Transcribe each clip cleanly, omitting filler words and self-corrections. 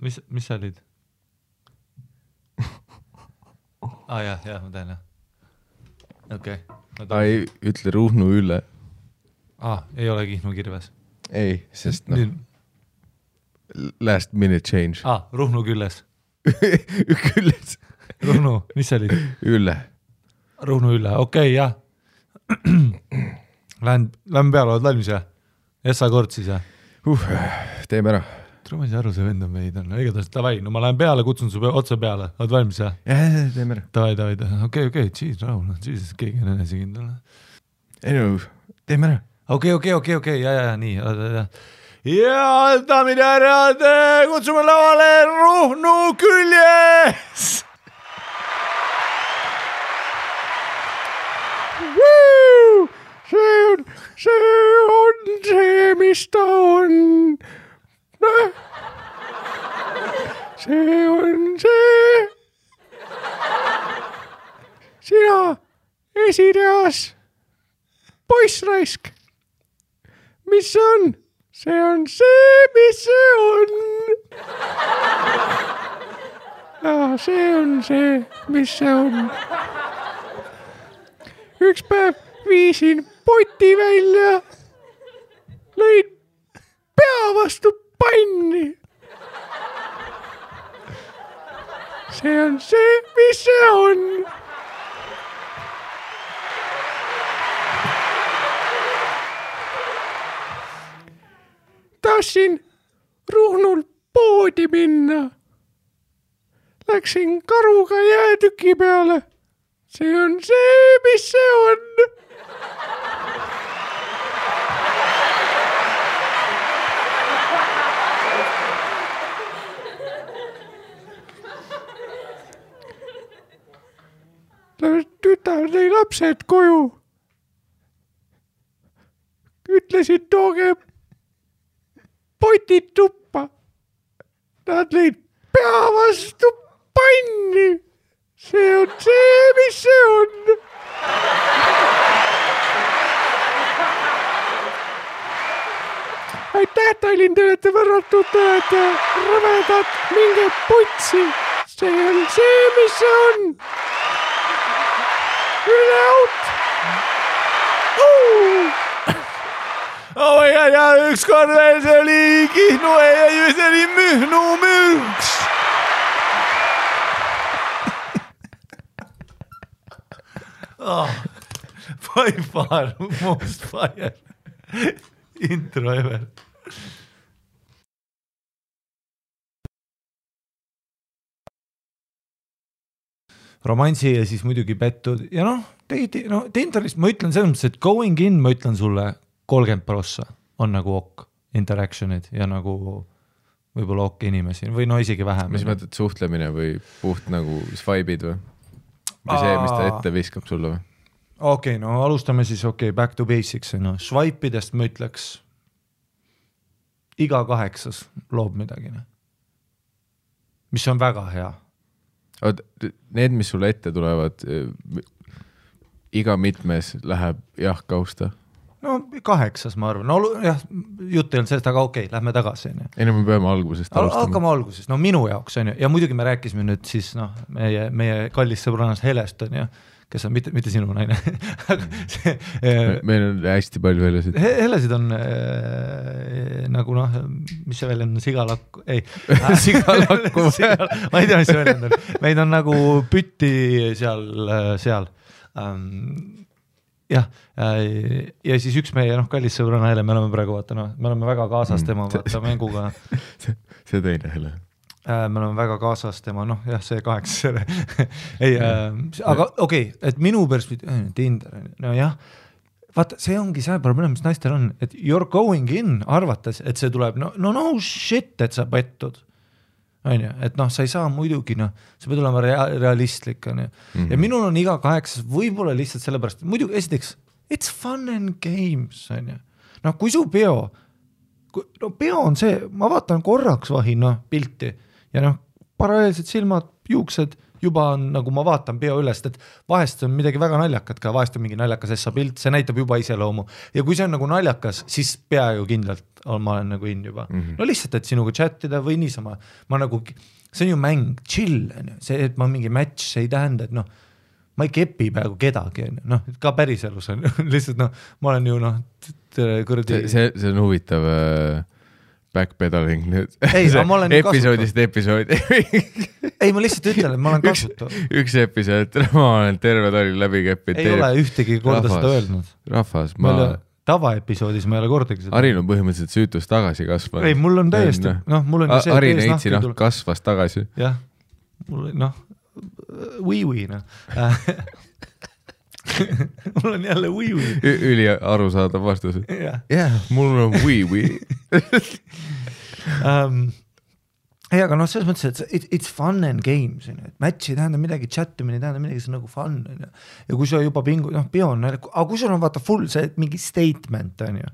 mis sa olid? Jah, ma tean, jah. Okei. Ei ütle Ruhnu Ülle. Ei ole Kihnu Kirves. Ei, sest last minute change. Ruhnu Külles. Külles. Ruhnu, mis sa olid? Ülle. Ruhnu Ülle, okei, jah. Lähen peale, oled valmis, jah? Essa kord siis, jah? Teeme ära. Ma ei saa aru, see vend on meid. Igatahes, davai, no ma lähen peale, kutsun su otse peale. Oled valmis, jah? Jah, teeme ära. Davai. Okei, jeez, rahul. Jesus, keegi on enesekindel. Ei no, teeme ära. Okei, ja, nii. Ja, daamid ja härrad, kutsume lavale Ruhnu Küljes! See on, mis ta on. See on see. Sina esireas. Poissraisk. Mis see on? See on see, mis see on. See on see, mis see on. Üks päev viisin poti välja. Lõin pea vastu panni. See on see, mis see on. Tahtsin Ruhnul poodi minna. Läksin karuga jäätüki peale. See on see, mis see on. Tütar tõi lapsed koju. Ütlesid, tooge potid tuppa. Nad lõid pea vastu panni. See on see, mis see on. Aitäh, Tallinn, te olete võrratud, te olete rõvedad, minge putsi. See on see, mis see on. Üle out. Oh my God, ja ükskord veel see oli Kihnu ja see oli Mühnu mürks. By far most fire intro ever. Romansi ja siis muidugi pettud ja Tinderist ma ütlen selles mõttes, et going in ma ütlen sulle 30% on nagu ok interactionid ja nagu võib-olla ok inimesi või isegi vähem. Mis mõtled suhtlemine või puht nagu swipe'id või? Või see, mis ta ette viskab sulle või? Okei, alustame siis back to basics. Swipe'idest ma ütleks iga 8 loob midagi. Mis on väga hea. Need, mis sulle ette tulevad, iga mitmes läheb kausta? 8 ma arvan. Jah, jutt ei olnud sellest, aga okei, lähme tagasi. Ei, me peame algusest alustama. Hakkame algusest. Minu jaoks on ju. Ja muidugi me rääkisime nüüd siis meie kallis sõbrannas Helest on ju, kes on mitte sinu naine. Meil on hästi palju Helesid. Helesid on nagu mis see väljend on, sigalakku? Ei, sigalakku. Ma ei tea, mis see väljend on. Meid on nagu pütti seal. Jah, ja siis üks meie kallis sõbrana Hele, me oleme praegu me oleme väga kaasas tema mänguga. See teine Hele. Me oleme väga kaasas tema, see 8 ei, aga okei, et minu perspektiiv Tinder, jah, vaata, see ongi see probleem, mis naistel on, et you're going in arvates, et see tuleb, no shit, et sa pettud. Et sa ei saa muidugi, sa pead olema realistlik. Ja minul on iga 8 võib-olla lihtsalt sellepärast, muidugi esiteks, it's fun and games. Kui su peo on see, ma vaatan korraks vahin pilti ja paralleelselt silmad, juuksed juba on nagu ma vaatan peo ülest, et vahest on midagi väga naljakat ka, vahest on mingi naljakas essa pilt, see näitab juba iseloomu ja kui see on nagu naljakas, siis peaaegu kindlalt ma olen nagu in juba. No lihtsalt, et sinuga chatida või niisama, ma nagu, see on ju mäng, chill, see, et ma mingi match, see ei tähenda, et noh, ma ei kepi peaaegu kedagi, noh, ka päriselus on lihtsalt noh, ma olen ju noh, kuradi... See on huvitav backpedaling nüüd. Ei, ma olen episoodist episoodi. Ei, ma lihtsalt ütlen, et ma olen kasutav. Üks episood, ma olen terve tali läbi keppid. Ei ole ühtegi korda seda öelnud. Rahvas, tavaepisoodis ma ei ole kordagi seda. Arin on põhimõtteliselt süütus tagasi kasvanud. Ei, mul on täiesti, noh, mul on see Arin Eitsi kasvas tagasi. Jah, mul noh, või, noh. Mul on jälle või. Üli arusaadav vastus. Jah, mul on või. Ei, aga noh, selles mõttes, et it's fun and games, et match ei tähenda midagi, chattimine ei tähenda midagi, see on nagu fun. Ja kui sul juba pingu, noh, peo on, aga kui sul on vaata full see mingi statement, on ju.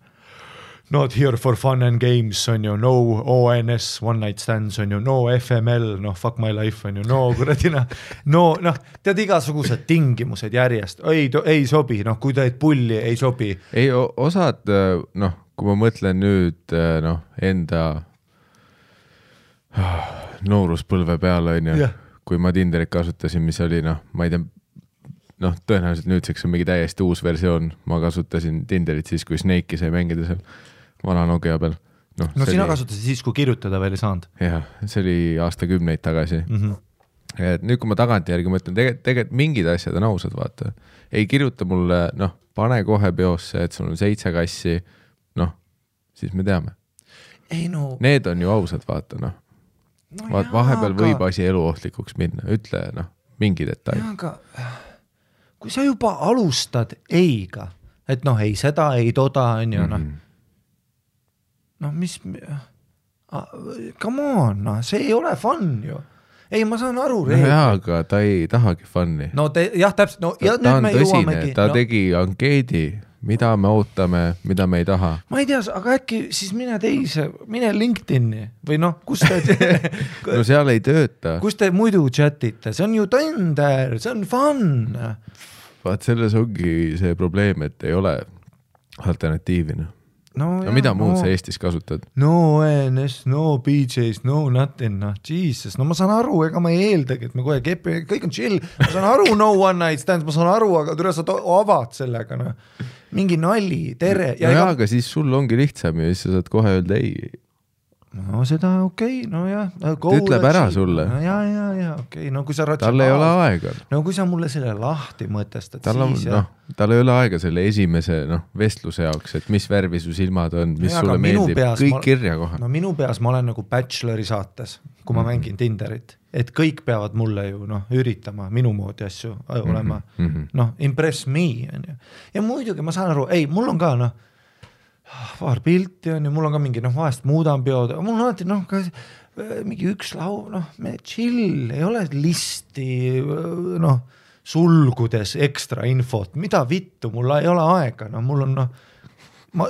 Not here for fun and games, on ju, no ONS, one night stands, on ju, no FML, noh, fuck my life, on ju, no kuradina, noh, tead igasugused tingimused järjest, ei sobi, noh, kui teed pulli, ei sobi. Ei, osad, noh, kui ma mõtlen nüüd, noh, enda nooruspõlve peale, on ju, kui ma Tinderit kasutasin, mis oli, noh, ma ei tea, noh, tõenäoliselt nüüdseks on mingi täiesti uus versioon, ma kasutasin Tinderit siis, kui Snake'i sai mängida seal vana Nokia peal. No sina kasutasid siis, kui kirjutada veel ei saanud. Jah, see oli aastakümneid tagasi. Et nüüd, kui ma tagantjärgi mõtlen, tegelikult mingid asjad on ausad, vaata. Ei kirjuta mulle, noh, pane kohe peosse, et sul on 7 kassi, noh, siis me teame. Ei, no... Need on ju ausad, vaata, noh. Vahepeal võib asi eluohtlikuks minna, ütle, noh, mingi detail. Aga kui sa juba alustad eiga, et noh, ei seda, ei toda, on ju, noh, mis, come on, noh, see ei ole fun ju. Ei, ma saan aru. No jaa, aga ta ei tahagi funni. No jah, täpselt, no ja ta nüüd me jõuamegi. Ta tegi ankeedi, mida me ootame, mida me ei taha. Ma ei tea, aga äkki siis mine LinkedIn'i või noh, kus te... no seal ei tööta. Kus te muidu chatite, see on ju Tinder, see on fun. Vaat selles ongi see probleem, et ei ole alternatiivina. No mida muud sa Eestis kasutad? No ONS, no BJs, no nothing, no Jesus. No ma saan aru, ega ma ei eeldagi, et me kohe kepi, kõik on chill. Ma saan aru, no one night stands, ma saan aru, aga tule sa avad sellega, no. Mingi nali, tere. Ja no aga siis sul ongi lihtsam ja siis sa saad kohe öelda ei. No seda okei, no jah. Ta ütleb ära sulle. No ja, okei. No kui sa tal ei ole aega. No kui sa mulle selle lahti mõtestad, siis jah. Tal ei ole aega selle esimese vestluse jaoks, et mis värvi su silmad on, mis sulle meeldib, kõik kirja kohe. No minu peas ma olen nagu Bachelori saates, kui ma mängin Tinderit, et kõik peavad mulle ju üritama minu moodi asju olema, impress me. Ja muidugi ma saan aru, ei, mul on ka paar pilti on ja mul on ka mingi, vahest muudan peod, mul on alati, mingi üks lau, me chill, ei ole listi, sulgudes ekstra infot, mida vittu, mul ei ole aega, mul on,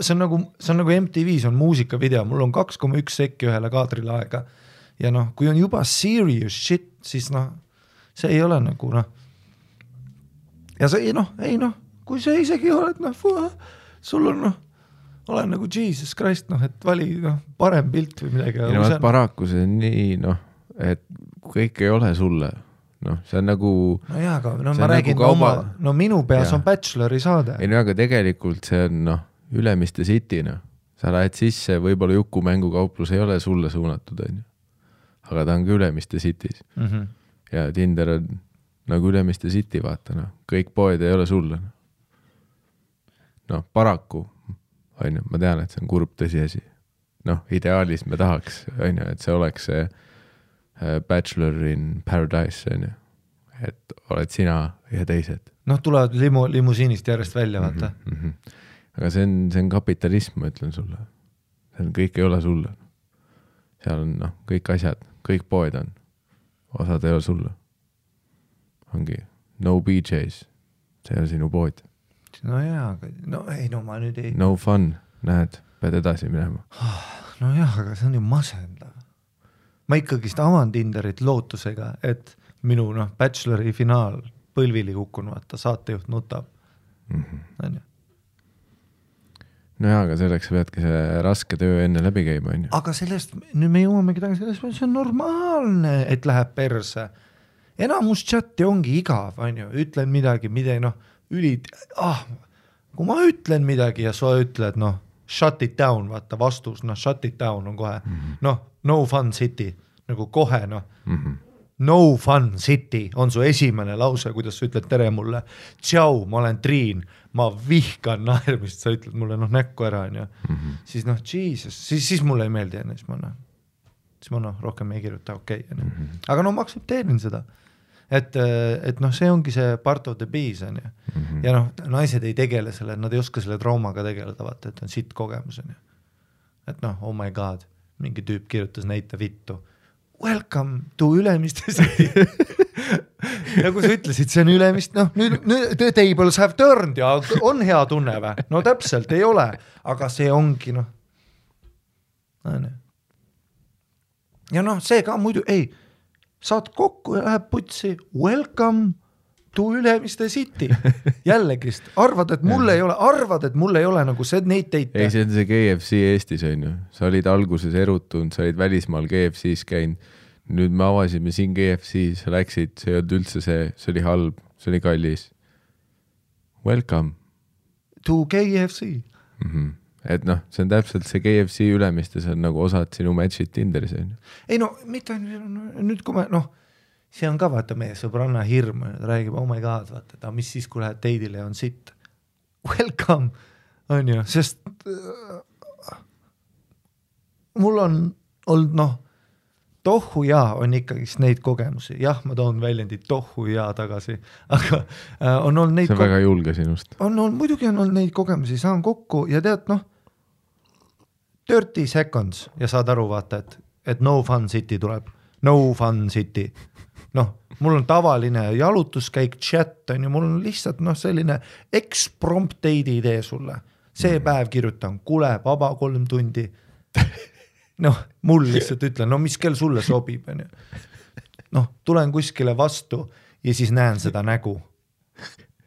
see on nagu MTV-s on muusikavideo, mul on 2,1 sekki ühele kaadrile aega ja kui on juba serious shit, siis see ei ole nagu, ja see ei, kui see isegi oled, sul on, olen nagu Jesus Christ, et vali parem pilt või midagi. Paraku see on nii, et kõik ei ole sulle. See on nagu... No jaa, aga ma räägin oma... minu peas on Bachelori saade. Ei, aga tegelikult see on Ülemiste City. Sa lähed sisse, võib-olla Juku mängukauplus ei ole sulle suunatud, aga ta on ka Ülemiste City's. Ja Tinder on nagu Ülemiste City, vaata. Kõik poed ei ole sulle. Paraku ma tean, et see on kurb tõsiasi. Ideaalis me tahaks, et see oleks see Bachelor in Paradise, et oled sina ja teised. Tulevad limusiinist järjest välja, vaata. Aga see on kapitalism, ma ütlen sulle. Kõik ei ole sulle. Seal on kõik asjad, kõik poed on. Osad ei ole sulle. Ongi no BJs, see on sinu pood. No jaa, aga ma nüüd ei... No fun, näed, pead edasi minema. No jah, aga see on ju masendav. Ma ikkagist avan Tinderit lootusega, et minu bachelori finaal põlvili kukkunud, vaata saatejuht nutab. On ju. No jaa, aga selleks peadki see raske töö enne läbi käima, on ju. Aga sellest, nüüd me jõuamegi tagasi sellest, see on normaalne, et läheb perse. Enamus chati ongi igav, on ju, ütlen midagi, kui ma ütlen midagi ja sa ütled, shut it down, vaata vastus, shut it down on kohe, no fun city, nagu kohe, no fun city on su esimene lause, kuidas sa ütled tere mulle, tšau, ma olen Triin, ma vihkan naermist, sa ütled mulle näkku ära, on ju. Siis Jesus, siis mulle ei meeldi enne, siis ma rohkem ei kirjuta, okei. Aga ma aktsepteerin seda, et see ongi see part of the bees, on ju. Ja naised ei tegele selle, nad ei oska selle traumaga tegeleda, vaata, et on sitt kogemus, on ju. Et oh my god, mingi tüüp kirjutas näite vittu. Welcome to Ülemiste City. Nagu sa ütlesid, see on Ülemist, nüüd the tables have turned ja on hea tunne või? No täpselt ei ole, aga see ongi, Ja see ka muidu, ei, saad kokku ja läheb putsi, welcome to Ülemiste City. Jällegi, arvad, et mul ei ole nagu see neid teite. Ei, see on see KFC Eestis, on ju. Sa olid alguses erutunud, sa olid välismaal KFC-s käinud. Nüüd me avasime siin KFC, sa läksid, see ei olnud üldse see oli halb, see oli kallis. Welcome. To KFC. Et see on täpselt see KFC Ülemiste, see on nagu osad sinu matchid Tinderis, on ju. Ei mitte nüüd kui me, see on ka vaata meie sõbranna hirm, räägib, oh my god, vaata, mis siis, kui lähed teidile ja on sitt. Welcome, on ju, sest mul on olnud, tohu jaa on ikkagi neid kogemusi. Jah, ma toon väljendid tohu jaa tagasi, aga on olnud neid... See on väga julge sinust. Muidugi on olnud neid kogemusi, saan kokku ja tead, 30 seconds ja saad aru, vaata, et no fun city tuleb. No fun city. Mul on tavaline jalutuskäik, chat, on ju, mul on lihtsalt selline eksprompteidi idee sulle. See päev kirjutan, kule, vaba 3 tundi. Mul lihtsalt ütlen, mis kell sulle sobib, on ju. Tulen kuskile vastu ja siis näen seda nägu.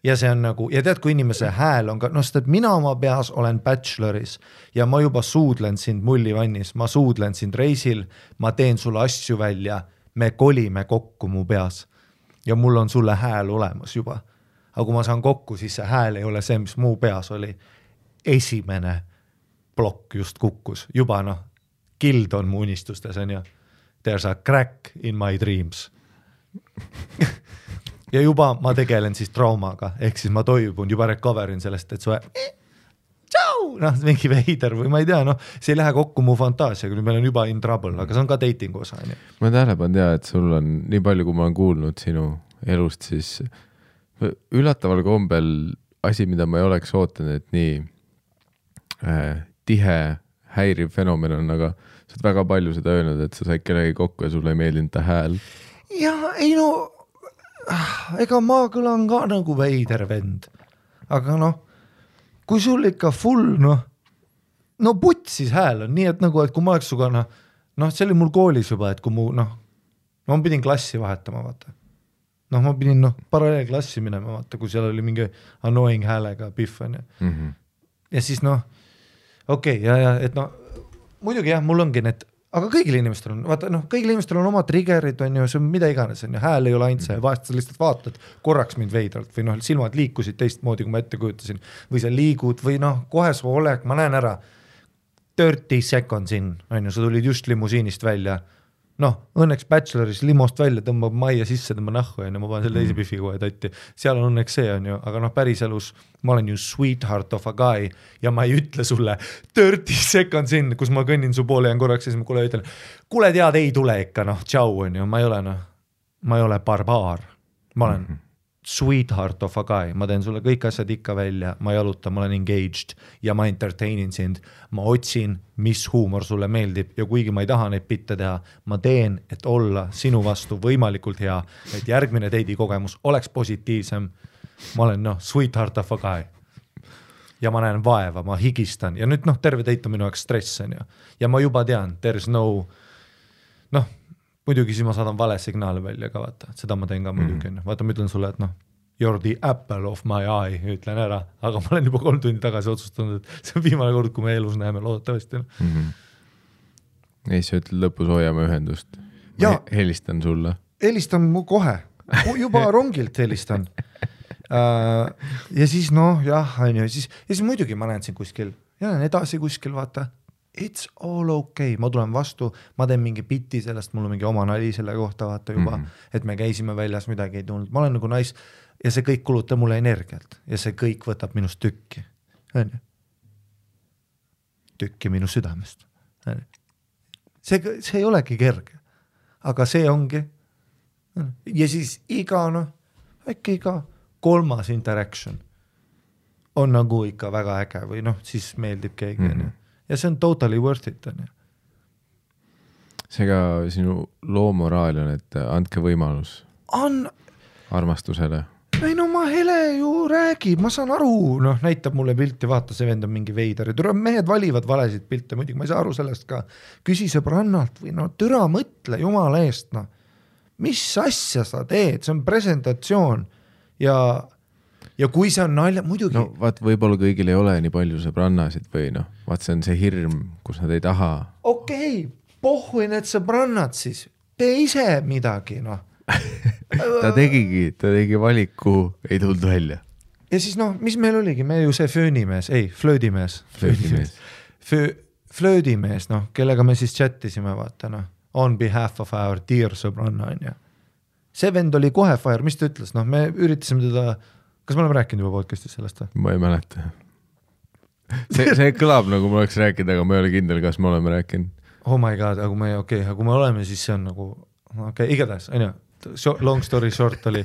Ja see on nagu, ja tead, kui inimese hääl on ka, sest et mina oma peas olen bacheloris ja ma juba suudlen sind mullivannis, ma suudlen sind reisil, ma teen sulle asju välja, me kolime kokku mu peas ja mul on sulle hääl olemas juba. Aga kui ma saan kokku, siis see hääl ei ole see, mis mu peas oli. Esimene plokk just kukkus, juba kild on mu unistustes, on ju. There's a crack in my dreams. Ja juba ma tegelen siis traumaga, ehk siis ma toibun, juba recoverin sellest, et suhe tšau, mingi veider või ma ei tea, see ei lähe kokku mu fantaasiaga, nüüd meil on juba in trouble, aga see on ka dating osa. Ma tähelepan tea, et sul on nii palju, kui ma olen kuulnud sinu elust, siis üllataval kombel asi, mida ma ei oleks ootanud, et nii tihe häiriv fenomen on, aga sa oled väga palju seda öelnud, et sa said kellegi kokku ja sulle ei meeldinud ta hääl. Ja ei ega ma kõlan ka nagu veider vend, aga kui sul ikka full, putsis hääl on nii, et nagu, et kui ma oleks suga, see oli mul koolis juba, et kui ma pidin klassi vahetama, vaata. Ma pidin paralleelklassi minema, vaata, kui seal oli mingi annoying häälega piff, on ju. Ja siis okei, ja et muidugi jah, mul ongi need, aga kõigil inimestel on, vaata, kõigil inimestel on oma triggerid, on ju, see on mida iganes, on ju, hääl ei ole ainult see, vahest sa lihtsalt vaatad korraks mind veidralt või silmad liikusid teistmoodi, kui ma ette kujutasin, või sa liigud või kohe su olek, ma näen ära 30 seconds in, on ju, sa tulid just limusiinist välja, õnneks bacheloris limost välja tõmbab majja sisse, tõmba nahku, on ju, ma panen selle teise piffi kohe tatti, seal on õnneks see, on ju, aga päris elus ma olen ju sweetheart of a guy ja ma ei ütle sulle 30 seconds in, kus ma kõnnin su poole ja korraks ja siis ma kuule ütlen, kuule tead, ei tule ikka, tšau, on ju, ma ei ole barbaar, ma olen sweetheart of a guy, ma teen sulle kõik asjad ikka välja, ma jalutan, ma olen engaged ja ma entertainin sind, ma otsin, mis huumor sulle meeldib ja kuigi ma ei taha neid bitte teha, ma teen, et olla sinu vastu võimalikult hea, et järgmine teidi kogemus oleks positiivsem, ma olen sweetheart of a guy ja ma näen vaeva, ma higistan ja nüüd terve teit on minu jaoks stress on ju ja ma juba tean, there's no muidugi siis ma saadan vale signaali välja ka vaata, seda ma teen ka muidugi, vaata ma ütlen sulle, et noh, you're the apple of my eye, ütlen ära, aga ma olen juba 3 tundi tagasi otsustanud, et see on viimane kord, kui me elus näeme loodetavasti. Ei, sa ütled lõpus hoiame ühendust. Helistan sulle. Helistan mu kohe, juba rongilt helistan. Ja siis noh, jah, ja siis muidugi ma näen siin kuskil, ja näen edasi kuskil, vaata, it's all okay, ma tulen vastu, ma teen mingi bitti sellest, mul on mingi oma nali selle kohta, vaata juba, et me käisime väljas, midagi ei tulnud, ma olen nagu ja see kõik kulutab mulle energialt ja see kõik võtab minust tükki, tükki minu südamest. See ei olegi kerge, aga see ongi. Ja siis äkki iga 3. interaction on nagu ikka väga äge või noh, siis meeldib keegi. Ja see on totally worth it. Seega sinu loomoraal on, et andke võimalus armastusele. Ei no ma Hele ju räägib, ma saan aru, noh näitab mulle pilti, vaata see vend on mingi veider, mehed valivad valesid pilte, muidugi ma ei saa aru sellest ka, küsi sõbrannalt või no türa mõtle jumala eest, noh mis asja sa teed, see on presentatsioon ja kui see on nalja, muidugi. No vaat võib-olla kõigil ei ole nii palju sõbrannasid või noh, vaat see on see hirm, kus nad ei taha. Okei, pohhui need sõbrannad siis, tee ise midagi, noh. ta tegi valiku, ei tulnud välja. Ja siis noh, mis meil oligi, me ju see flöödimees, noh, kellega me siis chattisime, vaata, noh, on behalf of our dear sõbranna, on ja. See vend oli kohe fire, mis ta ütles, noh, me üritasime teda, kas me oleme rääkinud juba podcastis sellest? Ma ei mäleta. See kõlab nagu ma oleks rääkinud, aga ma ei ole kindel, kas me oleme rääkinud. Oh my god, aga kui me oleme, siis see on nagu, igatahes, on ju, long story short oli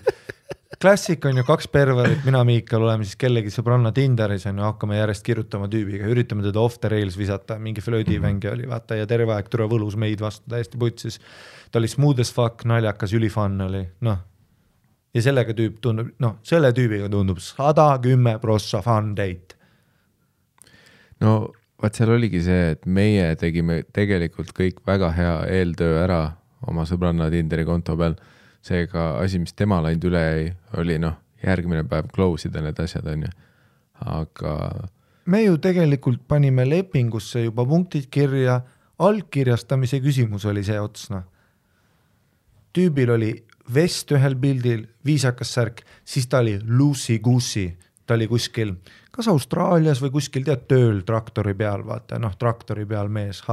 klassik on ju 2 perverit, mina Miikal oleme siis kellegi sõbranna Tinderis on ju, hakkame järjest kirjutama tüübiga, üritame teda off the rails visata, mingi flöödivängi oli vaata ja terve aeg türa võlus meid vastu täiesti putsis, ta oli smooth as fuck, naljakas, ülifun oli, noh ja sellega tüüp tundub, noh selle tüübiga tundub 110% fun date. No vaat seal oligi see, et meie tegime tegelikult kõik väga hea eeltöö ära oma sõbranna Tinderi konto peal. Seega asi, mis tema läinud üle ei, oli noh, järgmine päev close ida need asjad on ju, aga me ju tegelikult panime lepingusse juba punktid kirja, allkirjastamise küsimus oli see otsna. Tüübil oli vest ühel pildil, viisakas särk, siis ta oli loosey-goosey, ta oli kuskil, kas Austraalias või kuskil tead tööl traktori peal, vaata, noh traktori peal mees,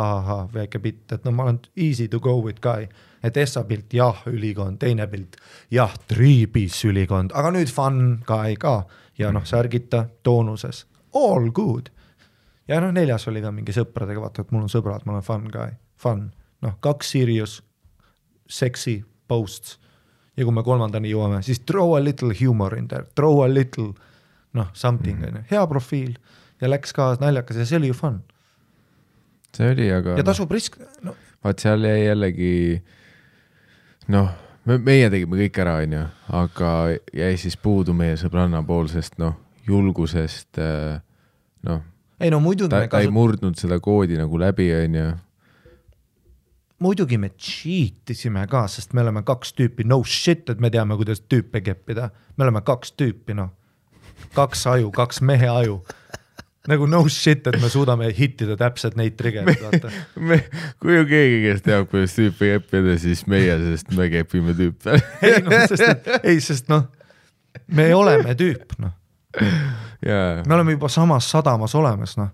väike pitt, et no ma olen easy to go with guy. Et Essa pilt, jah, ülikond, teine pilt, jah, 3-piece ülikond, aga nüüd fun guy ka ja noh, särgita toonuses, all good. Ja noh, 4. oli ka mingi sõpradega, vaata, et mul on sõbrad, ma olen fun guy, fun, noh, 2 serious, sexy posts ja kui me 3. jõuame, siis throw a little humor in there, throw a little, noh, something, hea profiil ja läks ka naljakas ja see oli ju fun. See oli, aga ja tasub risk, no. Vaat seal jäi jällegi noh, meie tegime kõik ära, on ju, aga jäi siis puudu meie sõbranna poolsest, noh, julgusest, noh, ei, no, muidugi ta ei murdnud seda koodi nagu läbi, on ju. Muidugi me cheatisime ka, sest me oleme 2 tüüpi, no shit, et me teame, kuidas tüüpe keppida. Me oleme 2 tüüpi, noh, 2 aju, 2 mehe aju. Nagu no shit, et me suudame hittida täpselt neid triggerid, vaata. Kui ju keegi, kes teab, kuidas tüüpi keppida, siis meie, sest me kepime tüüpe. sest noh, me oleme tüüp, noh. Yeah. Me oleme juba samas sadamas olemas, noh.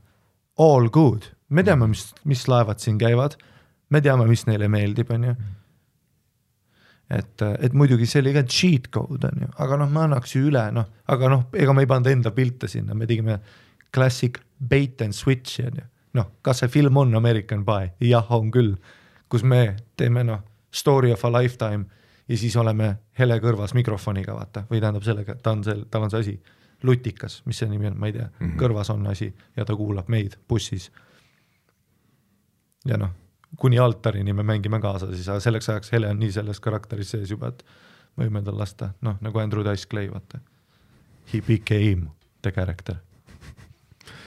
All good. Me teame, mis laevad siin käivad. Me teame, mis neile meeldib, on ju. Et muidugi see oli ka cheat code, on ju. Aga noh, me annaks ju üle, noh. Aga noh, ega me ei pannud enda pilte sinna. Me tegime classic bait and switch, noh, kas see film on American Pie? Jah, on küll, kus me teeme, noh, story of a lifetime ja siis oleme Hele kõrvas mikrofoniga, vaata, või tähendab sellega, tal on see asi, lutikas, mis see nimi on, ma ei tea, kõrvas on asi ja ta kuulab meid bussis. Ja noh, kuni altarini me mängime kaasa, siis selleks ajaks Hele on nii selles karakteris sees juba, et võime tal lasta, noh, nagu Andrew Dice Clay, vaata. He became the character.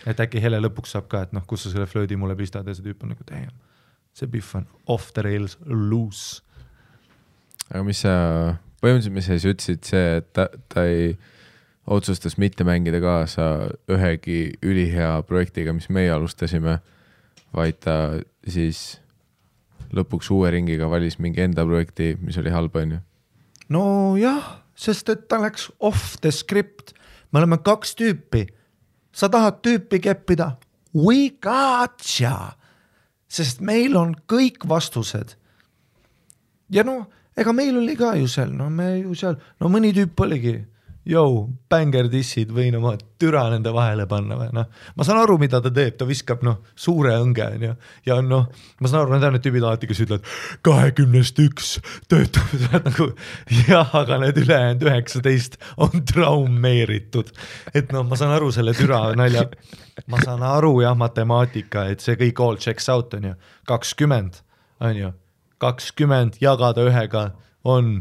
Et äkki Hele lõpuks saab ka, et noh, kus sa selle flöödi mulle pistad ja see tüüp on nagu, damn, see Biff on off the rails loose. aga mis sa, põhimõtteliselt mis sa ütlesid see, et ta ei otsustas mitte mängida kaasa ühegi ülihea projektiga, mis meie alustasime, vaid ta siis lõpuks uue ringiga valis mingi enda projekti, mis oli halb, on ju? No jah, sest et ta läks off the script. Me oleme 2 tüüpi. Sa tahad tüüpi keppida? We gotcha! Sest meil on kõik vastused. Ja no, ega meil oli ka ju seal, mõni tüüp oligi, banger dissid võin oma türa nende vahele panna või noh. Ma saan aru, mida ta teeb, ta viskab suure õnge ja ma saan aru, need tüübid alati, kes ütlevad 21 töötab nagu, jah, aga need ülejäänud 19 on traumeeritud. Et ma saan aru selle türa nalja, ma saan aru jah, matemaatika, et see kõik all checks out on ju, 20 on ju, 20 jagada ühega on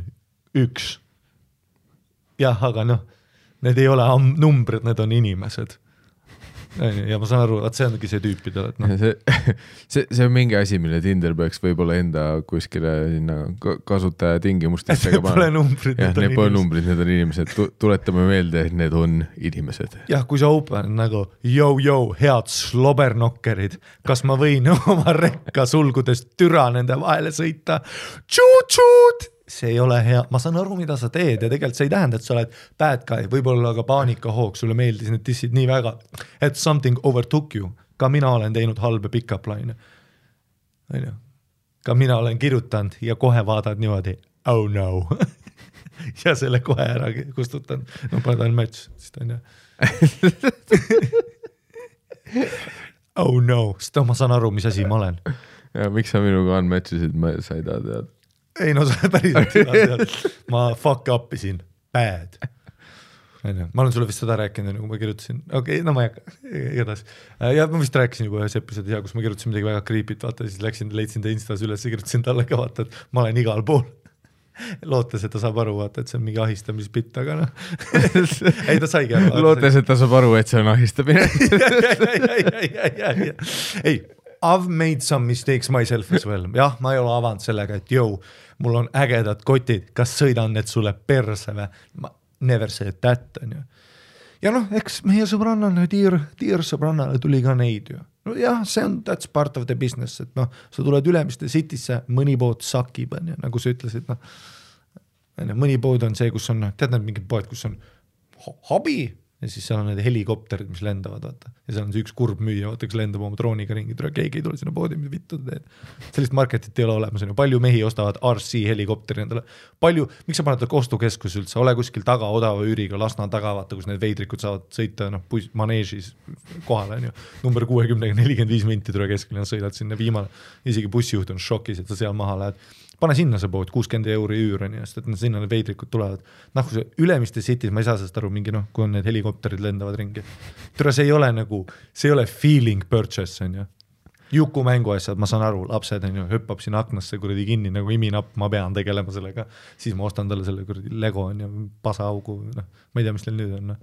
1. Jah, aga need ei ole numbrid, need on inimesed. Ja ma saan aru, et see ongi see tüüpidel. See on mingi asi, mille Tinder peaks võib-olla enda kuskile kasutaja tingimustesse. Need pole numbrid, need pole numbrid, need on inimesed. Tuletame meelde, et need on inimesed. Jah, kui sa open nagu, head slobernokkerid, kas ma võin oma rekka sulgudest türa nende vahele sõita? Tšuut! See ei ole hea, ma saan aru, mida sa teed ja tegelikult see ei tähenda, et sa oled bad guy, võib-olla ka paanikahoog, sulle meeldis need dissid nii väga, et something overtook you. Ka mina olen teinud halbe pick-up line. Ka mina olen kirjutanud ja kohe vaadad niimoodi, oh no. Ja selle kohe ära kustutan. No padan match, sest on ju. Oh no, sest ma saan aru, mis asi ma olen. Ja miks sa minuga unmatchisid, sa ei taha teada. Ei no sa päriselt ma fuck up isin, bad. Ma olen sulle vist seda rääkinud, kui ma kirjutasin, no ma ei hakka, igatahes. Ja ma vist rääkisin juba ühes episoodi, kus ma kirjutasin midagi väga creepit, vaata, siis leidsin ta Instas üles ja kirjutasin talle ka, vaata, et ma olen igal pool. Lootes, et ta saab aru, vaata, et see on mingi ahistamispitt, aga ei ta saigi aru. Lootes, et ta saab aru, et see on ahistamine. Ei, I've made some mistakes myself as well. Jah, ma ei ole avanud sellega, et mul on ägedad kotid, kas sõidan need sulle perse või? Ma never said that, on ju. Ja eks meie sõbrannale, tiir sõbrannale tuli ka neid ju. No jah, that's part of the business, et sa tuled Ülemiste Citysse, mõni pood sakib, on ju, nagu sa ütlesid, mõni pood on see, kus on, tead need mingid poed, kus on hobi, ja siis seal on need helikopterid, mis lendavad, vaata. Ja seal on see üks kurb müüja, vaata, kes lendab oma drooniga ringi, keegi ei tule sinna poodi, mis vittu teed. Sellist marketit ei ole olemas, palju mehi ostavad RC helikopteri endale. Miks sa paned kostukeskus üldse, ole kuskil taga odava üüriga, Lasna taga, vaata, kus need veidrikud saavad sõita maneežis kohale, on ju. Number 60, 45 minti tule keskele, sõidad sinna viimane. Isegi bussijuht on šokis, et sa seal maha lähed. Pane sinna see pood, 60 € üür on ju, sest et sinna need veidrikud tulevad. Kui see Ülemiste City's, ma ei saa sellest aru, mingi kui on need helikopterid lendavad ringi. Tere, see ei ole feeling purchase, on ju. Juku mängu asjad, ma saan aru, lapsed on ju, hüppab sinna aknasse kuradi kinni, nagu iminapp, ma pean tegelema sellega. Siis ma ostan talle selle kuradi Lego on ju, pasaaugu, ma ei tea, mis teil nüüd on.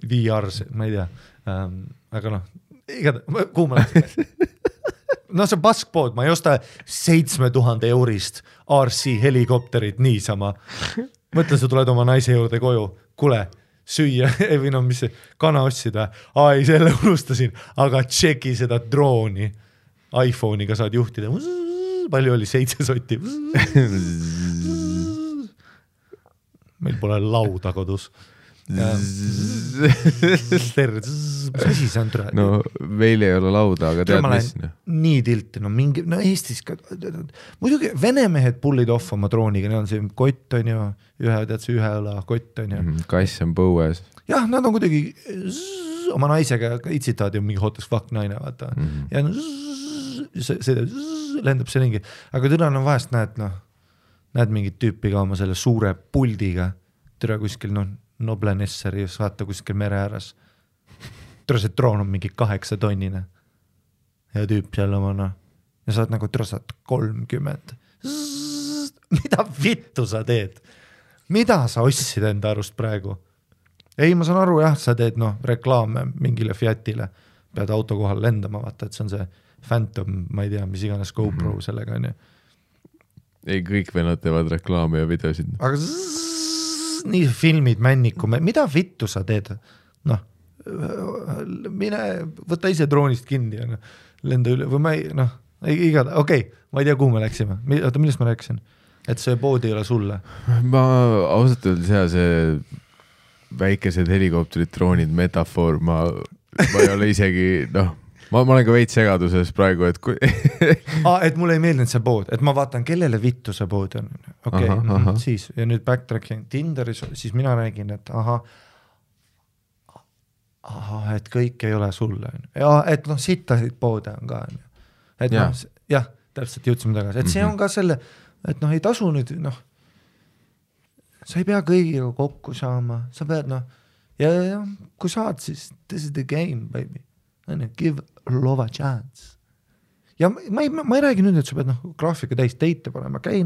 VR, ma ei tea. Aga kuhu ma läksin? See paskpood, ma ei osta 7000 € RC helikopterit niisama. Mõtle, sa tuled oma naise juurde koju, kule, süüa, või mis see, kana otsida. Ei, selle unustasin, aga tšeki seda drooni. iPhone'iga saad juhtida. Palju oli 7 sotti. Meil pole lauda kodus. Mis asi see on türa? No meil ei ole lauda, aga tead mis? Nii tilti, Eestis ka, muidugi venemehed pullid off oma drooniga, neil on see kott on ju, ühe õla kott on ju. Kass on põues. Jah, nad on kuidagi oma naisega itsitavad ju mingi hot as fuck naine, vaata. Ja see lendab see ringi, aga türa on vahest näed mingit tüüpi ka oma selle suure puldiga, türa kuskil Noble Nesseri, vaata kuskil mere ääres. Türa see droon on mingi 8 tonnine. Ja tüüp seal oma ja saad türa saad 30. Mida vittu sa teed? Mida sa ostsid enda arust praegu? Ei, ma saan aru, jah, sa teed reklaame mingile Fiatile. Pead auto kohal lendama, vaata, et see on see Phantom, ma ei tea, mis iganes GoPro sellega on ju. ei, kõik vennad teevad reklaame ja videosid. Aga nii filmid männiku, mida vittu sa teed? Noh, mine, võta ise droonist kinni ja lenda üle, või ma ei, noh, igada, okei, ma ei tea, kuhu me läksime. Oota, millest ma rääkisin? Et see pood ei ole sulle? Ma ausalt öeldes see väikesed helikopterid, droonid, metafoor, ma ei ole isegi, noh, ma olen ka veits segaduses praegu, et et mulle ei meeldinud see pood, et ma vaatan, kellele vittu see pood on. Okei, siis, ja nüüd backtracking Tinderis, siis mina räägin, et et kõik ei ole sulle. Ja, et noh, sittasid poode on ka. Et noh, jah, täpselt jõudsime tagasi. Et see on ka selle, et noh, ei tasu nüüd, noh, sa ei pea kõigiga kokku saama, sa pead, noh, ja kui saad, siis this is the game, baby. Give love a chance. Ja ma ei räägi nüüd, et sa pead graafika täis teite panema, käi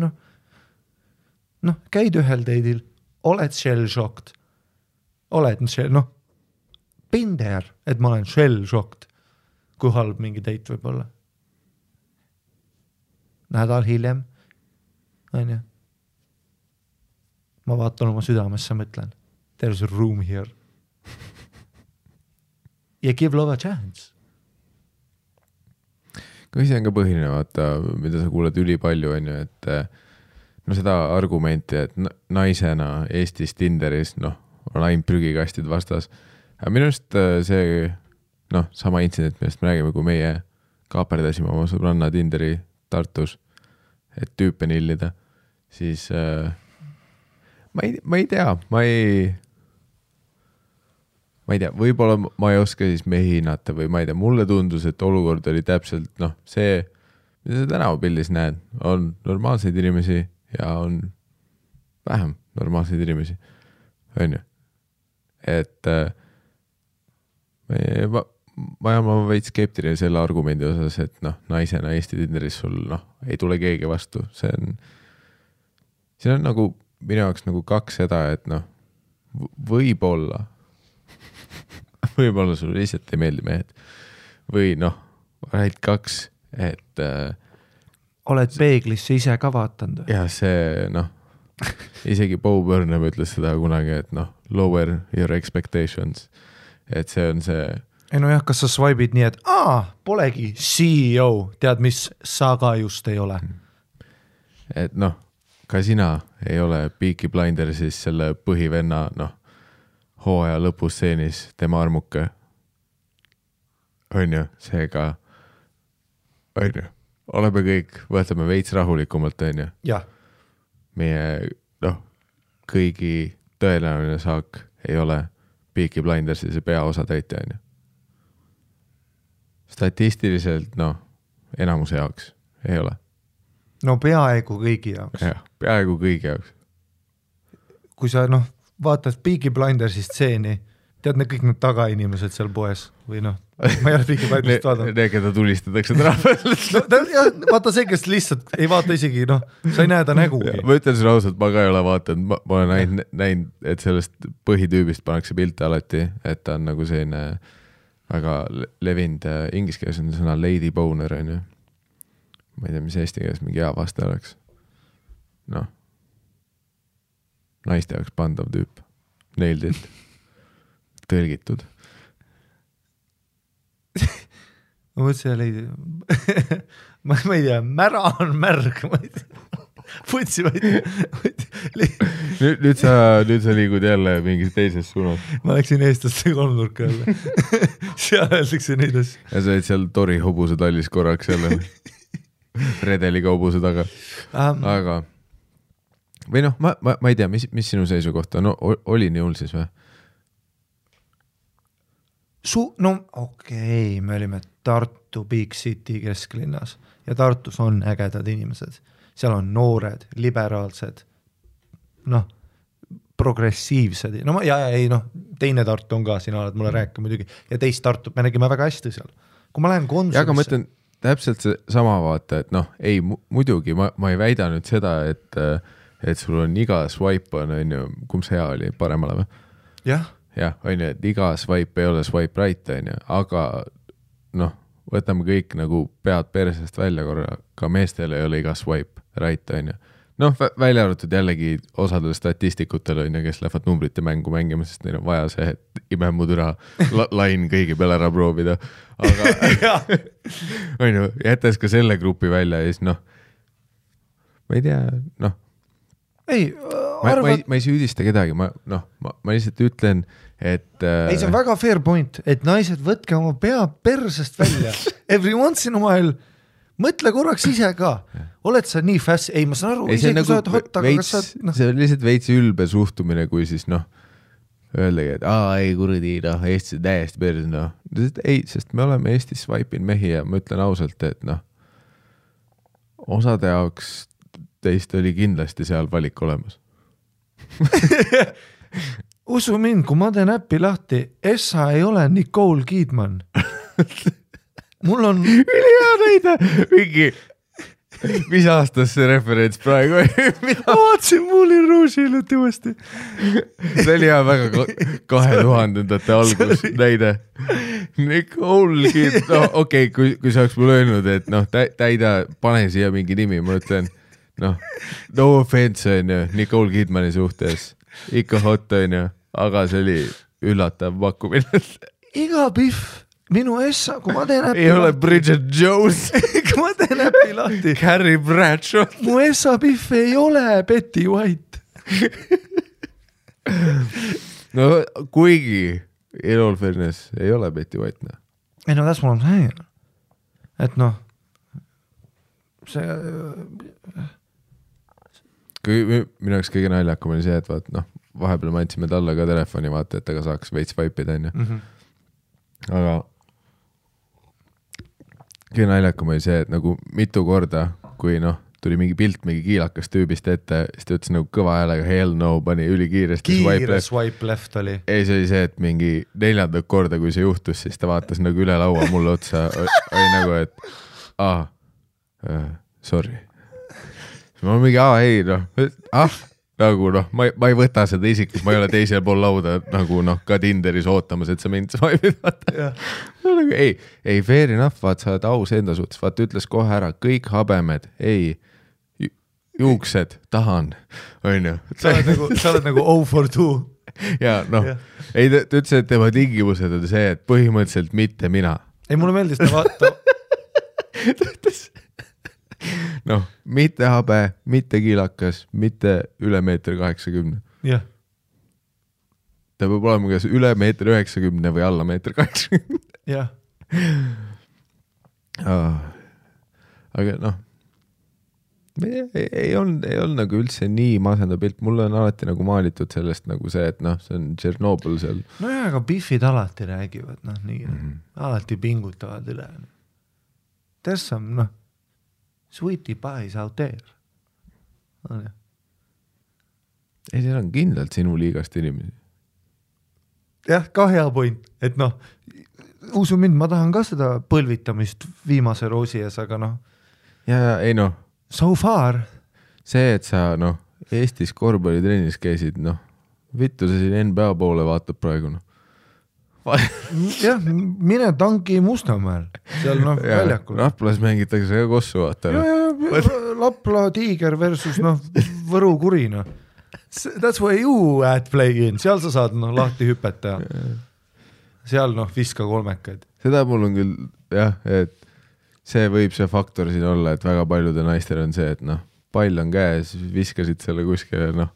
käid ühel teidil, oled shell-shocked, oled been there, et ma olen shell-shocked, kui halb mingi teit võib olla. Nädal hiljem, ma vaatan oma südamesse, mõtlen, there's a room here. Ja give love a chance. Kui see on ka põhiline, vaata, mida sa kuuled üli palju, on ju, et no seda argumenti, et naisena Eestis Tinderis, noh, on ainult prügikastid vastas. Aga minu arust see, noh, sama intsident, millest me räägime, kui meie kaaperdasime oma sõbranna Tinderi Tartus, et tüüpe nillida, siis ma ei tea, ma ei tea, võib-olla ma ei oska siis mehi hinnata või ma ei tea, mulle tundus, et olukord oli täpselt, noh, see, mida sa tänavapildis näed, on normaalseid inimesi ja on vähem normaalseid inimesi, on ju. Et ma olen veits skeptiline selle argumendi osas, et noh, naisena Eesti Tinderis sul, noh, ei tule keegi vastu. See on nagu minu jaoks nagu kaks seda, et noh, võib-olla sul lihtsalt ei meeldi mehed. Või noh, ainult kaks, et oled peeglisse ise ka vaatanud? Ja see, noh, isegi Bo Burnham ütles seda kunagi, et noh, lower your expectations. Et see on see... Ei no jah, kas sa swipe'id nii, et polegi CEO, tead mis sa ka just ei ole? Et noh, ka sina ei ole Peaky Blindersis selle põhivenna, noh, hooaja lõpustseenis tema armuke. On ju, seega on ju, oleme kõik, võtame veits rahulikumalt, on ju. Ja. Meie, noh, kõigi tõenäoline saak ei ole Peaky Blindersis peaosa täita, on ju. Statistiliselt, noh, enamuse jaoks ei ole. No peaaegu kõigi jaoks. Ja, peaaegu kõigi jaoks. Kui sa, noh, vaatad Peaky Blindersi stseeni, tead need kõik need tagainimesed seal poes või noh, ma ei ole Peaky Blindersist vaadanud. Need, keda tulistatakse trahvel. Vaata see, kes lihtsalt ei vaata isegi, noh, sa ei näe ta nägugi. Ma ütlen sulle ausalt, ma ka ei ole vaatanud, ma olen näinud, et sellest põhitüübist pannakse pilte alati, et ta on nagu selline väga levinud, inglise keeles on sõna lady boner, on ju. Ma ei tea, mis eesti keeles mingi hea vaste oleks. Noh. Naiste jaoks pandav tüüp. Nailed it. Tõlgitud. Ma mõtlesin, et leidi. ma ei tea, mära on märg. Putsi, nüüd sa liigud jälle mingis teises suunas. Ma läksin eestlaste kolmnurka jälle. Seal öeldakse neid asju. Ja sa olid seal Tori hobuse tallis korraks jälle. Redeli kaubuse taga. Aga või noh, ma ei tea, mis sinu seisukohta on? Oli nii hull siis või? No okei, me olime Tartu Big City kesklinnas ja Tartus on ägedad inimesed. Seal on noored, liberaalsed, noh, progressiivsed. No ei, noh, teine Tartu on ka, sina oled mulle rääkima muidugi. Ja teist Tartu, me nägime väga hästi seal. Kui ma lähen Konsumisse... Ja aga ma ütlen täpselt see sama vaata, et noh, ei, muidugi, ma ei väida nüüd seda, et sul on iga swipe on ju, kumb see hea oli, paremale või? Jah. Jah, on ju, et iga swipe ei ole swipe right, on ju, aga noh, võtame kõik nagu pead persest välja korra, ka meestel ei ole iga swipe right, on ju. Noh, välja arvatud jällegi osadel statistikutel on ju, kes lähevad numbrite mängu mängima, sest neil on vaja see, et imemudüra lain kõigi peale ära proovida. Aga on ju, jättes ka selle grupi välja ja siis noh, ma ei tea, noh. Ei, ma ei süüdista kedagi, ma lihtsalt ütlen, et ei, see on väga fair point, et naised võtke oma pea persest välja every once in a while, mõtle korraks ise ka, oled sa nii fast, ei ma saan aru, ise kui sa oled hot, aga kas sa see on lihtsalt veits ülbe suhtumine, kui siis noh, öeldagi, et ei kuradi, noh, Eestis täiesti pers, noh, ei, sest me oleme Eestis swipe'in mehi ja ma ütlen ausalt, et noh, osade jaoks teist oli kindlasti seal valik olemas. Usu mind, kui ma teen äppi lahti, Essa ei ole Nicole Kidman. Mul on ülihea näide, mingi mis aastas see referents praegu vaatsin Moulin Rouge'i hiljuti uuesti. See oli hea väga 2000-ndate algus näide. Nicole Kidman, no okei, kui sa oleks mulle öelnud, et noh, täida, pane siia mingi nimi, ma ütlen, noh, no offense on ju, Nicole Kidmani suhtes, ikka hot on ju, aga see oli üllatav pakkumine. Iga pihv, minu Essa, kui ma teen äppi ei ole Bridget Jones. kui ma teen äppi lahti. Carrie Bradshaw. Mu Essa pihv ei ole Betty White. No kuigi in all fairness ei ole Betty White, noh. Ei no that's what I'm saying. Et noh, see kui minu jaoks kõige naljakam oli see, et vaat noh, vahepeal me andsime talle ka telefoni, vaata, et aga saaks veits vaipida, on ju. Aga kõige naljakam oli see, et nagu mitu korda, kui noh, tuli mingi pilt mingi kiilakas tüübist ette, siis ta ütles nagu kõva häälega hell no, pani ülikiiresti swipe left oli. Ei, see oli see, et mingi 4. korda, kui see juhtus, siis ta vaatas nagu üle laua mulle otsa, oli nagu, et sorry. Ma mingi, ei noh, nagu noh, ma ei võta seda isiklikult, ma ei ole teisel pool lauda nagu noh, ka Tinderis ootamas, et sa mind swipe'id, vaata. Nagu, ei, fair enough, vaat sa oled aus enda suhtes, vaat ütles kohe ära, kõik habemed, ei, juuksed, tahan, on ju. Sa oled nagu 0 for 2. Ja noh, ei, ta ütles, et tema tingimused on see, et põhimõtteliselt mitte mina. Ei, mulle meeldis ta vaata. Ta ütles noh, mitte habe, mitte kiilakas, mitte üle 1,80 m. Jah. Ta peab olema kas üle 1,90 m või alla 1,80 m. Jah. Aga noh, ei olnud nagu üldse nii masenda pilt. Mulle on alati nagu maalitud sellest nagu see, et noh, see on Tšernobõl seal. No jah, aga biffid alati räägivad, noh nii, alati pingutavad üle. There's some, noh, sweetie pies out there. Ei, seal on kindlalt sinu liigast inimesi. Jah, ka hea point, et noh, usu mind, ma tahan ka seda põlvitamist viimase roosi ees, aga noh. Ja ei noh. So far. See, et sa noh, Eestis korvpallitrennis käisid, noh, vittu sa siin NBA poole vaatab praegu, noh. Jah, mine tanki Mustamäel, seal noh väljakul. Raplas mängitakse ka kossu, vaata. Lapla Tiiger versus noh, Võru Kuri, noh. That's where you at play in, seal sa saad noh, lahti hüpeta. Seal noh, viska kolmekaid. Seda mul on küll, jah, et see võib see faktor siin olla, et väga paljude naistel on see, et noh, pall on käes, viskasid selle kuskile noh,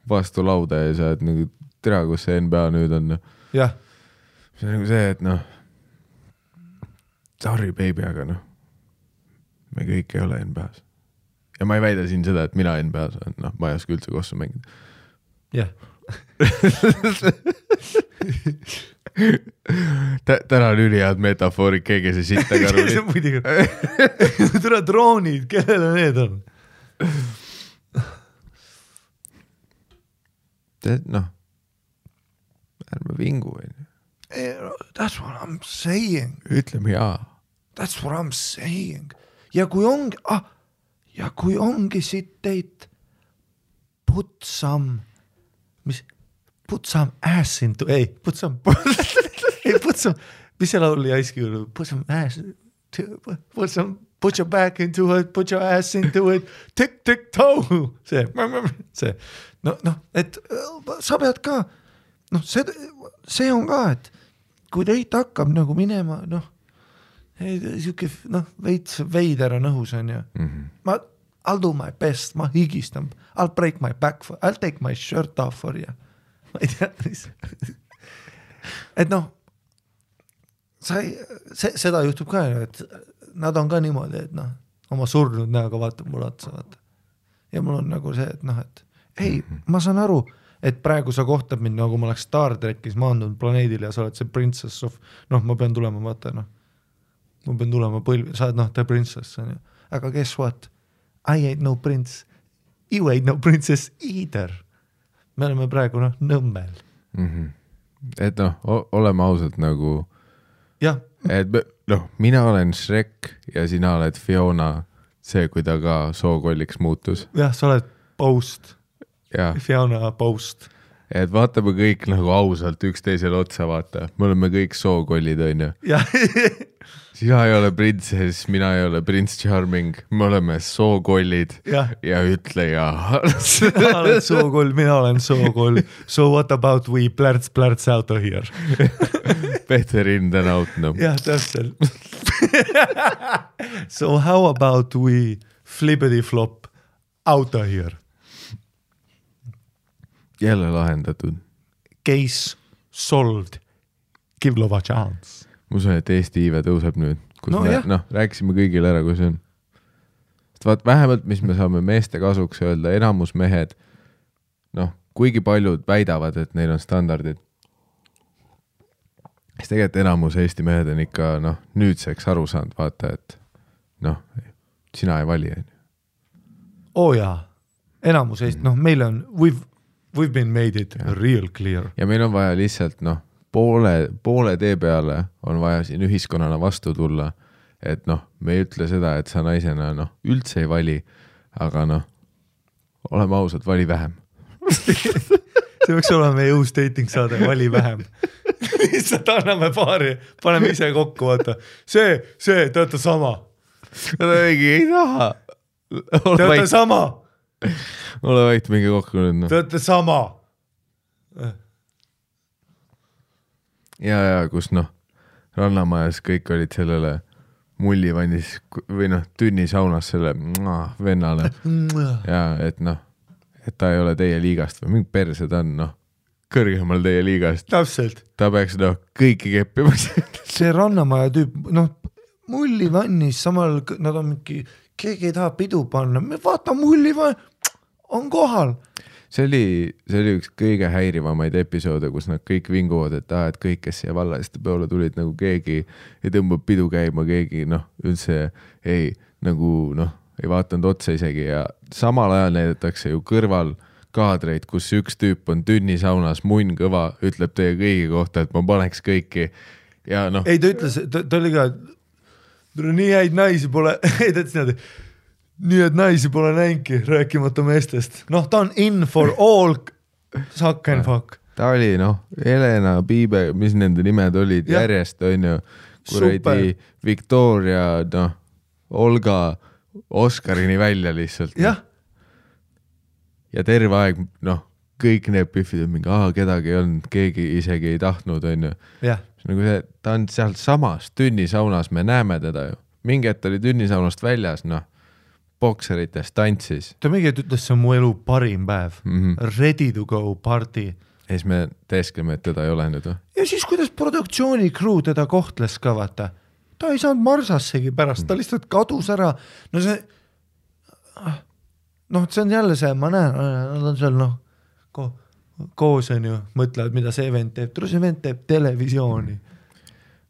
vastu lauda ja sa et nagu tere, kus see NBA nüüd on. Jah. See on nagu see, et noh, sorry baby, aga noh, me kõik ei ole NBA-s. Ja ma ei väida siin seda, et mina NBA-s olen, noh, ma ei oska üldse kossu mängida. Jah. Täna on ülihead metafoorid, keegi see sitta karuli. See on muidugi. Tule droonid, kellele need on? Noh, ärme vingu, või? That's what I'm saying. Ütleme jaa. That's what I'm saying. Ja kui ongi siit teid put some ass into, put some mis see laul Ice Cube, put your back into it, put your ass into it, tick-tick-toe, see. No, et sa pead ka, see on ka, et kui teit hakkab nagu minema, siuke, veits veider on õhus on ju. I'll do my best, ma higistan, I'll break my back, I'll take my shirt off for you. Ma ei tea, et seda juhtub ka, et nad on ka niimoodi, et oma surnud näoga vaatab mul otsa, vaata. Ja mul on nagu see, et ei, ma saan aru, et praegu sa kohtab mind, nagu ma oleks Star Trekis maandunud planeedil ja sa oled see princess of, ma pean tulema, vaata, ma pean tulema põlvi, sa oled the princess, on ju. Aga guess what? I ain't no prince. You ain't no princess either. Me oleme praegu, nõmmel. Et oleme ausalt nagu jah. Et mina olen Shrek ja sina oled Fiona, see, kui ta ka sookolliks muutus. Jah, sa oled Post. Ja. Fiona Post. Et vaatame kõik nagu ausalt üksteisele otsa, vaata. Me oleme kõik sookollid, on ju. Jah. Sina ei ole princess, mina ei ole Prince Charming. Me oleme sookollid ja ütle ja. Sina oled sookoll, mina olen sookoll. So what about we plärts out of here? Better in than out, no. Jah, täpselt. So how about we flippity flop out of here? Jälle lahendatud. Case solved. Give love a chance. Ma usun, et Eesti iive tõuseb nüüd, kus rääkisime kõigile ära, kui see on. Vaat vähemalt, mis me saame meeste kasuks öelda, enamus mehed, kuigi paljud väidavad, et neil on standardid. Siis tegelikult enamus Eesti mehed on ikka, nüüdseks aru saanud, vaata, et sina ei vali. Jaa, enamus Eesti, meil on, we've been made it real clear. Ja meil on vaja lihtsalt, poole tee peale on vaja siin ühiskonnana vastu tulla, et me ei ütle seda, et sa naisena üldse ei vali, aga oleme ausad, vali vähem. See võiks olema meie uus dating saade, vali vähem. Lihtsalt anname paari, paneme ise kokku, vaata. See, te olete sama. Ei taha. Te olete sama. Ole vait, mingi kokku nüüd. Te olete sama. Ja kus rannamajas kõik olid sellele mullivannis või tünnisaunas selle vennale. Ja et et ta ei ole teie liigast või mingi perse ta on kõrgemal teie liigast. Täpselt. Ta peaks kõiki keppima. See rannamaja tüüp, mullivannis, samal nad on mingi, keegi ei taha pidu panna, me vaata mullivann, on kohal. See oli üks kõige häirivamaid episoode, kus nad kõik vinguvad, et kõik, kes siia vallaliste peole tulid, nagu keegi ei tõmbab pidu käima, keegi üldse ei vaatanud otsa isegi ja samal ajal näidatakse ju kõrval kaadreid, kus üks tüüp on tünnisaunas, munn kõva, ütleb teie kõigi kohta, et ma paneks kõiki ja Ei, ta ütles, ta oli ka, nii häid naisi pole, ei ta ütles niimoodi, nii et naisi pole näinki, rääkimata meestest. Ta on in for all suck and fuck. Ta oli, Helena, Piibe, mis nende nimed olid järjest, on ju, kuradi Victoria, Olga, Oskarini välja lihtsalt. Jah. Ja terve aeg, kõik need pühvid on mingi, kedagi ei olnud, keegi isegi ei tahtnud, on ju. Jah. Nagu see, ta on sealt samas tünnisaunas, me näeme teda ju. Mingi hetk oli tünnisaunast väljas, bokserites tantsis. Ta mingi ütles, see on mu elu parim päev. Ready to go party. Ja siis me teeskleme, et teda ei ole nüüd. Ja siis kuidas produktsiooni crew teda kohtles ka, vaata. Ta ei saanud marsassegi pärast, ta lihtsalt kadus ära. See on jälle see, ma näen, nad on seal koos on ju, mõtlevad, mida see event teeb. See event teeb televisiooni.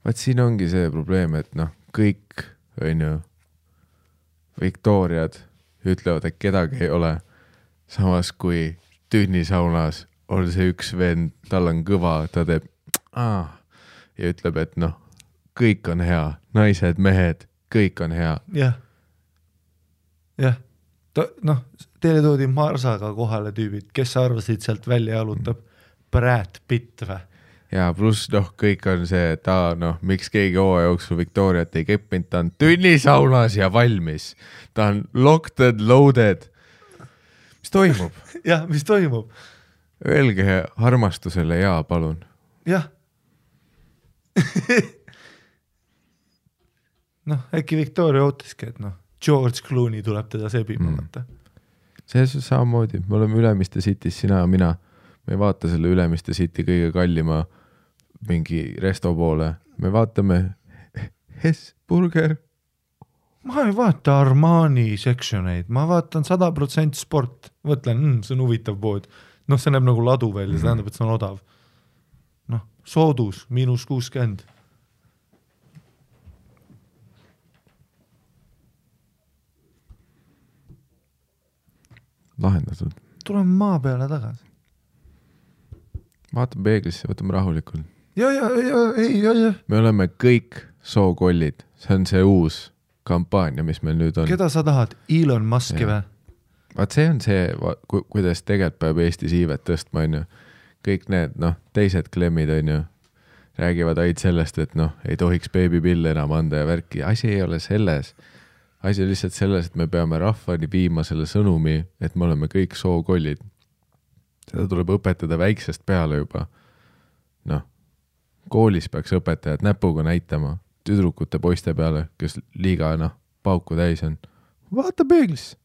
Vaat siin ongi see probleem, et kõik on ju Victoriad ütlevad, et kedagi ei ole. Samas kui tünnisaunas on see üks vend, tal on kõva, ta teeb ja ütleb, et kõik on hea, naised, mehed, kõik on hea. Jah. Teile toodi Marsaga kohale tüübid, kes arvasid sealt välja jalutab Brad Pitt või? ja pluss kõik on see, et miks keegi hooaja jooksul Victoriat ei keppinud, ta on tünnisaunas ja valmis. Ta on locked and loaded. Mis toimub? Jah, mis toimub? Öelge armastusele jaa, palun. Jah. Äkki Victoria ootiski, et George Clooney tuleb teda sebima. See samamoodi. Me oleme Ülemiste City's, sina ja mina. Me ei vaata selle Ülemiste City kõige kallima mingi resto poole. Me vaatame Hesburger. Ma ei vaata Armani sectioneid. Ma vaatan 100% sport. Võtlen, see on huvitav pood. See näeb nagu ladu välja, see tähendab, et see on odav. Soodus, -60. Lahendatud. Tuleme maa peale tagasi. Vaatame peeglisse, võtame rahulikult. Ja. Me oleme kõik sookollid. See on see uus kampaania, mis meil nüüd on. Keda sa tahad? Elon Muski või? Vaat see on see, kuidas tegelikult peab Eesti siivet tõstma, on ju. Kõik need, teised klemmid, on ju, räägivad aid sellest, et ei tohiks beebipille enam anda ja värki. Asi ei ole selles. Asi on lihtsalt selles, et me peame rahvani viima selle sõnumi, et me oleme kõik sookollid. Seda tuleb õpetada väiksest peale juba. Koolis peaks õpetajad näpuga näitama tüdrukute poiste peale, kes liiga pauku täis on. Vaata peeglis.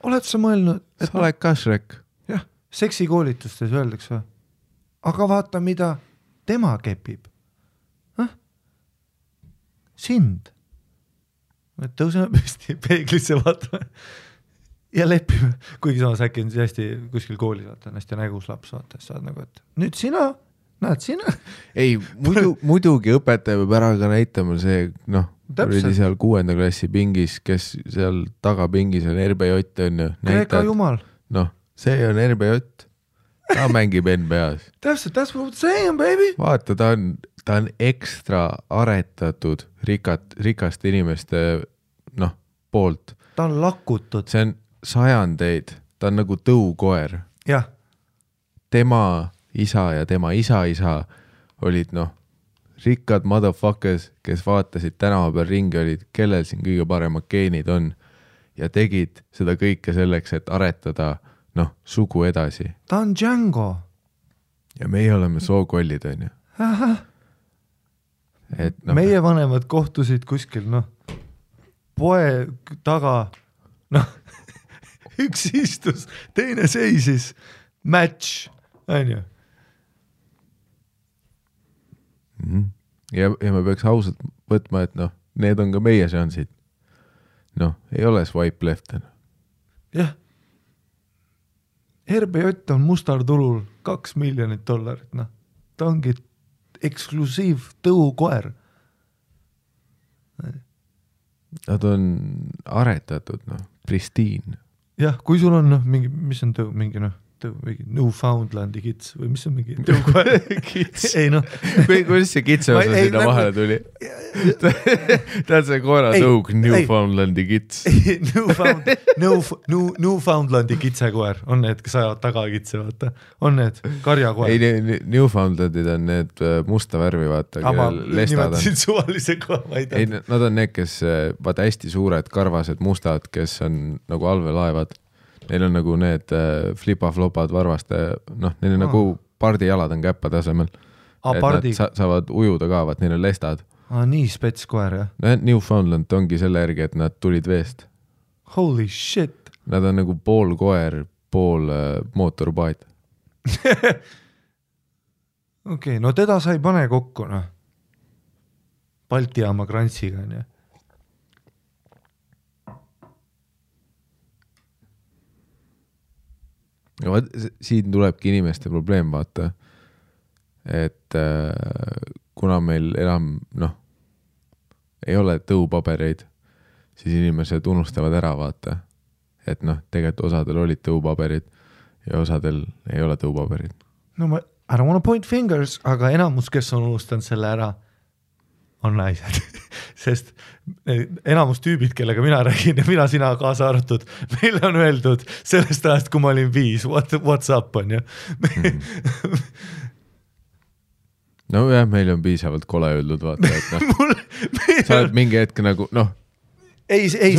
Oled sa mõelnud? Sa oled kašrek. Jah, seksikoolitustes öeldakse või? Aga vaata, mida tema kepib. Sind. Tõuseme püsti peeglisse vaatame ja lepime. Kuigi samas äkki on hästi kuskil koolis, vaata, on hästi nägus laps, vaata, saad nagu, et nüüd sina, näed sina. Ei, muidugi õpetaja peab ära ka näitama see, oli seal 6. klassi pingis, kes seal tagapingis on RBJ, on ju. Kreeka jumal. See on RBJ. Ta mängib NBA-s. Täpselt, that's what I'm saying, baby. Vaata, ta on ekstra aretatud rikaste inimeste poolt. Ta on lakutud. See on sajandeid. Ta on nagu tõukoer. Jah. Tema isa ja tema isa olid rikkad motherfuckers, kes vaatasid tänava peal ringi, olid, kellel siin kõige paremad geenid on ja tegid seda kõike selleks, et aretada sugu edasi. Ta on Django. Ja meie oleme sookollid, on ju. Meie vanemad kohtusid kuskil, poe taga, üks istus, teine seisis, match, on ju. Ja me peaks ausalt võtma, et need on ka meie seansid. Ei ole swipe left. Jah. RBJ on mustar tulul $2 miljonit. Ta ongi eksklusiiv tõukoer. Nad on aretatud, pristiin. Jah, kui sul on mingi, mis on tõu, mingi Newfoundlandi kits või mis on mingi tõukoer? Kits. Ei kuidas see kitse osa sinna vahele tuli? Tead see koera tõug Newfoundlandi kits. Newfoundlandi kitsekoer on need, kes ajavad tagakitse, vaata. On need karjakoer. Ei, Newfoundlandid on need musta värvi, vaata. Ama nimetasid suvalise koha, ma ei tea. Nad on need, kes vaata hästi suured karvased mustad, kes on nagu allveelaevad. Neil on nagu need flipa-flopad varvaste, neil on nagu pardijalad on käppa tasemel. Et nad saavad ujuda ka, vaat neil on lestad. Nii spetskoer, jah? Newfoundland ongi selle järgi, et nad tulid veest. Holy shit! Nad on nagu pool koer, pool mootorpaat. Okei, no teda sa ei pane kokku, Balti jaama krantsiga, on ju. Ja siin tulebki inimeste probleem, vaata, et kuna meil enam, ei ole tõupabereid, siis inimesed unustavad ära, vaata, et tegelikult osadel olid tõupaberid ja osadel ei ole tõupaberid. I don't want to point fingers, aga enamus, kes on unustanud selle ära, on naised. Sest enamus tüübid, kellega mina räägin ja mina sina kaasa arvatud, meile on öeldud sellest ajast, kui ma olin 5, what's up, on ju. no jah, meil on piisavalt kole öeldud, vaata, et sa oled mingi hetk nagu,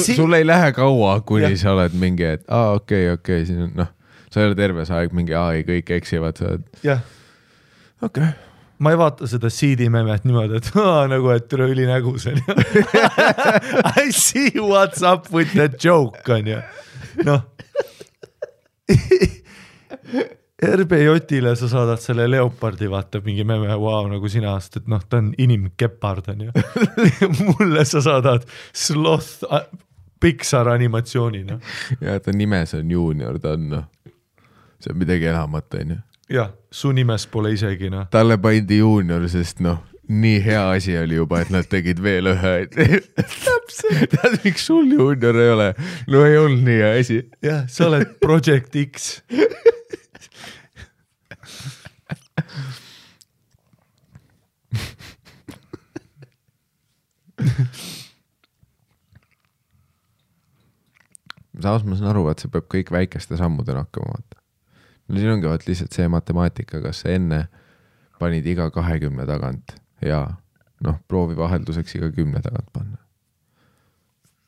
sul ei lähe kaua, kuni sa oled mingi, et okei, siin on, sa ei ole terve see aeg mingi, ei kõik eksivad, sa oled. Jah. Okei. Ma ei vaata seda CD memet niimoodi, et nagu, et üle üli nägus on ju. I see what's up with that joke on ju. RBJ-ile sa saadad selle leopardi, vaata mingi meme, nagu sina aast, et ta on inimkepard on ju. Mulle sa saadad sloth Pixar animatsiooni. Ja ta nimes on Junior, ta on see on midagi enamat on ju. Jah, su nimes pole isegi Talle pandi Junior, sest nii hea asi oli juba, et nad tegid veel ühe. Täpselt. Tead, miks sul Junior ei ole? No ei olnud nii hea asi. Jah, sa oled Project X. Samas ma saan aru, et see peab kõik väikeste sammudena hakkama vaata. No siin ongi vaat lihtsalt see matemaatika, kas enne panid iga 20 tagant ja proovi vahelduseks iga 10 tagant panna.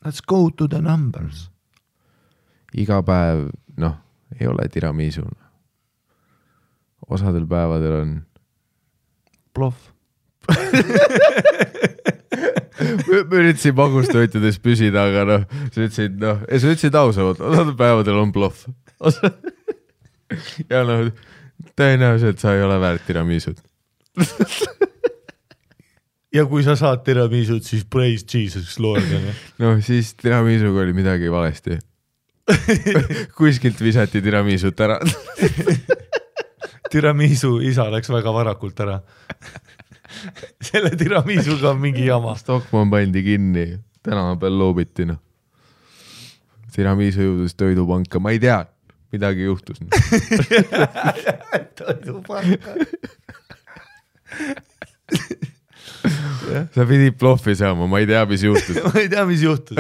Let's go to the numbers. Iga päev, ei ole tiramisu. Osadel päevadel on bluff. Ma üritasin magustoitudes püsida, aga sa ütlesid ausamalt, osadel päevadel on bluff. Ja tõenäoliselt sa ei ole väärt tiramisud. Ja kui sa saad tiramisud, siis praise Jesus Lord. Siis tiramisuga oli midagi valesti. Kuskilt visati tiramisut ära. Tiramisu isa läks väga varakult ära. Selle tiramisuga on mingi jama. Stockmann pandi kinni, tänava peal loobiti. Tiramisu jõudus toidupanka, ma ei tea, midagi juhtus. Toidupanka. Sa pidid bloffi saama, ma ei tea, mis juhtus. Ma ei tea, mis juhtus.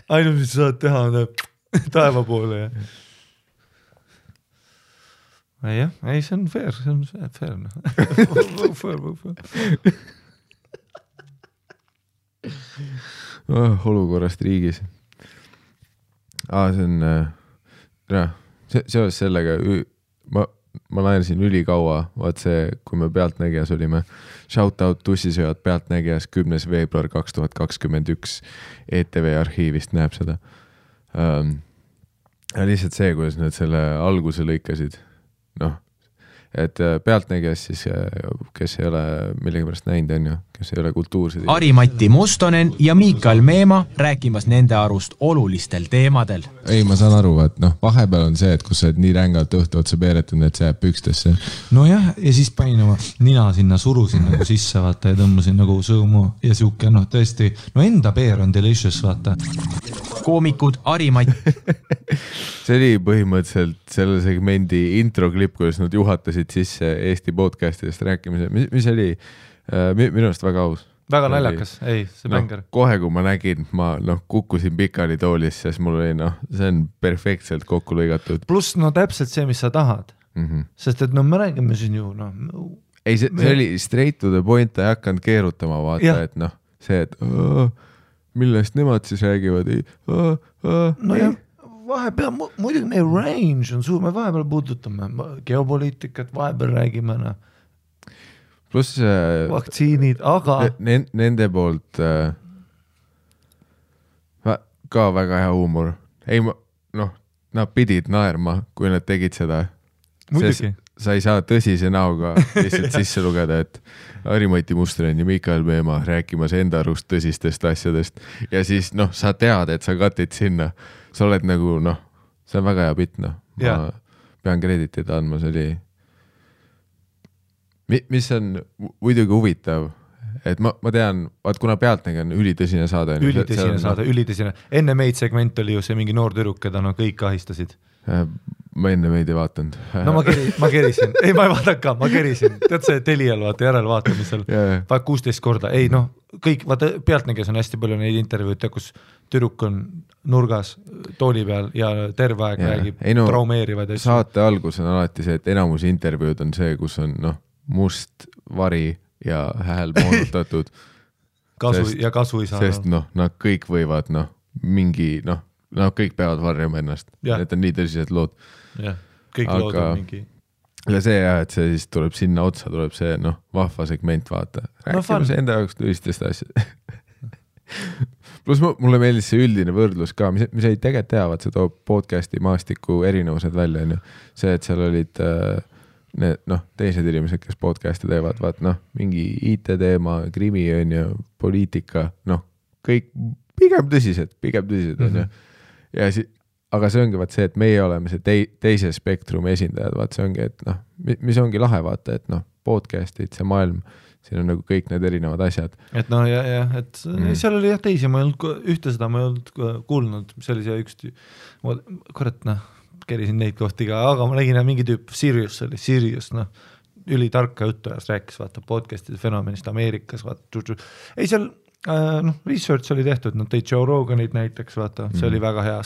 Ainult, mis sa saad teha, on taeva poole. Jah, ei, see on fair. Olukorrast riigis. See on, seoses sellega, ma laenasin ülikaua, vaat see, kui me Pealtnägijas olime, shoutout tussisööjad Pealtnägijas 10. veebruar 2021 ETV arhiivist näeb seda. Lihtsalt see, kuidas nad selle alguse lõikasid, et Pealtnägijas siis, kes ei ole millegi pärast näinud, on ju, kes ei ole kultuursed. Ari-Matti Mustonen ja Miikael Meema rääkimas nende arust olulistel teemadel. Ei, ma saan aru, et vahepeal on see, et kus sa nii rängalt õhtu otsa peeretund, et see jääb pükstesse. No jah, ja siis panin oma nina sinna, surusin nagu sisse, vaata, ja tõmbasin nagu sõõmu ja siuke, tõesti, enda peer on delicious, vaata. Koomikud Ari-Matti. See oli põhimõtteliselt selle segmendi introklipp, kuidas nad juhatasid sisse Eesti podcastidest rääkimise, mis oli minu arust väga aus. Väga naljakas, ei, see bänger. Kohe, kui ma nägin, ma kukkusin pikali toolis, sest mul oli, see on perfektselt kokku lõigatud. Pluss, täpselt see, mis sa tahad. Sest et me räägime siin ju, Ei, see oli straight to the point, ta ei hakanud keerutama, vaata, et see, et millest nemad siis räägivad. Jah, vahepeal, muidugi meie range on suur, me vahepeal puudutame geopoliitikat, vahepeal räägime, Plus vaktsiinid, aga nende poolt ka väga hea huumor. Ei, nad pidid naerma, kui nad tegid seda. Muidugi. Sa ei saa tõsise näoga lihtsalt sisse lugeda, et Ari-Matti Mustonen ja Miikael Meema rääkimas enda arust tõsistest asjadest. Ja siis, sa tead, et sa katid sinna. Sa oled nagu, see on väga hea pitt, Ma pean kreditit andma, see oli... Mis on muidugi huvitav, et ma tean, vaat kuna Pealtnägi on ülitõsine saade. Ülitõsine. Enne meid segment oli ju see mingi noor tüdruk, keda kõik ahistasid. Ma enne meid ei vaatanud. Ma kerisin. Ei, ma ei vaadaka, ma kerisin. Tead see Telial järelvaatamisel. 16 korda. Ei, kõik, vaata Pealtnägijas on hästi palju neid intervjuute, kus tüdruk on nurgas tooli peal ja terve aeg räägib traumeerivad. Saate algus on alati see, et enamus intervjuud on see, kus on must vari ja hääl moonutatud. kasu ei saa. Sest nad kõik võivad mingi, kõik peavad varjama ennast. Need on nii tõsised lood. Jah, kõik lood on mingi. Ja see et see siis tuleb sinna otsa, tuleb see vahva segment vaata. Rääkime see enda jaoks tõsistest asjad. Plus mulle meeldis see üldine võrdlus ka, mis ei tegelikult teavad, see toob podcasti maastiku erinevused välja. See, et seal olid teised inimesed, kes podcasti teevad, vaat mingi IT teema, krimi on ju, poliitika, kõik pigem tõsised on ju. Ja aga see ongi vaat see, et meie oleme see teise spektrumi esindajad, vaat see ongi, et mis ongi lahe vaata, et podcastid, see maailm, siin on nagu kõik need erinevad asjad. Et et seal oli teisi, ma ei olnud ühte seda, ma ei olnud kuulnud, see oli see üks, kurat kerisin neid kohti ka, aga ma nägin mingi tüüp, Sirius, ülitarka juttu ajas, rääkis vaata podcastide fenomenist Ameerikas, vaata, ei seal research oli tehtud, tõid Joe Roganid näiteks, vaata, see oli väga hea.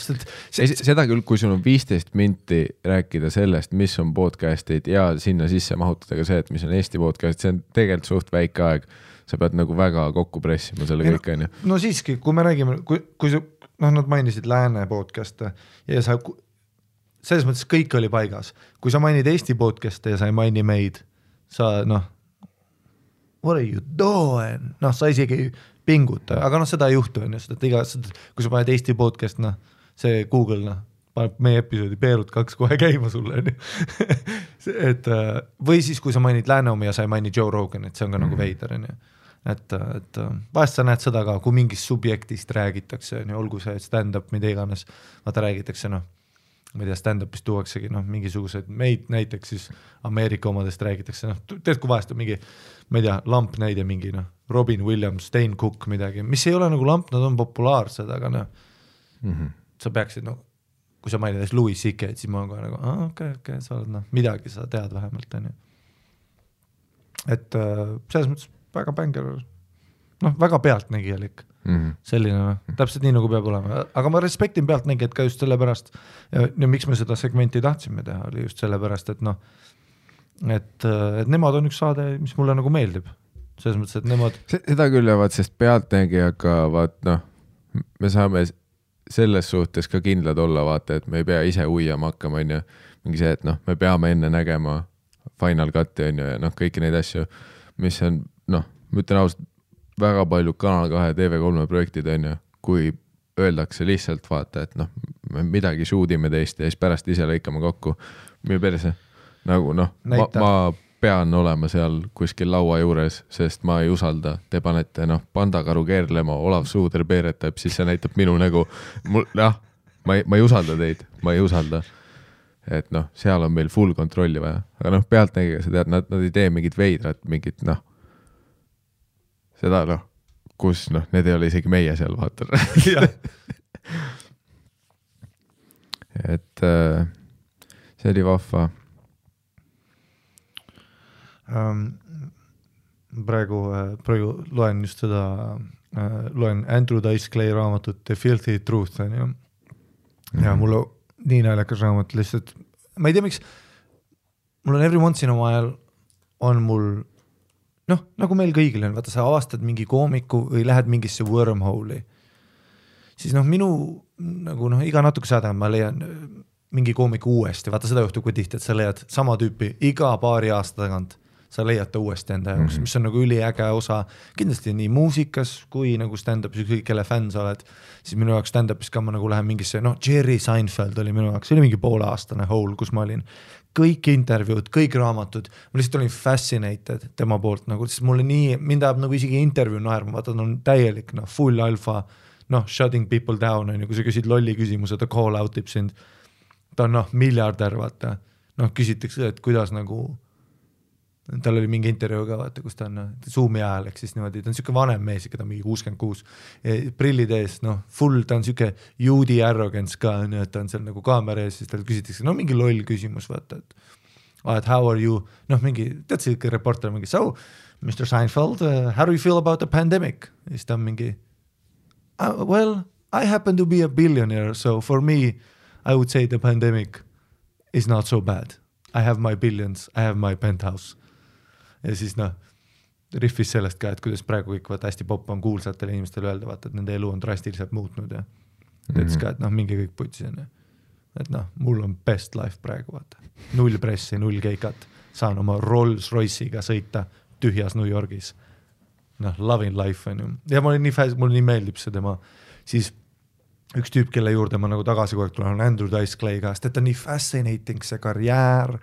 Seda küll, kui sul on 15 minti rääkida sellest, mis on podcastid ja sinna sisse mahutada ka see, et mis on Eesti podcast, see on tegelikult suht väike aeg, sa pead nagu väga kokku pressima selle kõik on ju. No siiski, kui me räägime, kui nad mainisid lääne podcast'e ja sa selles mõttes kõik oli paigas. Kui sa mainid Eesti podcast'e ja sa ei maini meid, sa what are you doing? Sa isegi pinguta, aga seda ei juhtu on ju, kui sa paned Eesti podcast, see Google, paneb meie episoodi Peerud 2 kohe käima sulle on ju. Või siis, kui sa mainid Lääneomi ja sa ei maini Joe Rogan, et see on ka nagu veider on ju. Et vahest sa näed seda ka, kui mingist subjektist räägitakse, olgu see stand-up, mida iganes, vaata räägitakse ma ei tea, stand-upist tuuaksegi mingisugused meid näiteks siis Ameerika omadest räägitakse, tead kui vahest on mingi, ma ei tea, lamp näide mingi, Robin Williams, Dane Cook midagi, mis ei ole nagu lamp, nad on populaarsed, aga sa peaksid, kui sa mainid Louis C.K., siis ma olen kohe nagu, okei, sa oled midagi sa tead vähemalt, on ju. Et selles mõttes väga bänger, väga pealtnägijalik. Selline, täpselt nii nagu peab olema, aga ma respektin pealtnägijad ka just sellepärast ja miks me seda segmenti tahtsime teha, oli just sellepärast, et nemad on üks saade, mis mulle nagu meeldib selles mõttes, et nemad seda küll jäävad, sest pealtnägijaga vaat me saame selles suhtes ka kindlad olla vaata, et me ei pea ise uiama hakkama on ju, mingi see, et me peame enne nägema Final Cut'i on ju ja kõiki neid asju, mis on ma ütlen ausalt väga palju Kanal 2 TV3 projektid on ju, kui öeldakse lihtsalt vaata, et me midagi shootime teist ja siis pärast ise lõikame kokku meie perse. Nagu ma pean olema seal kuskil laua juures, sest ma ei usalda. Te panete pandakaru keerlema, Olav Suuder peeretab, siis see näitab minu nägu. Ma ei usalda teid, ma ei usalda. Et seal on meil full kontrolli vaja. Aga pealtnägiga sa tead, nad ei tee mingit veidrat, mingit seda kus need ei ole isegi meie seal vaata. Et see oli vahva. Praegu loen just seda, loen Andrew Dice Clay raamatut The Filthy Truth on ju. Ja mulle nii naljakas raamat lihtsalt, ma ei tea miks, mul on every once in a while on mul nagu meil kõigil on, vaata sa avastad mingi koomiku või lähed mingisse wormhole'i, siis minu nagu iga natuke saada ma leian mingi koomiku uuesti, vaata seda juhtub kui tihti, et sa leiad sama tüüpi iga paari aasta tagant, sa leiad ta uuesti enda jaoks, mis on nagu üliäge osa, kindlasti nii muusikas kui nagu stand-upis, ükskõik kelle fänn sa oled, siis minu jaoks stand-upis ka ma nagu lähen mingisse, Jerry Seinfeld oli minu jaoks, see oli mingi pooleaastane hole, kus ma olin kõik intervjuud, kõik raamatud, ma lihtsalt olin fascinated tema poolt, nagu, sest mulle nii, mind ajab nagu isegi intervjuu naerma, vaata, ta on täielik, full alfa, shutting people down, kui sa küsid lolli küsimuse, ta call out ib sind, ta on miljardär, vaata, küsitakse, et kuidas nagu, tal oli mingi intervjuu ka, vaata, kus ta on Zoomi ajal, ehk siis niimoodi, ta on siuke vanem mees, ikka ta mingi 66, prillid ees, full, ta on siuke juudi arrogance ka, et ta on seal nagu kaamera ees, siis tal küsitakse, mingi loll küsimus, vaata, et how are you, mingi, tead see reporter mingi, so, Mr. Seinfeld, how do you feel about the pandemic? Ja siis ta on mingi, well, I happen to be a billionaire, so for me, I would say the pandemic is not so bad. I have my billions, I have my penthouse. ja siis noh, riffis sellest ka, et kuidas praegu kõik vaata hästi popp on kuulsatele inimestele öelda, vaata, et nende elu on drastiliselt muutnud ja ütles ka, et noh, mingi kõik putsi on. Et noh, mul on best life praegu, vaata. 0 pressi, 0 keikat, saan oma Rolls Royce'iga sõita tühjas New Yorgis. Noh, loving life on ju. Ja mul nii meeldib see tema, siis üks tüüp, kelle juurde ma nagu tagasi kogu aeg tulen, on Andrew Dice Clay käest, et on nii fascinating see karjäär,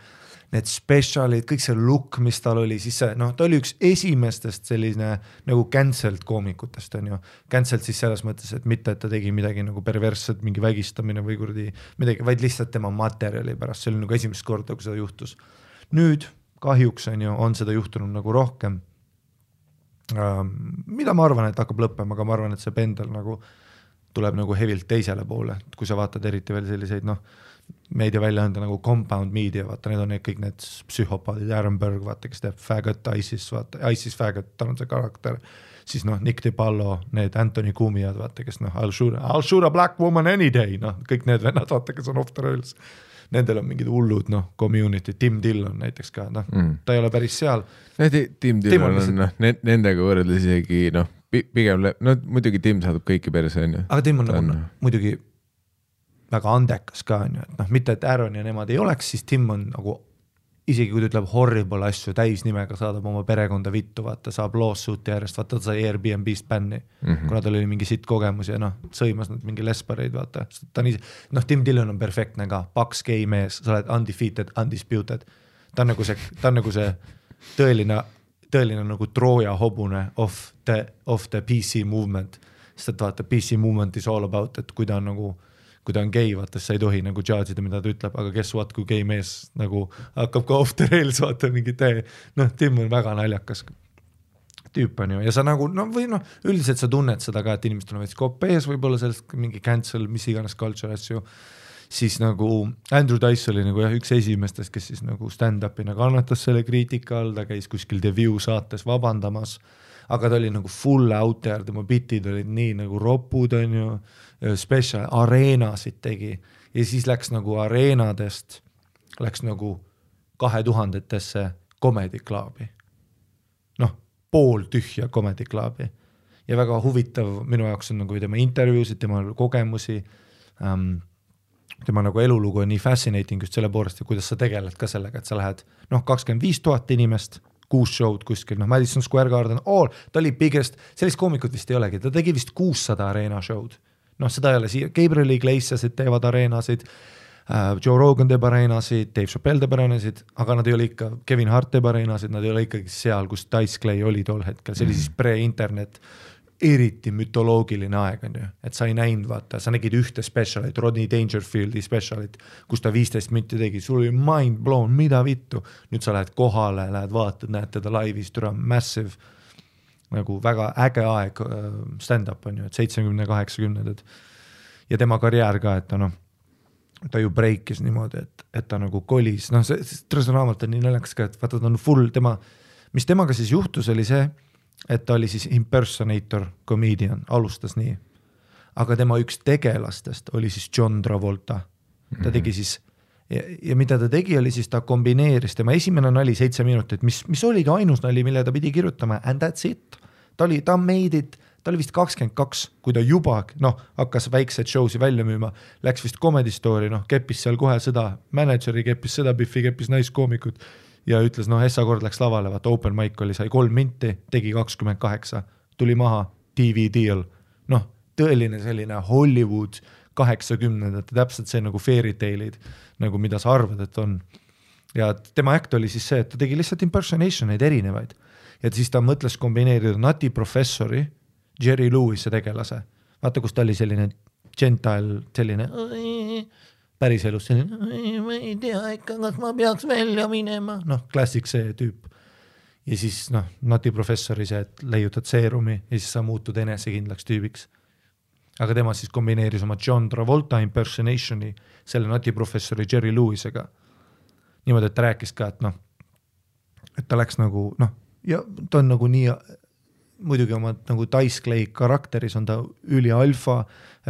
need specialid, kõik see look, mis tal oli, siis see, noh, ta oli üks esimestest selline nagu cancelled koomikutest, on ju. Cancelled siis selles mõttes, et mitte, et ta tegi midagi nagu perversset, mingi vägistamine või kuradi midagi, vaid lihtsalt tema materjali pärast, see oli nagu esimest korda, kui seda juhtus. Nüüd kahjuks on seda juhtunud nagu rohkem. Mida ma arvan, et hakkab lõppema, aga ma arvan, et see pendel nagu tuleb nagu hevilt teisele poole, kui sa vaatad eriti veel selliseid, noh, meediaväljaande nagu Compound Media, vaata, need on kõik need psühhopaadid, Aaron Berg, vaata, kes teeb Faggot, ISIS, vaata, ISIS Faggot, tal on see karakter, siis noh, Nick DiPallo, need Anthony Cumiad, vaata, kes noh, I'll shoot a black woman any day, noh, kõik need vennad, vaata, kes on off the rails. Nendel on mingid hullud, noh, community, Tim Dillon näiteks ka, noh, ta ei ole päris seal. Tim Dillon on, noh, nendega võrreldes isegi, noh, pigem, no muidugi Tim saadab kõiki perse, on ju. Aga Tim on nagu muidugi väga andekas ka, on ju, et noh, mitte et Aaron ja nemad ei oleks, siis Tim on nagu, isegi kui ta ütleb horrible asju täisnimega, saadab oma perekonda vittu, vaata, saab lawsuit'i järjest, vaata, ta sai Airbnb-st bänni, kuna tal oli mingi sitt kogemus ja noh, sõimas nad mingi lesbareid, vaata. Ta on noh, Tim Dillon on perfektne ka, paks gay mees, sa oled undefeated, undisputed. Ta on nagu see tõeline nagu Trooja hobune of the PC movement, sest et vaata, PC movement is all about, et kui ta on gay, vaata, sa ei tohi nagu judge'ida, mida ta ütleb, aga guess what, kui gay mees nagu hakkab ka off the rails, vaata mingi tee, noh, Tim on väga naljakas tüüp on ju, ja sa nagu, no või noh, üldiselt sa tunned seda ka, et inimestel on veits kopees, võib-olla sellest mingi cancel, mis iganes culture asju, siis nagu Andrew Dice oli nagu jah, üks esimestest, kes siis nagu stand-up'ina kannatas selle kriitika all, ta käis kuskil The View saates vabandamas, aga ta oli nagu full out there, tema bitid olid nii nagu ropud on ju, special areenasid tegi ja siis läks nagu areenadest, läks nagu 2000-tesse comedy clubi. Noh, pool tühja comedy clubi. Ja väga huvitav minu jaoks on nagu tema intervjuusid, tema kogemusi, tema nagu elulugu on nii fascinating just selle poolest, kuidas sa tegeled ka sellega, et sa lähed 25 000 inimest, 6 show'd kuskil, Madison Square Garden, ta oli biggest, sellist koomikut vist ei olegi, ta tegi vist 600 areena show'd. Seda ei ole siia, Gabriel Iglesiasid teevad areenasid, Joe Rogan teeb areenasid, Dave Chappelle teeb areenasid, aga nad ei ole ikka, Kevin Hart teeb areenasid, nad ei ole ikkagi seal, kus Dice Clay oli tol hetkel, see oli siis pre-internet, eriti mütoloogiline aeg on ju, et sa ei näinud, vaata, sa nägid ühte specialit, Rodney Dangerfieldi specialit, kus ta 15 minti tegi, sul oli mind blown, mida vittu, nüüd sa lähed kohale, lähed vaatad, näed teda laivis, türa massive, nagu väga äge aeg stand-up on ju, et 70-80-ndad ja tema karjäär ka, et ta ju breakis niimoodi, et ta nagu kolis, see trõsõnaamalt on nii naljakas ka, et vaata ta on full, mis temaga siis juhtus oli see, et ta oli siis impersonator comedian, alustas nii, aga tema üks tegelastest oli siis John Travolta, ta tegi siis ja mida ta tegi oli siis ta kombineeris, tema esimene nali 7 minutit, mis oligi ainus nali, mille ta pidi kirjutama and that's it, ta made it, ta oli vist 22, kui ta juba hakkas väikseid show'si välja müüma, läks vist Comedy Story, keppis seal kohe seda, manageri keppis seda, Biffi keppis naiskoomikut ja ütles, Essa kord läks lavale, vaata open mic oli, sai 3 minti, tegi 28, tuli maha, TV deal, tõeline selline Hollywood 80-ndate, täpselt see nagu fairy tale'id, nagu mida sa arvad, et on. Ja tema act oli siis see, et ta tegi lihtsalt impersonationeid erinevaid. Ja siis ta mõtles kombineerida Nati Professori, Jerry Lewis tegelase. Vaata, kus ta oli selline gentile, selline päris elus selline, ma ei tea ikka, kas ma peaks välja minema. Klassik see tüüp. Ja siis Nati Professori see, et leiutad seerumi ja siis sa muutud enesekindlaks tüübiks. Aga tema siis kombineeris oma John Travolta impersonationi selle Nati Professori Jerry Lewisega. Niimoodi, et ta rääkis ka, et ta läks nagu, ja ta on nagu nii, muidugi oma nagu Dice Clay karakteris on ta üli alfa,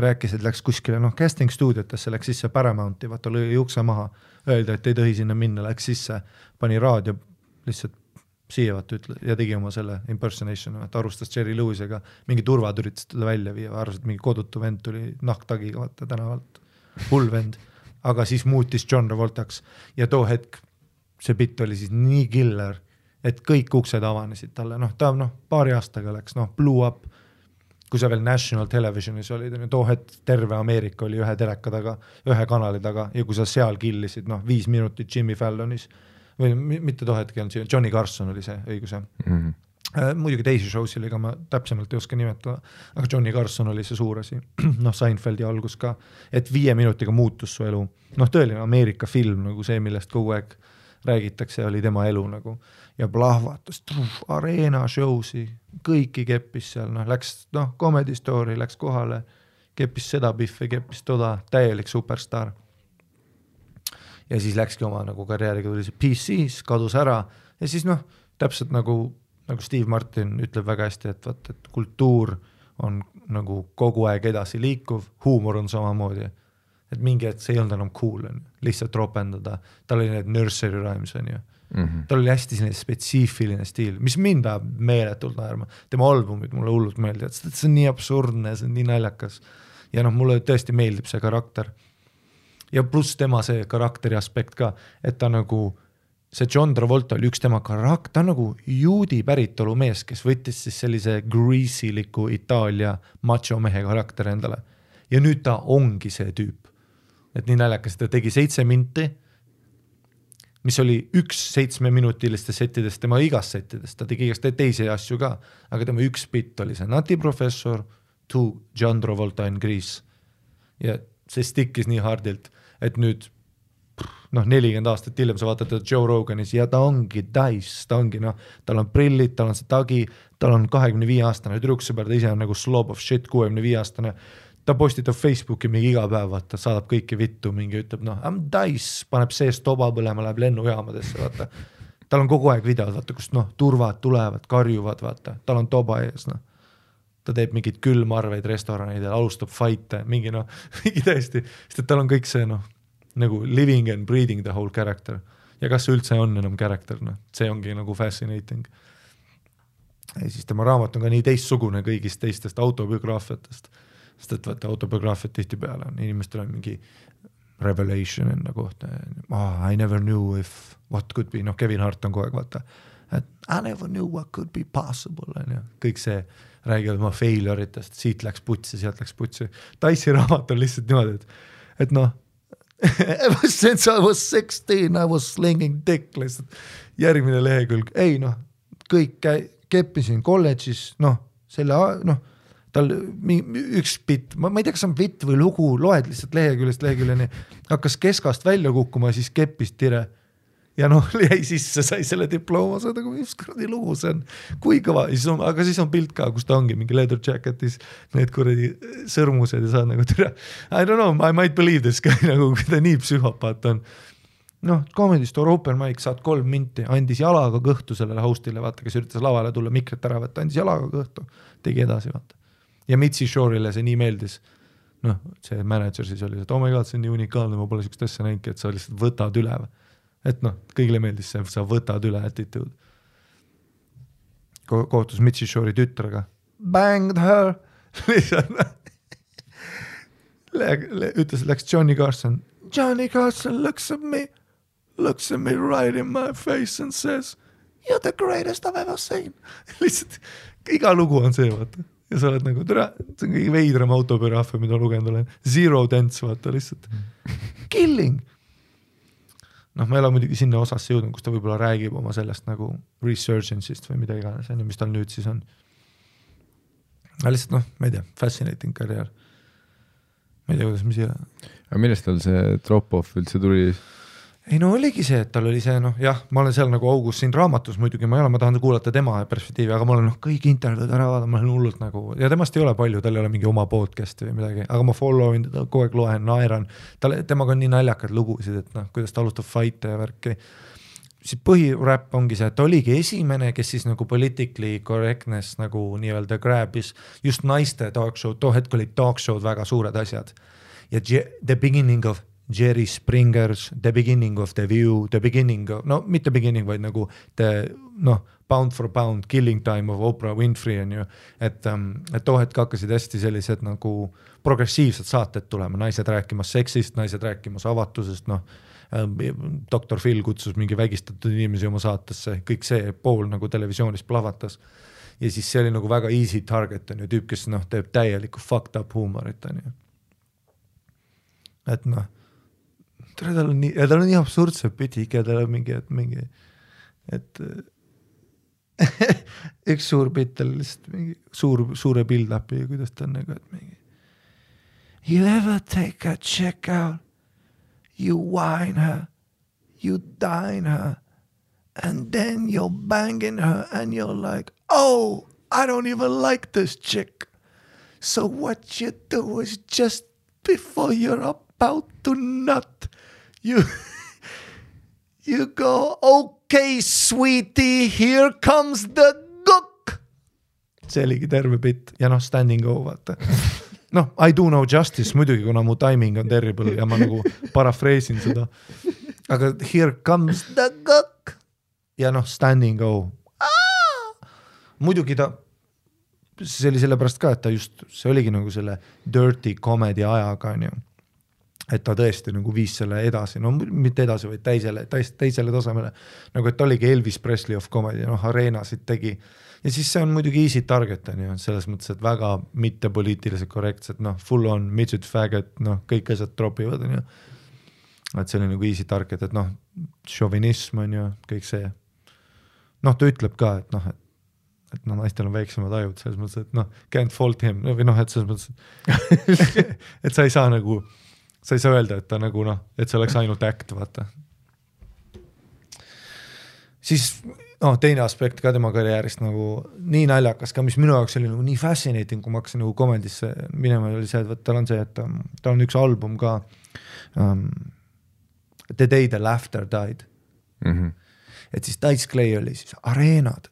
rääkis, et läks kuskile, casting stuudiotesse, läks sisse Paramounti, vaata lõi ukse maha, öelda, et ei tohi sinna minna, läks sisse, pani raadio lihtsalt siia vaata ütle ja tegi oma selle impersonation, vaata arustas Jerry Lewisega, mingi turvad üritas teda välja viia, arvas, et mingi kodutu vend tuli nahktagiga vaata tänavalt, hull vend, aga siis muutis John Travoltaks ja too hetk see bitt oli siis nii killer, et kõik uksed avanesid talle, ta paari aastaga läks, blew up, kui sa veel National Televisionis olid, too hetk terve Ameerika oli ühe teleka taga, ühe kanali taga ja kui sa seal killisid 5 minutit Jimmy Fallonis või mitte too hetk, Johnny Carson oli see õiguse. Muidugi teisi showsil, ega ma täpsemalt ei oska nimetada, aga Johnny Carson oli see suur asi, Seinfeldi algus ka, et 5 minutiga muutus su elu, tõeline Ameerika film, nagu see, millest kogu aeg räägitakse, oli tema elu nagu ja plahvatas, areena showsi, kõiki keppis seal, läks, Comedy Story läks kohale, keppis seda Biffi, keppis toda, täielik superstar. Ja siis läkski oma nagu karjääriga tuli see PC's, kadus ära ja siis täpselt nagu Steve Martin ütleb väga hästi, et kultuur on nagu kogu aeg edasi liikuv, huumor on samamoodi, et mingi hetk see ei olnud enam cool, lihtsalt ropendada, tal oli need nursery rhymes, tal oli hästi selline spetsiifiline stiil, mis mind ajab meeletult naerma, tema albumid mulle hullult meeldivad, see on nii absurdne, see on nii naljakas ja mulle tõesti meeldib see karakter ja pluss tema see karakteri aspekt ka, et ta nagu see John Travolta oli üks tema karakter, ta nagu juudi päritolu mees, kes võttis siis sellise greasiliku Itaalia macho mehe karakter endale ja nüüd ta ongi see tüüp. Et nii naljakas, ta tegi 7 minti, mis oli 1 7-minutiliste settidest, tema igast settidest, ta tegi igast teisi asju ka, aga tema üks bitt oli see Nati Professor to John Travolta in Grease ja see stikkis nii hardilt, et nüüd 40 aastat hiljem sa vaatad Joe Roganis ja ta ongi dice, ta ongi tal on prillid, tal on see tagi, tal on 25-aastane tüdruksõber, ta ise on nagu slob of shit 65-aastane, ta postitab Facebooki mingi iga päev, vaata, saadab kõiki vittu, mingi ütleb, I'm dice, paneb seest toba põlema, läheb lennujaamadesse, vaata. Tal on kogu aeg videod, vaata, kust turvad tulevad, karjuvad, vaata, tal on toba ees, ta teeb mingid külmarveid restoranidel, alustab fight'e, mingi täiesti, sest et tal on kõik see, nagu living and breathing the whole character. Ja kas see üldse on enam character, see ongi nagu fascinating. Ja siis tema raamat on ka nii teistsugune kõigist teistest autobiograafiatest. Sest et vaata autobiograafiat tihti peale on, inimestel on mingi revelation enda kohta, I never knew if what could be, Kevin Hart on kogu aeg, vaata, et I never knew what could be possible, kõik see räägivad oma failure'itest, siit läks putsi, sealt läks putsi, Dice'i raamat on lihtsalt niimoodi, et ever since I was 16 I was slinging dick, lihtsalt järgmine lehekülg, kõik keppisin kolledžis, selle, tal üks bitt, ma ei tea, kas on bitt või lugu, loed lihtsalt leheküljest leheküljeni, hakkas keskast välja kukkuma ja siis keppis tire ja jäi sisse, sai selle diplooma, see on nagu mis kuradi lugu see on, kui kõva, aga siis on pilt ka, kus ta ongi mingi leather jacketis, need kuradi sõrmused ja saad nagu tire, I don't know, I might believe this guy, nagu kui ta nii psühhopaat on. Comedy Store open mic, saad 3 minti, andis jalaga kõhtu sellele hostile, vaata, kes üritas lavale tulla, mikrit ära võtta, andis jalaga kõhtu, tegi edasi, vaata. Ja Mitzi Shore'ile see nii meeldis, see manager siis oli, et oh my god, see on nii unikaalne, ma pole sellist asja näinki, et sa lihtsalt võtad üle. Et kõigile meeldis see, sa võtad üle attitude. Kohtus Mitzi Shore'i tütrega, banged her, ütles, läks Johnny Carson looks at me right in my face and says, you're the greatest I've ever seen. Lihtsalt, iga lugu on see, vaata. Ja sa oled nagu, see on kõige veidram autobiograafia, mida lugenud olen. Zero dance, vaata, lihtsalt. Killing. Ma ei ole muidugi sinna osasse jõudnud, kus ta võib-olla räägib oma sellest nagu resurgence'ist või mida iganes, mis tal nüüd siis on. Aga lihtsalt, ma ei tea, fascinating karjäär. Ma ei tea, kuidas mis Aga millest tal see drop-off üldse tuli? Ei oligi see, et tal oli see, jah, ma olen seal nagu augus siin raamatus muidugi, ma tahan kuulata tema perspektiivi, aga ma olen kõik intervjuud ära vaadanud, ma olen hullult nagu, ja temast ei ole palju, tal ei ole mingi oma podcast või midagi, aga ma followin teda, kogu aeg loen, naeran, temaga on nii naljakad lugusid, et kuidas ta alustab fight'e ja värki. Siis põhiräpp ongi see, et ta oligi esimene, kes siis nagu politically correctness nagu nii-öelda grabis just naiste talk show, too hetk olid talk show'd väga suured asjad. Ja the beginning of Jerry Springer's, The Beginning of the View, The Beginning of, no mitte beginning, vaid nagu Pound for Pound, Killing Time of Oprah Winfrey on ju, et too hetk hakkasid hästi sellised nagu progressiivsed saated tulema, naised rääkimas seksist, naised rääkimas avatusest, Dr. Phil kutsus mingi vägistatud inimesi oma saatesse, kõik see pool nagu televisioonis plahvatas ja siis see oli nagu väga easy target on ju, tüüp, kes teeb täielikku fucked up huumorit on ju. Et tal on nii absurdse pütik ja tal on mingi et üks suur pitt on lihtsalt mingi suure build-upi, kuidas ta on nagu, et mingi You ever take a chick out, you wine her, you dine her, and then you're banging her and you're like, oh, I don't even like this chick. So what you do is just before you're about to nut, you go, okay, sweetie, here comes the gook. See oligi terve bitt ja standing go, vaata. I do no justice, muidugi, kuna mu timing on terrible ja ma nagu parafreesin seda. Aga here comes the gook ja standing go. Muidugi see oli sellepärast ka, et see oligi nagu selle dirty comedy ajaga, on ju. Et ta tõesti nagu viis selle edasi, mitte edasi, vaid teisele tasemele. Nagu et oligi Elvis Presley of comedy, areenasid tegi. Ja siis see on muidugi easy target, on ju, selles mõttes, et väga mittepoliitiliselt korrektsed, full on, midget faggot, kõik asjad tropivad, on ju. Et see oli nagu easy target, et šovinism on ju, kõik see. Ta ütleb ka, et naistel on väiksemad ajud, selles mõttes, et can't fault him, või et selles mõttes, et sa ei saa nagu, sa ei saa öelda, et ta nagu et see oleks ainult act, vaata. Siis teine aspekt ka tema karjäärist nagu nii naljakas ka, mis minu jaoks oli nagu nii fascinating, kui ma hakkasin nagu komedisse minema, oli see, et tal on see, et tal on üks album ka The Day the Laughter Died. Et siis Dice Clay oli siis areenad,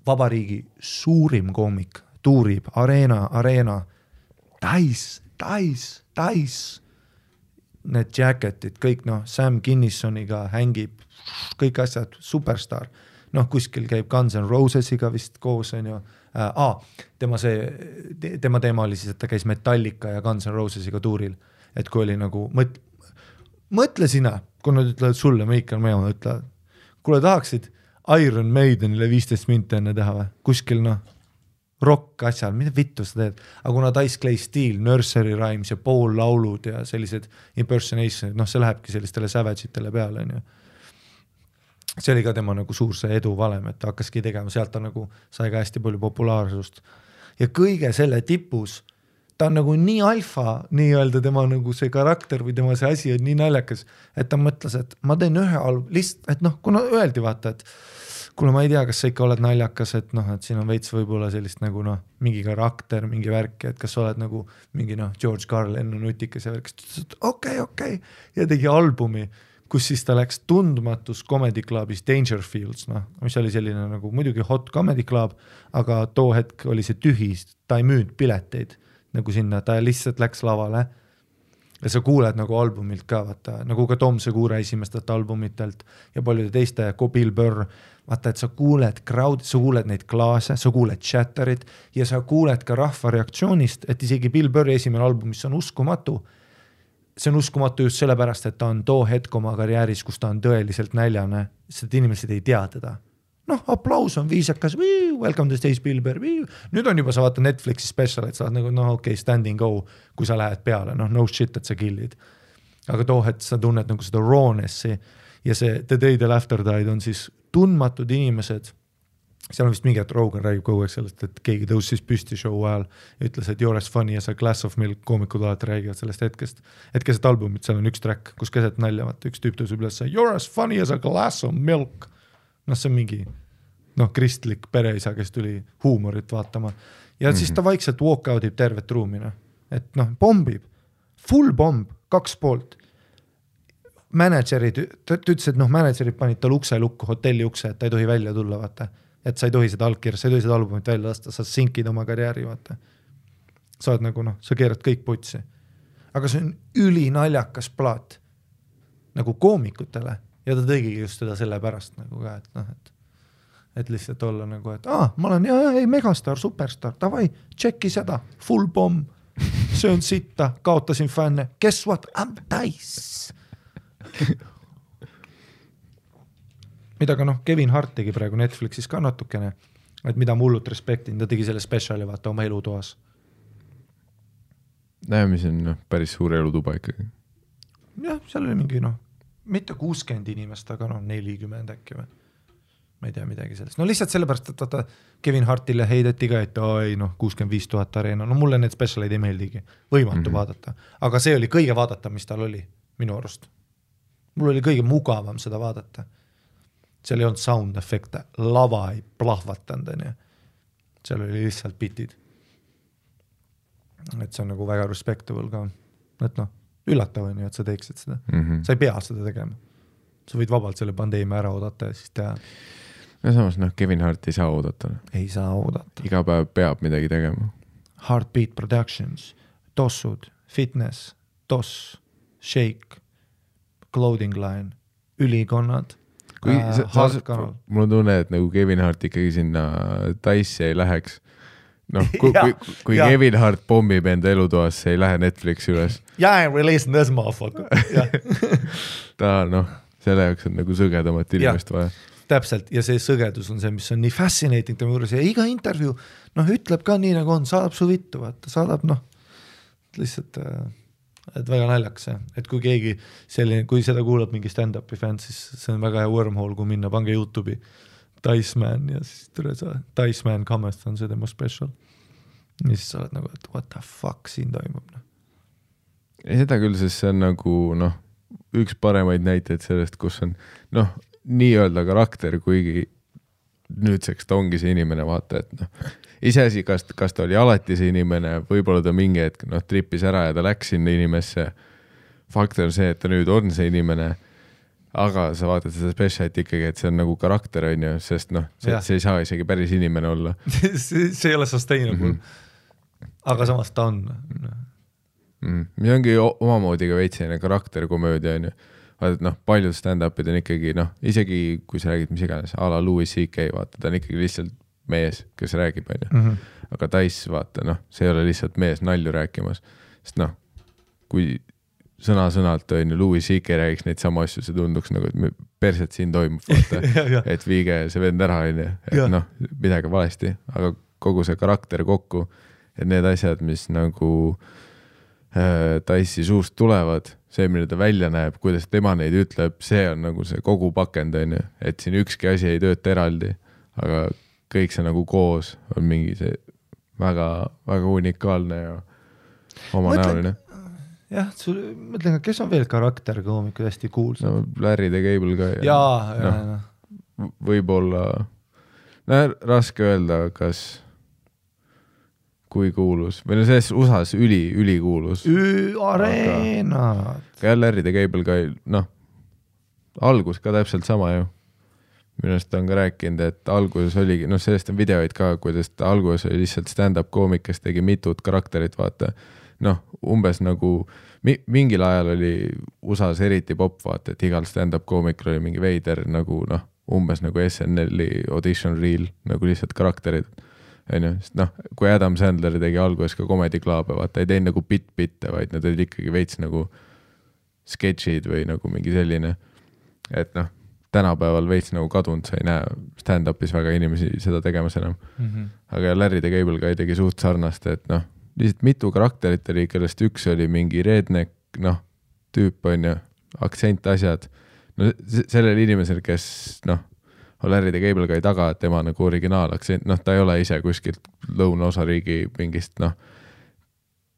vabariigi suurim koomik, tuurib, areena, Dice, need jacketid, kõik Sam Kinnissoniga hängib, kõik asjad, superstar. Kuskil käib Guns N' Rosesiga vist koos, on ju. Tema teema oli siis, et ta käis Metallica ja Guns N' Rosesiga tuuril. Et kui oli nagu, mõtle sina, kui nad ütlevad sulle, Michael Meemaa ütlevad, kuule tahaksid Iron Maidenile 15 minti enne teha või? Kuskil rock asjal, mida vittu sa teed? Aga kuna Dice Clay Steel, Nursery Rhymes ja Paul laulud ja sellised impersonationid, see lähebki sellistele savage'itele peale, on ju. See oli ka tema nagu suur see edu valem, et ta hakkaski tegema, sealt ta nagu sai ka hästi palju populaarsust. Ja kõige selle tipus, ta on nagu nii alfa, nii öelda tema nagu see karakter või tema see asi on nii naljakas, et ta mõtles, et ma teen ühe lihtsalt, et kuna öeldi vaata, et kuule ma ei tea, kas sa ikka oled naljakas, et et siin on veits võib-olla sellist nagu mingi karakter, mingi värk, et kas sa oled nagu mingi George Carlin nutikas ja värk, okei, ja tegi albumi, kus siis ta läks tundmatus comedy clubis Dangerfields, mis oli selline nagu muidugi hot comedy club, aga too hetk oli see tühi, ta ei müünud pileteid nagu sinna, ta lihtsalt läks lavale ja sa kuuled nagu albumilt ka, vaata, nagu ka Tom Segura esimestelt albumitelt ja paljude teiste, Bill Burr, vaata, et sa kuuled crowd, sa kuuled neid klaase, sa kuuled chatterit ja sa kuuled ka rahva reaktsioonist, et isegi Bill Burri esimene album, mis on uskumatu, see on uskumatu just sellepärast, et ta on too hetk oma karjääris, kus ta on tõeliselt näljane, sest inimesed ei tea teda. Aplaus on viisakas, welcome to stage Bill Burr, nüüd on juba sa vaata Netflixi special, et sa oled nagu, standing go, kui sa lähed peale, no shit, et sa killid. Aga too hetk sa tunned nagu seda rawnessi ja see The Day the Laughter Died on siis tundmatud inimesed, seal on vist mingi, et Rogan räägib kogu aeg sellest, et keegi tõusis püsti show ajal ja ütles, et you're as funny as a glass of milk, koomikud alati räägivad sellest hetkest, et keset albumit, seal on üks track, kus keset nalja, vaata, üks tüüp tõusib üles, you're as funny as a glass of milk. See on mingi, kristlik pereisa, kes tuli huumorit vaatama ja siis ta vaikselt walk out'ib tervet ruumina, et bombib, full bomb, 2 poolt. Managerid, ta ütles, et managerid panid tal ukse lukku, hotelli ukse, et ta ei tohi välja tulla, vaata. Et sa ei tohi seda allkirja, sa ei tohi seda albumit välja lasta, sa sinkid oma karjääri, vaata. Sa oled nagu, sa keerad kõik putsi. Aga see on ülinaljakas plaat. nagu koomikutele ja ta tegigi just seda selle pärast nagu ka, et noh, et lihtsalt olla nagu, et ma olen megastar, superstar, davai, tšeki seda, full bomb, söön sitta, kaotasin fänne, guess what, I'm dice. mida ka Kevin Hart tegi praegu Netflixis ka natukene, et mida ma hullult respektin, ta tegi selle speciali vaata oma elutoas. Mis on päris suur elutuba ikkagi. Jah, seal oli mingi mitte 60 inimest, aga 40 äkki või. Ma ei tea midagi sellest. Lihtsalt sellepärast, et vaata Kevin Hartile heideti ka, et 65 000 areena. Mulle need specialid ei meeldigi. Võimatu vaadata. Aga see oli kõige vaadata, mis tal oli minu arust. Mul oli kõige mugavam seda vaadata. Seal ei olnud sound efekte, lava ei plahvatanud. Seal oli lihtsalt bitid. Et see on nagu väga respectable ka. Et üllatav on ju, et sa teeksid seda. Sa ei pea seda tegema. Sa võid vabalt selle pandeemia ära oodata ja siis teha. Ja samas Kevin Hart ei saa oodata. Ei saa oodata. Iga päev peab midagi tegema. Heartbeat Productions, Tossud, Fitness, Toss, Shake, Clothing Line, ülikonnad, Hardkanal. Mul on tunne, et nagu Kevin Hart ikkagi sinna Dice'i ei läheks. Kui Kevin Hart pommib enda elutoas, see ei lähe Netflixi üles. I'm releasing this motherfucker. Ta selle jaoks on nagu sõgedamat inimest vaja. Täpselt, ja see sõgedus on see, mis on nii fascinating tema juures ja iga intervjuu ütleb ka nii nagu on, saadab su vittu, vaata, saadab lihtsalt, et väga naljakas see, et kui keegi selline, kui seda kuulab mingi stand-upi fänn, siis see on väga hea wormhole, kui minna, pange YouTube'i Diceman ja siis Diceman Cometh on see tema special ja siis sa oled nagu, et what the fuck siin toimub. Ei seda küll, sest see on nagu üks paremaid näiteid sellest, kus on nii-öelda karakter, kuigi nüüdseks ta ongi see inimene, vaata, et iseasi, kas ta oli alati see inimene, võib-olla ta mingi hetk trippis ära ja ta läks sinna inimesse. Fakt on see, et ta nüüd on see inimene, aga sa vaatad seda specialit ikkagi, et see on nagu karakter, on ju, sest see ei saa isegi päris inimene olla. see ei ole sustainable. Aga samas ta on. Mis ongi omamoodi ka veitsine karakterkomöödia, on ju. Vaata, paljud stand-upid on ikkagi, isegi kui sa räägid mis iganes, a la Louis C.K., vaata, ta on ikkagi lihtsalt mees, kes räägib, on ju. Aga Dice, vaata, see ei ole lihtsalt mees nalju rääkimas. Sest kui sõna-sõnalt on ju Louis C.K. räägiks neid sama asju, see tunduks nagu, et perset siin toimub, vaata, et viige see vend ära, on ju, et midagi valesti, aga kogu see karakter kokku, et need asjad, mis nagu Dice'i suust tulevad, see, mille ta välja näeb, kuidas tema neid ütleb, see on nagu see kogu pakend, on ju, et siin ükski asi ei tööta eraldi, aga kõik see nagu koos on mingi see väga, väga unikaalne ja omanäoline. Jah, mõtlen, kes on veel karakterkoomikud hästi kuulsad? Larry the Cable ka. Jaa. Võib-olla, raske öelda, kas kui kuulus, või selles USAs ülikuulus. Areenad. Ka Larry the Cable ka, algus ka täpselt sama ju. Minust on ka rääkinud, et alguses oligi, sellest on videoid ka, kuidas ta alguses oli lihtsalt stand-up koomik, kes tegi mitut karakterit, vaata. Umbes nagu, mingil ajal oli USAs eriti pop, vaata, et igal stand-up koomikul oli mingi veider, nagu umbes nagu SNL-i audition reel, nagu lihtsalt karakterid. Kui Adam Sandler tegi alguses ka Comedy Club, vaata, ei teinud nagu bitte, vaid nad olid ikkagi veits nagu sketšid või nagu mingi selline, et tänapäeval veits nagu kadunud, sa ei näe stand-upis väga inimesi seda tegemas enam. Aga Larry the Cable ka ei tegi suht sarnast, et lihtsalt mitu karakterit oli, kellest üks oli mingi redneck, tüüp on ju, aktsent asjad. Sellel inimesel, kes Larry the Cable ka ei taga, et tema nagu originaalaktsent, ta ei ole ise kuskilt lõunaosariigi mingist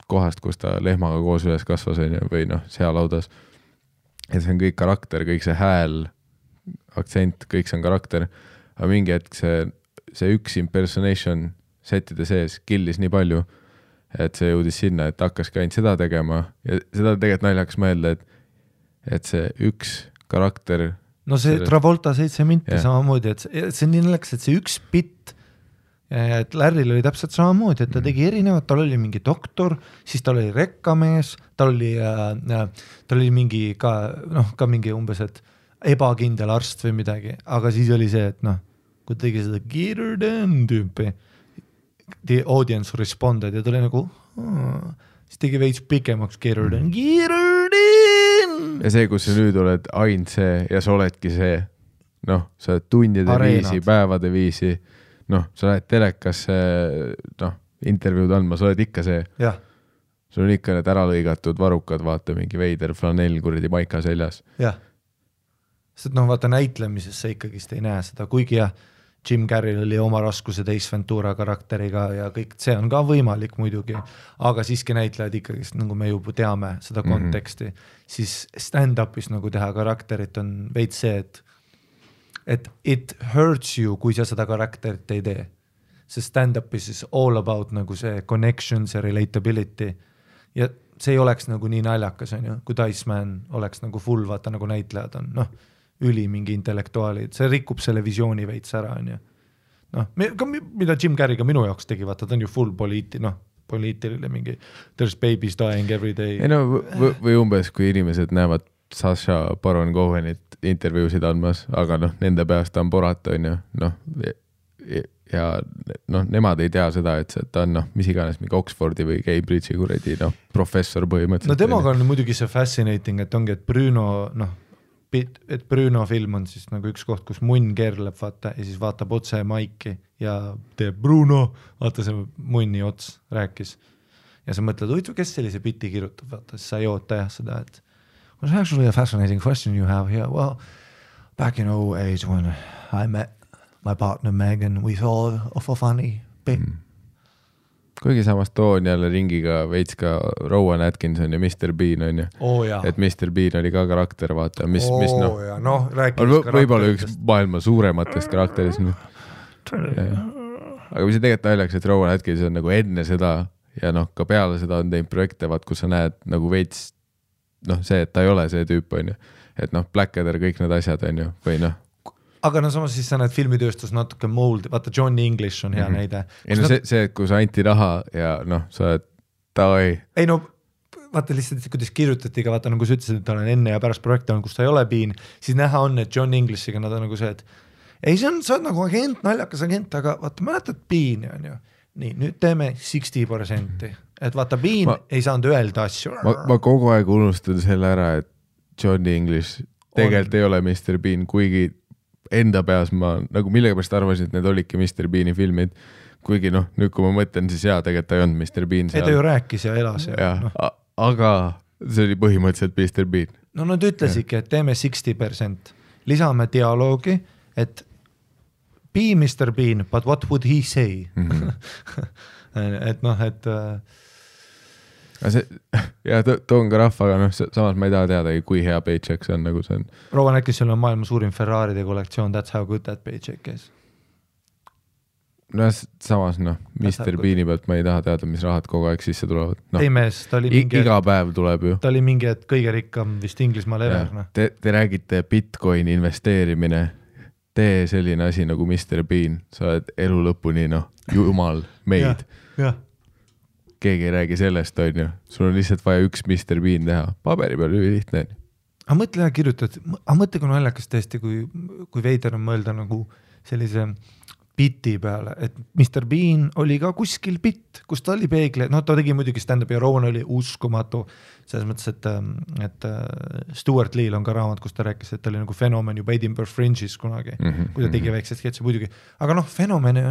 kohast, kus ta lehmaga koos üles kasvas või sealaudas. Et see on kõik karakter, kõik see hääl, aktsent, kõik see on karakter, aga mingi hetk see üks impersonation setide sees killis nii palju, et see jõudis sinna, et hakkaski ainult seda tegema ja seda tegelikult naljakas mõelda, et see üks karakter see Travolta 7 minti samamoodi, et see on nii naljakas, et see üks bitt et Larryl oli täpselt samamoodi, et ta tegi erinevad, tal oli mingi doktor, siis tal oli rekkamees, tal oli mingi ka mingi umbes, et ebakindel arst või midagi, aga siis oli see, et kui tegi seda Geerden tüüpi, the audience responded ja tuli nagu, siis tegi veits pikemaks Geerden. Ja see, kus sa nüüd oled ainult see ja sa oledki see, sa oled tundide Areenad. viisi, päevade viisi, sa lähed telekasse, intervjuud andma, sa oled ikka see. Jah. Sul on ikka need ära lõigatud varukad, vaata mingi veider flanell kuradi maika seljas. Jah. Sest vaata näitlemises sa ikkagist ei näe seda, kuigi Jim Carrey'l oli oma raskuse Ace Ventura karakteriga ja kõik, see on ka võimalik muidugi, aga siiski näitlejad ikkagist, nagu me juba teame seda konteksti, siis stand-upis nagu teha karakterit on veits see, et it hurts you, kui sa seda karakterit ei tee. See stand-upis is all about nagu see connections ja relatability ja see ei oleks nagu nii naljakas, on ju, kui Iceman oleks nagu full, vaata nagu näitlejad on, üli mingi intellektuaalid, see rikub selle visiooni veits ära, on ju. Mida Jim Carrey ka minu jaoks tegi, vaata, ta on ju full poliitiline mingi there's babies dying every day. Ei või umbes, kui inimesed näevad Sacha Baron Cohenit intervjuusid andmas, aga nende peast on porata, on ju, ja nemad ei tea seda, et ta on mis iganes mingi Oxfordi või Cambridge'i kuradi professor põhimõtteliselt. Temaga on muidugi see fascinating, et ongi, et Bruno film on siis nagu üks koht, kus munn keerleb, vaata, ja siis vaatab otse maiki ja teeb Bruno, vaata see munni ots rääkis. Ja sa mõtled, kes sellise biti kirjutab, vaata, siis sa ei oota seda, et was actually a fascinating question you have here. Well, back in 2008 when I met my partner Megan, we thought of a funny bit. Kuigi samast toon jälle ringiga veits ka Rowan Atkinson ja Mr. Bean on ju. Et Mr. Bean oli ka karakter, vaata, mis võib-olla üks maailma suurematest karakterist. Aga mis see tegelikult naljaks, et Rowan Atkinson nagu enne seda ja ka peale seda on teinud projekte, vaat, kus sa näed nagu veits see, et ta ei ole see tüüp on ju, et Blackadder, kõik need asjad on ju, või Aga samas siis sa näed filmitööstus natuke mold, vaata Johnny English on hea näide. Ei see, kus anti raha ja sa oled tavai. Ei vaata lihtsalt, kuidas kirjutati ka, vaata nagu sa ütlesid, et ta on enne ja pärast projekte on, kus ta ei ole Bean, siis näha on, et John Englishiga nad on nagu see, et ei, sa oled nagu agent, naljakas agent, aga vaata, mäletad Beani on ju. Nii, nüüd teeme 60%, et vaata Bean ei saanud öelda asju. Ma kogu aeg unustan selle ära, et Johnny English tegelikult ei ole Mr. Bean, kuigi enda peas ma nagu millegipärast arvasin, et need olidki Mr. Beani filmid, kuigi nüüd kui ma mõtlen, siis tegelikult ta ei olnud Mr. Bean seal. Ei ta ju rääkis ja elas. Aga see oli põhimõtteliselt Mr. Bean. Nad ütlesidki, et teeme 60%, lisame dialoogi, et be Mr. Bean, but what would he say? et ja toon ka rahvaga, samas ma ei taha teada, kui hea paycheck see on, nagu see on. Rowan Atkinson on maailma suurim Ferraride kollektsioon, that's how good that paycheck is. Samas Mr. Beani pealt ma ei taha teada, mis rahad kogu aeg sisse tulevad. Ei mees, ta oli mingi iga päev tuleb ju. Ta oli mingi, et kõige rikkam vist Inglismaal ever. Te räägite Bitcoini investeerimine, tee selline asi nagu Mr. Bean, sa oled elu lõpuni, jumal meid. Keegi ei räägi sellest, on ju. Sul on lihtsalt vaja üks Mr. Bean teha. Paberi peal lihtne. Aga mõtle ja kirjutad, mõtle kui naljakas tõesti, kui veider on mõelda nagu sellise biti peale, et Mr. Bean oli ka kuskil bitt, kus ta oli peegle, ta tegi muidugi stand-up ja Rowan oli uskumatu, selles mõttes, et Stuart Lee'l on ka raamat, kus ta rääkis, et ta oli nagu fenomen juba Edinburgh Fringe'is kunagi, kui ta tegi väiksed sketsi muidugi, aga fenomene,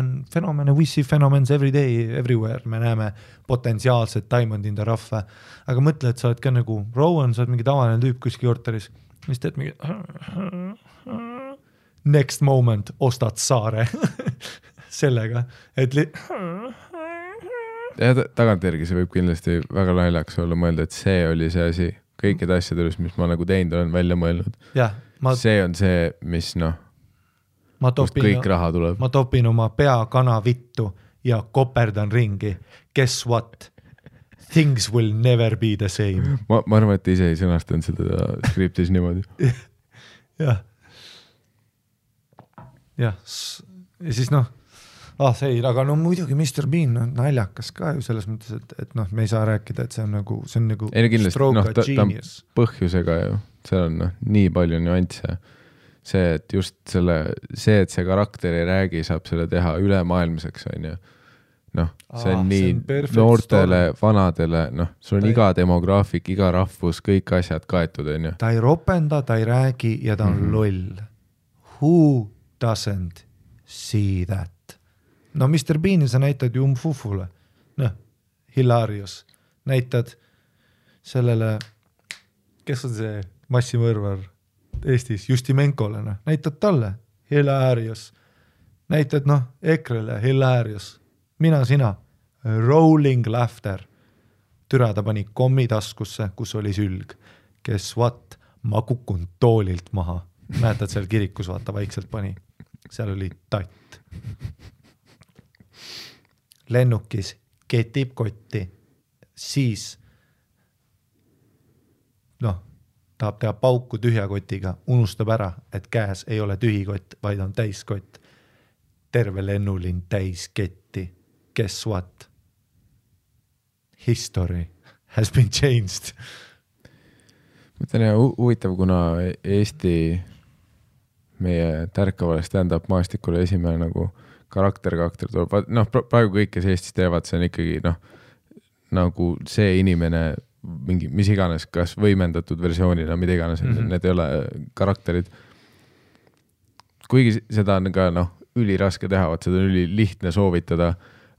we see phenomens every day, everywhere, me näeme potentsiaalset diamond in the rough, aga mõtle, et sa oled ka nagu Rowan, sa oled mingi tavaline tüüp kuskil korteris, mis teed mingi next moment ostad saare sellega, et ja tagantjärgi see võib kindlasti väga naljaks olla mõelda, et see oli see asi kõikide asjade, mis ma nagu teinud olen välja mõelnud. See on see, mis kust kõik raha tuleb. Ma topin oma pea kana vittu ja koperdan ringi. Guess what? Things will never be the same. Ma arvan, et ise ei sõnastanud seda skriptis niimoodi. jah. Ja siis see, aga no muidugi Mr. Bean on naljakas ka ju selles mõttes, et noh, me ei saa rääkida, et see on nagu stroke genius. Põhjusega ju, see on nii palju nüansse. See, et just see, et see karakter ei räägi, saab selle teha ülemaailmseks, on ju. Noh, see on nii noortele, vanadele, noh, sul on iga demograafik, iga rahvus, kõik asjad kaetud, on ju. Ta ei ropenda, ta ei räägi ja ta on loll. Who doesn't see that? No Mr. Beani sa näitad ju Fufule. Noh, hilarious. Näitad sellele, kes on see massimõrvar Eestis, Justimenkole, noh. Näitad talle, hilarious. Näitad, noh, Ekrele, hilarious. Mina, sina, rolling laughter. Türa ta pani kommi taskusse, kus oli sülg. Kes what? Ma kukun toolilt maha. Mäletad seal kirikus, vaata, vaikselt pani. Seal oli tatt. Lennukis ketib kotti, siis noh, tahab teha pauku tühja kotiga, unustab ära, et käes ei ole tühi kott, vaid on täiskott. Terve lennulinn täis ketti. Guess what? History has been changed. Mõtlen, huvitav, kuna Eesti meie tärkavale stand-up maastikule esimene nagu karakter tuleb, noh, praegu kõik, kes Eestis teevad, see on ikkagi, noh, nagu see inimene, mingi, mis iganes, kas võimendatud versioonina, mida iganes, need ei ole karakterid. Kuigi seda on ka, noh, üliraske teha, seda on ülilihtne soovitada,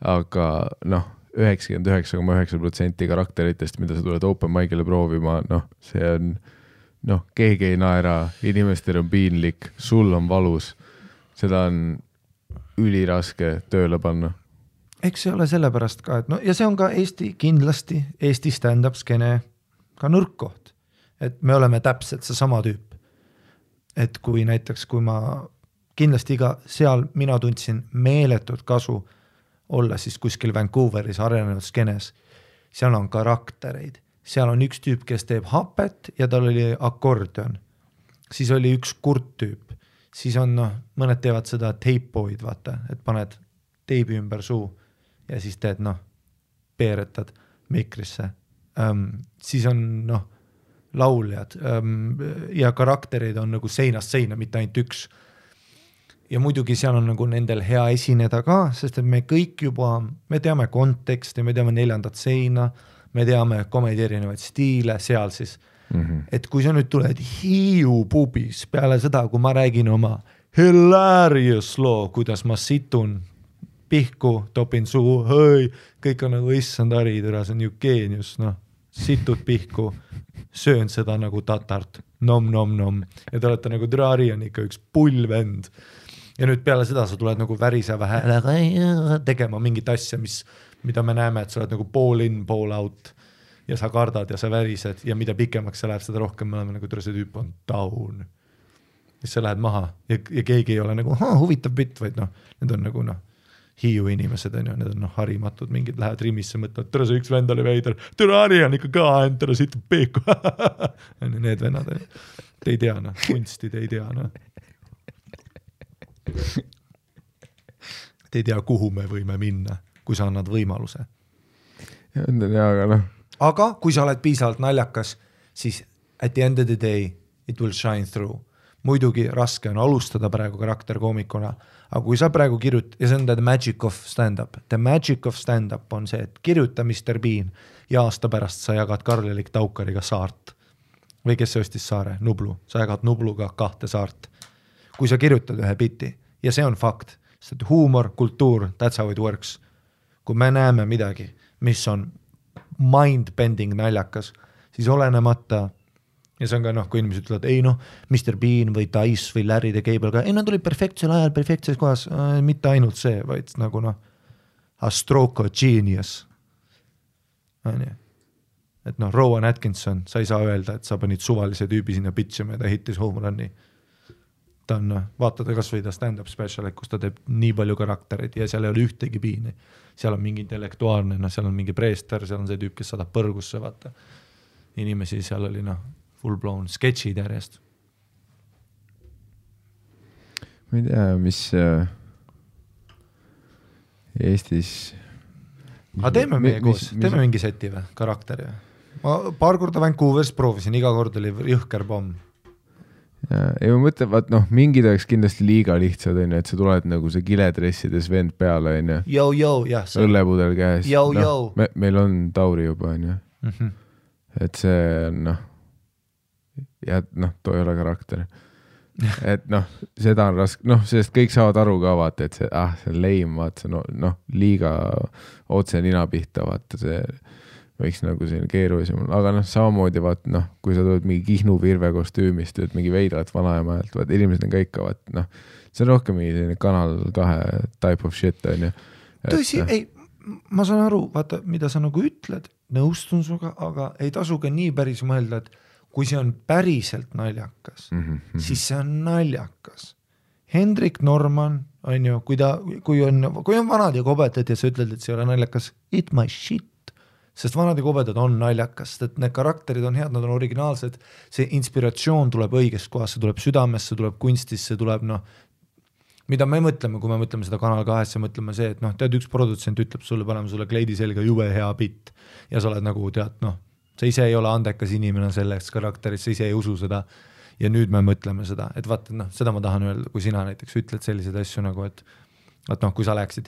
aga, noh, 99,9% karakteritest, mida sa tuled open mic'ile proovima, noh, see on, noh, keegi ei naera, inimestel on piinlik, sul on valus, seda on üliraske tööle panna. Eks see ole sellepärast ka, et no, ja see on ka Eesti kindlasti, Eesti stand-up skene ka nõrkkoht, et me oleme täpselt see sama tüüp. Et kui näiteks, kui ma kindlasti seal mina tundsin meeletut kasu olla siis kuskil Vancouveris arenenud skenes, seal on karaktereid, seal on üks tüüp, kes teeb hapet ja tal oli akordion, siis oli üks kurt tüüp, siis on, noh, mõned teevad seda tape'oid, vaata, et paned teibi ümber suu ja siis teed, noh, peeretad mikrisse. Siis on, noh, lauljad ja karakterid on nagu seinast seina, mitte ainult üks. Ja muidugi seal on nagu nendel hea esineda ka, sest et me kõik juba, me teame konteksti, me teame 4. seina, me teame komedi erinevaid stiile seal siis. Et kui sa nüüd tuled Hiiu pubis peale seda, kui ma räägin oma hilarious loo, kuidas ma situn pihku, topin suu, hõi, kõik on nagu issand haridura, see on ju geenius, noh, situd pihku, söön seda nagu tatart, nom. Ja te olete nagu Drari on ikka üks pullvend. Ja nüüd peale seda sa tuled nagu väriseva häälega tegema mingit asja, mida me näeme, et sa oled nagu pool in, pool out ja sa kardad ja sa värised ja mida pikemaks sa läheb, seda rohkem me oleme nagu see tüüp on down. Ja sa lähed maha ja keegi ei ole nagu huvitav bitt, vaid noh, need on nagu noh, Hiiu inimesed on ju, need on noh, harimatud, mingid lähevad rimisse, mõtlevad, tere see üks vend oli veider, tere Ari on ikka ka, tere siit peeku. Need vennad on ju, te ei tea noh, kunsti te ei tea noh. Te ei tea, kuhu me võime minna, kui sa annad võimaluse. Aga kui sa oled piisavalt naljakas, siis at the end of the day it will shine through. Muidugi raske on alustada praegu karakterkoomikuna, aga kui sa praegu ja see on the magic of stand-up. The magic of stand-up on see, et kirjuta Mr. Bean ja aasta pärast sa jagad Karl-Erik Taukariga saart. Või kes see ostis saare? Nublu. Sa jagad Nubluga 2 saart. Kui sa kirjutad ühe biti, ja see on fakt, sest huumor, kultuur, that's how it works. Kui me näeme midagi, mis on mind-bending naljakas, siis olenemata, ja see on ka noh, kui inimesed ütlevad, ei noh, Mr. Bean või Dice või Larry the Cable, ei nad olid perfektsel ajal, perfektses kohas, mitte ainult see, vaid nagu noh, a stroke of genius. Et noh, Rowan Atkinson, sa ei saa öelda, et sa panid suvalise tüübi sinna pitchima ja ta hittis home run'i. Ta on, vaatada kas või ta stand-up special, kus ta teeb nii palju karakterid ja seal ei ole ühtegi piini. Seal on mingi intellektuaalne, seal on mingi preester, seal on see tüüp, kes saadab põrgusse, vaata. Inimesi seal oli full blown sketchid järjest. Ma ei tea, mis Eestis. Aga teeme meie koos, teeme mingi seti või, karakteri. Ma paar korda Vancouveris proovisin, iga kord oli jõhker pomm. Ja ma mõtlen, vaat mingid oleks kindlasti liiga lihtsad, on ju, et sa tuled nagu see kiledressides vend peale, on ju. Jah. Õllepudel käes. Meil on Tauri juba, on ju. Et see on, ja too ei ole karakter. Et seda on raske, sest kõik saavad aru ka, vaata, et see on leim, vaata, see liiga otse nina pihta, vaata, see võiks nagu selline keerulisem, aga samamoodi vaat, kui sa tuled mingi Kihnu Virve kostüümist, tööd mingi veidrat vanaemajalt, vaat inimesed on ka ikka, vaat, see on rohkem mingi selline Kanal 2 type of shit, on ju. Tõsi, ei, ma saan aru, vaata, mida sa nagu ütled, nõustun suga, aga ei tasu ka nii päris mõelda, et kui see on päriselt naljakas, siis see on naljakas. Hendrik Norman, on ju, kui on vanad ja kobedad ja sa ütled, et see ei ole naljakas, eat my shit. Sest vanad ja kobedad on naljakas, et need karakterid on head, nad on originaalsed, see inspiratsioon tuleb õigest kohast, see tuleb südamesse, tuleb kunstisse, tuleb mida me mõtleme, kui me mõtleme seda Kanal 2, mõtleme see, et tead, üks produtsent ütleb sulle, paneme sulle kleidi selga jube hea bitt ja sa oled nagu tead, sa ise ei ole andekas inimene selleks karakteris, sa ise ei usu seda ja nüüd me mõtleme seda, et vaata, seda ma tahan öelda, kui sina näiteks ütled selliseid asju nagu, et kui sa läheksid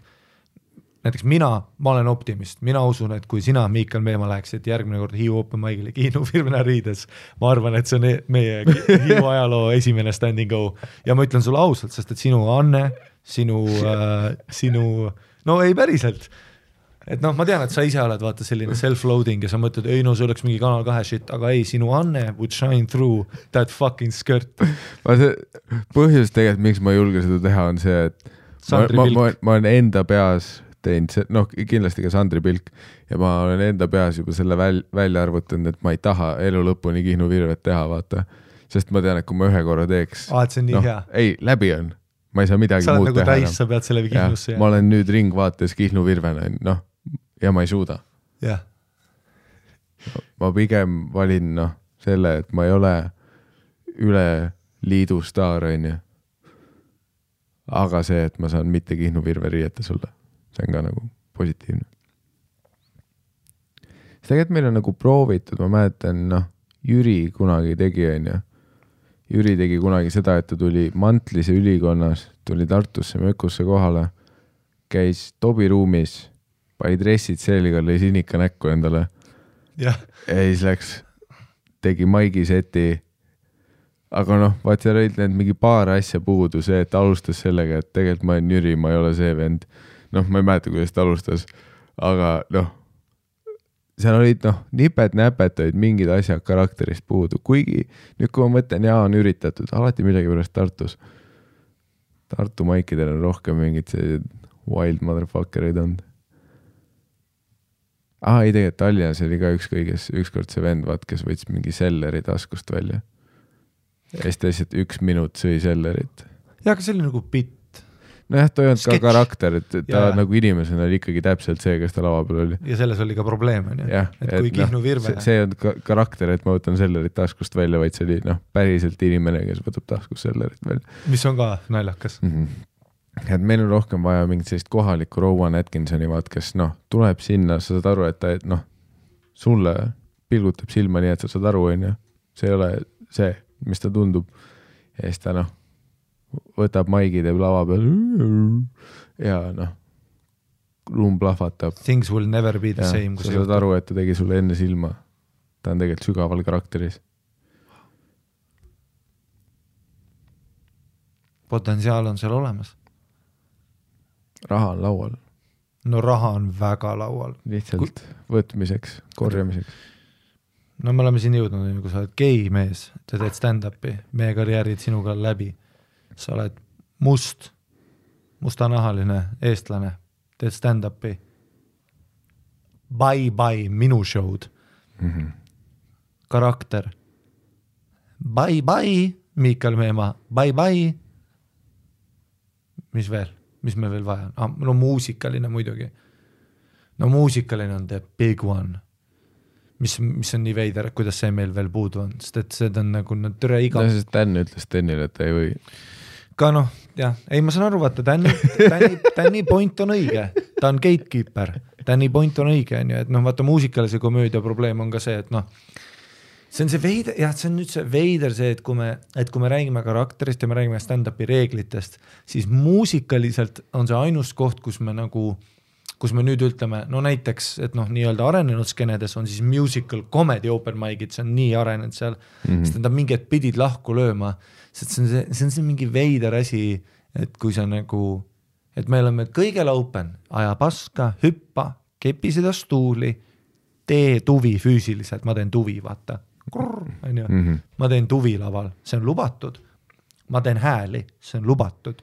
näiteks ma olen optimist, mina usun, et kui sina, Miikal Meemaa, läheksid järgmine kord Hiiu Open Mic'ile Kihnu Virvena riides, ma arvan, et see on meie Hiiu ajaloo esimene stand and go ja ma ütlen sulle ausalt, sest et sinu Anne, sinu ei päriselt, et ma tean, et sa ise oled vaata selline self-loading ja sa mõtled, ei see oleks mingi Kanal 2 shit, aga ei, sinu Anne would shine through that fucking skirt. Põhjus tegelikult, miks ma ei julge seda teha, on see, et ma olen enda peas teinud, kindlasti ka Sandri Pilk ja ma olen enda peas juba selle välja arvutanud, et ma ei taha elu lõpuni Kihnu Virvet teha, vaata, sest ma tean, et kui ma ühe korra teeks, et see on nii hea. Ei, läbi on, ma ei saa midagi muud teha. Sa oled nagu täis, sa pead selle Kihnusse. Ma olen nüüd ringvaates Kihnu Virvena, ja ma ei suuda. Yeah. Ma pigem valin selle, et ma ei ole üle liidu staar, on ju. Aga see, et ma saan mitte Kihnu Virve riieta sulle. See on ka nagu positiivne. Tegelikult meil on nagu proovitud, ma mäletan, Jüri kunagi tegi, on ju. Jüri tegi kunagi seda, et ta tuli Mantlise ülikonnas, tuli Tartusse mökusse kohale, käis Tobi ruumis, pani dressid selga, lõi sinika näkku endale. Ja siis läks, tegi maigi seti. Aga vaat seal olid need mingi paar asja puudu, see, et alustas sellega, et tegelikult ma olen Jüri, ma ei ole see vend. Ma ei mäleta, kuidas ta alustas, aga seal olid nipet-näpet olid mingid asjad karakterist puudu, kuigi nüüd kui ma mõtlen, on üritatud, alati midagi pärast Tartus. Tartu maikidel on rohkem mingid sellised wild motherfuckerid olnud. Ei tegelikult Tallinnas oli ka ükskord see vend, vaat, kes võttis mingi selleri taskust välja. Ja siis ta lihtsalt 1 minut sõi sellerit. Ja, aga see oli nagu bitt. Ta ei olnud ka karakter, et ta nagu inimesena oli ikkagi täpselt see, kes ta lava peal oli. Ja selles oli ka probleem, on ju. Et kui Kihnu Virve. See on karakter, et ma võtan sellerit taskust välja, vaid see oli päriselt inimene, kes võtab taskust sellerit välja. Mis on ka naljakas. Et meil on rohkem vaja mingit sellist kohalikku Rowan Atkinsoni vaat, kes tuleb sinna, sa saad aru, et ta sulle pilgutab silma nii, et sa saad aru, on ju. See ei ole see, mis ta tundub. Ja siis ta võtab maigi, teeb lava peal ja ruum plahvatab. Things will never be the same. Sa saad aru, et ta tegi sulle enne silma. Ta on tegelikult sügaval karakteris. Potentsiaal on seal olemas. Raha on laual. Raha on väga laual. Lihtsalt võtmiseks, korjamiseks. Me oleme siin jõudnud, kui sa oled gei mees, sa teed stand-upi, meie karjäärid sinuga läbi. Sa oled mustanahaline eestlane, teed stand-upi. Bye, minu show'd. Karakter. Bye, Miikal Meemaa. Bye. Mis veel? Mis me veel vaja on? Muusikaline muidugi. Muusikaline on the big one. Mis on nii veider, kuidas see meil veel puudu on, sest et see on nagu türe iga. Sest Dan ütles Danile, et ta ei või. Ka jah, ei ma saan aru, vaata, Danni point on õige. ta on gatekeeper, Danny Point on õige, on ju, et noh, vaata muusikalise komöödia probleem on ka see, et noh, see on see veider, jah, see on nüüd see veider see, et kui me räägime karakterist ja me räägime stand-upi reeglitest, siis muusikaliselt on see ainus koht, kus me nüüd ütleme, no näiteks, et noh, nii-öelda arenenud skenedes on siis musical comedy open mic'id, see on nii arenenud seal, sest nad mingid pidid lahku lööma, sest see on see mingi veider asi, et kui sa nagu, et me oleme kõigel open, aja paska, hüppa, kepi seda stuuli, tee tuvi füüsiliselt, ma teen tuvi, vaata, ma teen tuvi laval, see on lubatud, ma teen hääli, see on lubatud,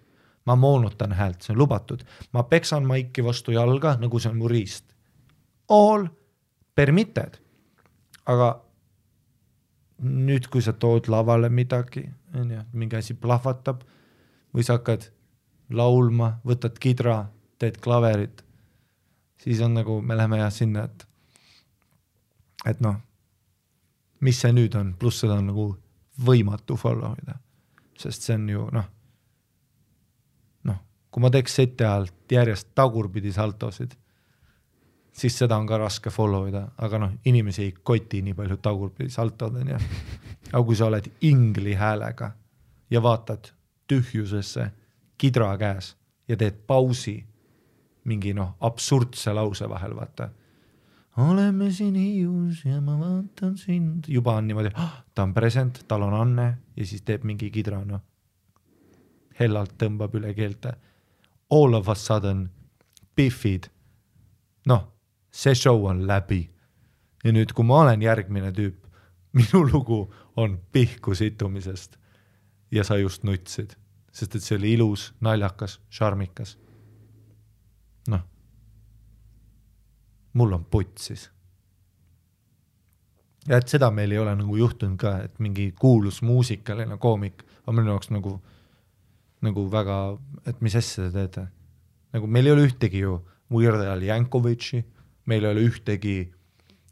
ma moonutan häält, see on lubatud, ma peksan maiki vastu jalga, nagu see on mu riist. All permitted. Aga nüüd, kui sa tood lavale midagi, mingi asi plahvatab, või sa hakkad laulma, võtad kidra, teed klaverit, siis on nagu, me läheme jah sinna, et noh, mis see nüüd on, pluss seda on nagu võimatu follow ida, sest see on ju noh, kui ma teeks seti ajalt järjest tagurpidi saltosid, siis seda on ka raske follow ida, aga noh, inimesi ei koti nii palju tagurpidi saltod, ja. Aga kui sa oled ingli häälega ja vaatad tühjusesse kidra käes ja teed pausi mingi noh, absurdse lause vahel, vaata. Oleme siin Hiius ja ma vaatan sind. Juba on niimoodi, ta on present, tal on Anne ja siis teeb mingi kidra, noh. Hellalt tõmbab üle keelte. All of a sudden Biffid, noh, see show on läbi. Ja nüüd, kui ma olen järgmine tüüp, minu lugu on pihku situmisest ja sa just nutsid, sest et see oli ilus, naljakas, šarmikas. Noh, mul on putsis. Ja et seda meil ei ole nagu juhtunud ka, et mingi kuulus muusikaline koomik on minu jaoks nagu väga, et mis asja te teete. Nagu meil ei ole ühtegi ju Weird Al Yankovitši, meil ei ole ühtegi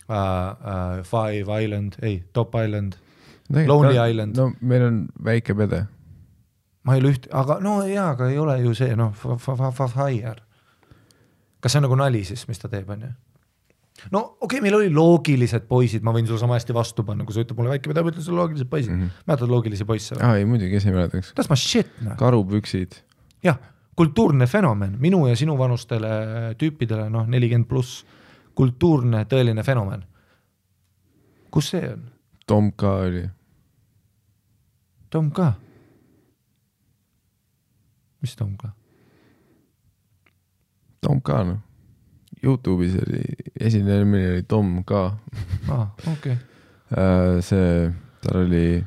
Five Island, Top Island, Lonely Island. No meil on väike pede. Ma ei ole aga no jaa, aga ei ole ju see, noh, Fire. Kas see on nagu nali siis, mis ta teeb, on ju? No okei, meil oli loogilised poisid, ma võin sulle sama hästi vastu panna, kui sa ütleb mulle väike, mida ma ütlen sulle loogilised poisid. Mäletad loogilisi poisse? Ei, muidugi, kes ei mäletaks. Tas ma shit, noh. Karupüksid. Jah, kultuurne fenomen, minu ja sinu vanustele tüüpidele, noh, 40+, kultuurne, tõeline fenomen. Kus see on? Tom K oli. Tom K? Mis Tom K? Tom K, noh. YouTube'is oli, esinemine oli Tom K. Okay. See, tal oli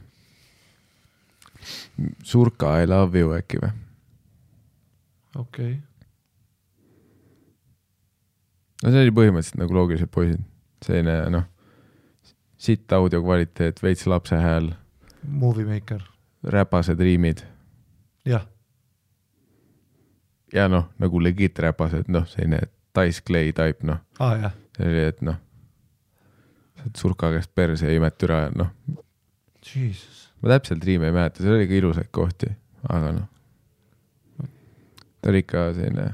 Surka I love you äkki või? Okay. No see oli põhimõtteliselt nagu loogilised poisid. Selline, noh, sitt audio kvaliteet, veits lapse hääl. Movie maker. Räpased riimid. Jah. Ja noh, nagu legit räpased, noh, selline Dice Clay type, noh. Jah. See oli, et noh, Surka käest perse ja imet üra, noh. Jesus. Ma täpselt riime ei mäleta, see oli ka ilusaid kohti, aga noh. Ta oli ikka selline.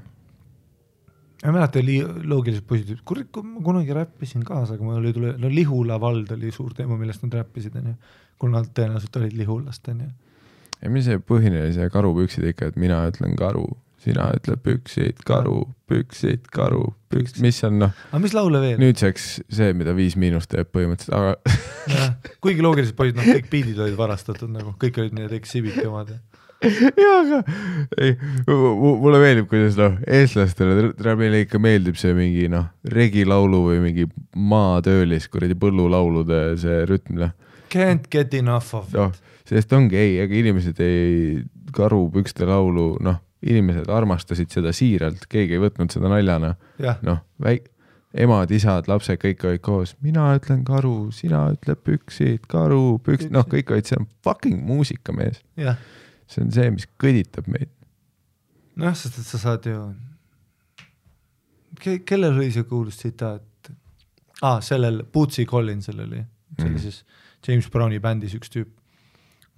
Ma mäleta oli loogilised poisid, ma kunagi räppisin kaasa, aga mul oli tule, no Lihula vald oli suur teema, millest nad räppisid, on ju. Kuna nad tõenäoliselt olid Lihulast, on ju. Ja mis see põhine oli see karupüksid ikka, et mina ütlen karu, sina ütleb püksid, karu, mis on noh. Aga mis laule veel? Nüüdseks see, mida 5- teeb põhimõtteliselt, aga... Ja, kuigi loogilised poisid, noh, kõik biidid olid varastatud, nagu kõik olid need exhibiti omad. Jaa, aga ei, mulle meeldib, kuidas noh, eestlastele meile ikka meeldib see mingi noh, regilaulu või mingi maatöölis, kuradi põllulaulude see rütm, noh. Can't get enough of it. No, sest ongi ei, aga inimesed ei karupükste laulu, noh, inimesed armastasid seda siiralt, keegi ei võtnud seda naljana. Noh, emad, isad, lapsed, kõik olid koos. Mina ütlen karu, sina ütleb püksid, karu, püksid, noh, kõik olid, see on fucking muusika, mees. Jah. See on see, mis kõditab meid. Noh, sest et sa saad ju... Kellel oli see kuulus tsitaat? Sellel Bootsy Collinsel oli. See oli siis James Browni bändis üks tüüp.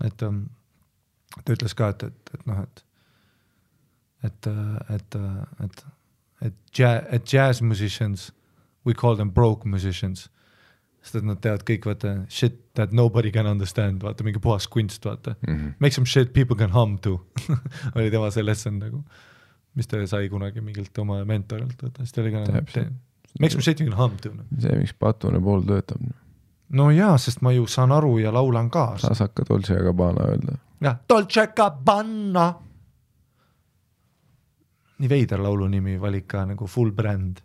Et ta ütles ka, et noh, et et jazz musicians, we call them broke musicians, sest et nad teavad kõik, vaata, shit that nobody can understand, vaata, mingi puhas kunst, vaata. Make some shit people can hum to. oli tema see lesson nagu, mis ta sai kunagi mingilt oma mentorilt, vaata, siis ta oli ka nagu, make some shit you can hum to. See, miks Patune pool töötab. No jaa, sest ma ju saan aru ja laulan ka. Saas hakka Dolce Gabbana öelda. Jah, Dolce Gabbana. Nii veider laulu nimi valik ka nagu full brand.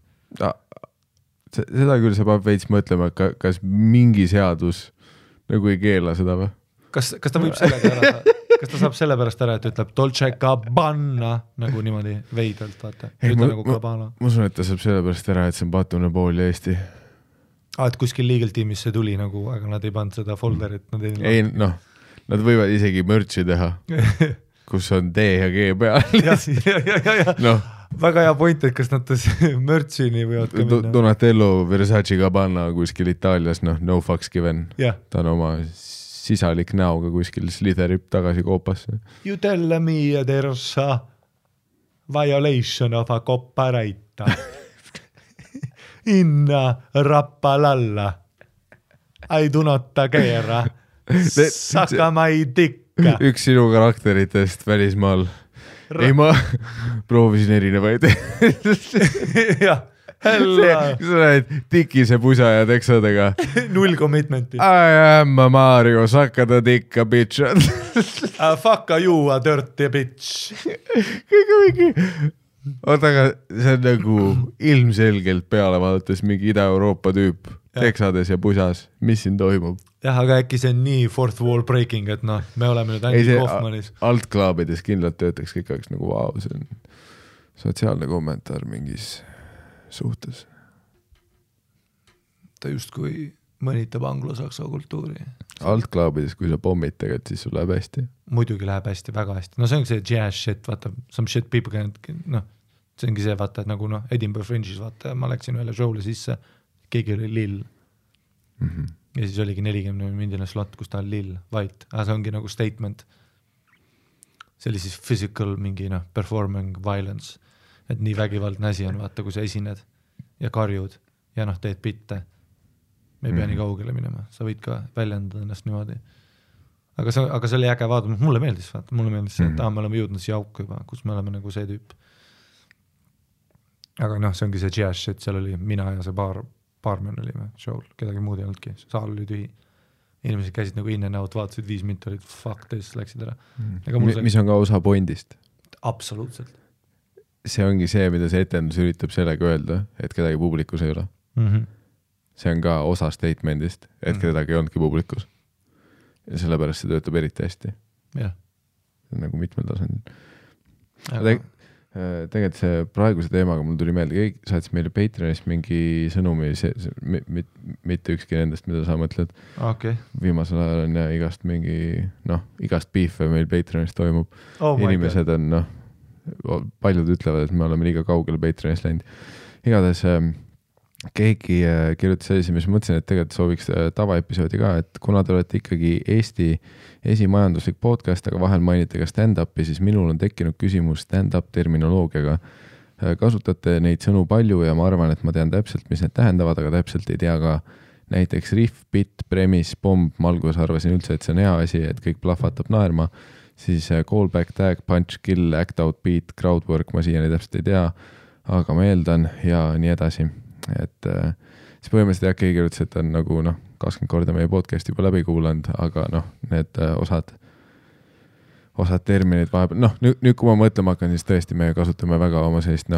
Seda küll sa peab veits mõtlema, kas mingi seadus nagu ei keela seda või? Kas ta võib sellega ära, kas ta saab selle pärast ära, et ütleb Dolce Gabbana nagu niimoodi veidelt, vaata. Nagu Gabbana. Ma usun, et ta saab selle pärast ära, et see on Patune pool ja Eesti. Et kuskil legal tiimis see tuli nagu, aga nad ei pannud seda folderit. Ei, noh, nad võivad isegi mürtsi teha, kus on D ja G peal. No. Väga hea point, et kas nad mürtsini võivad ka minna. Donatello Versace Gabbana kuskil Itaalias, no fucks given. Ta on oma sisalik näoga kuskil sliderib tagasi koopasse. You tell me there's a violation of a copyright in Rappalalla. I do not care. Saka my dick. Üks sinu karakteritest välismaal. Ei, ma proovisin erinevaid. Jah, hella. Sa näed tikise pusa ja teksadega. Null commitmenti. I am a Mario, saka ta tikka, bitch. Fuck you, a dirty bitch. Kõige mingi. Oota, aga see on nagu ilmselgelt peale vaadates mingi Ida-Euroopa tüüp. Teksades ja pusas. Mis siin toimub? Jah, aga äkki see on nii fourth wall breaking, et noh, me oleme nüüd Andy Kaufmanis. Altklaabides kindlalt töötaks kõik aeg nagu vau, see on sotsiaalne kommentaar mingis suhtes. Ta justkui mõnitab anglo-saksa kultuuri. Altklaabides, kui sa pommid tegelikult, siis sul läheb hästi. Muidugi läheb hästi, väga hästi. No see ongi see jazz shit, vaata, some shit people can, noh, see ongi see, vaata, et nagu noh, Edinburgh Fringe'is, vaata, ma läksin ühele show'le sisse, keegi oli lill. Ja siis oligi 40 mindine slot, kus ta on lill, white, aga see ongi nagu statement. See oli siis physical mingi performing violence, et nii vägivaldne asi on, vaata, kui sa esined ja karjud ja teed bitte. Me ei pea nii kaugele minema, sa võid ka väljendada ennast niimoodi. Aga see oli äge vaadata, mulle meeldis see, et me oleme jõudnud siia auku juba, kus me oleme nagu see tüüp. Aga see ongi see jazz shit, seal oli mina ja see paarmen olime show'l, kedagi muud ei olnudki, saal oli tühi. Inimesed käisid nagu in and out, vaatasid 5 minti, olid fuck this, läksid ära. Mis on ka osa pointist? Absoluutselt. See ongi see, mida see etendus üritab sellega öelda, et kedagi publikus ei ole. See on ka osa statementist, et kedagi ei olnudki publikus. Ja sellepärast see töötab eriti hästi. Jah. Nagu mitmel tasandil. Tegelikult see praeguse teemaga mul tuli meelde, keegi saatis meile Patreonist mingi sõnumi, mitte ükski nendest, mida sa mõtled. Okay. Viimasel ajal on igast mingi, igast beefe meil Patreonist toimub. Inimesed on, paljud ütlevad, et me oleme liiga kaugele Patreonist läinud. Igatahes keegi kirjutas sellise, mis mõtlesin, et tegelikult sooviks tavaepisoodi ka, et kuna te olete ikkagi Eesti esimajanduslik podcast, aga vahel mainite ka stand-upi, siis minul on tekkinud küsimus stand-up terminoloogiaga. Kasutate neid sõnu palju ja ma arvan, et ma tean täpselt, mis need tähendavad, aga täpselt ei tea ka näiteks riff, bit, premis, bomb, ma alguses arvasin üldse, et see on hea asi, et kõik plahvatab naerma, siis callback, tag, punch, kill, act out, beat, crowdwork, ma siiani täpselt ei tea, aga ma eeldan ja nii edasi. Et siis põhimõtteliselt jah, keegi kirjutas, et on nagu 20 korda meie podcast juba läbi kuulanud, aga need osad terminid vahepeal, nüüd kui ma mõtlema hakkan, siis tõesti me kasutame väga oma sellist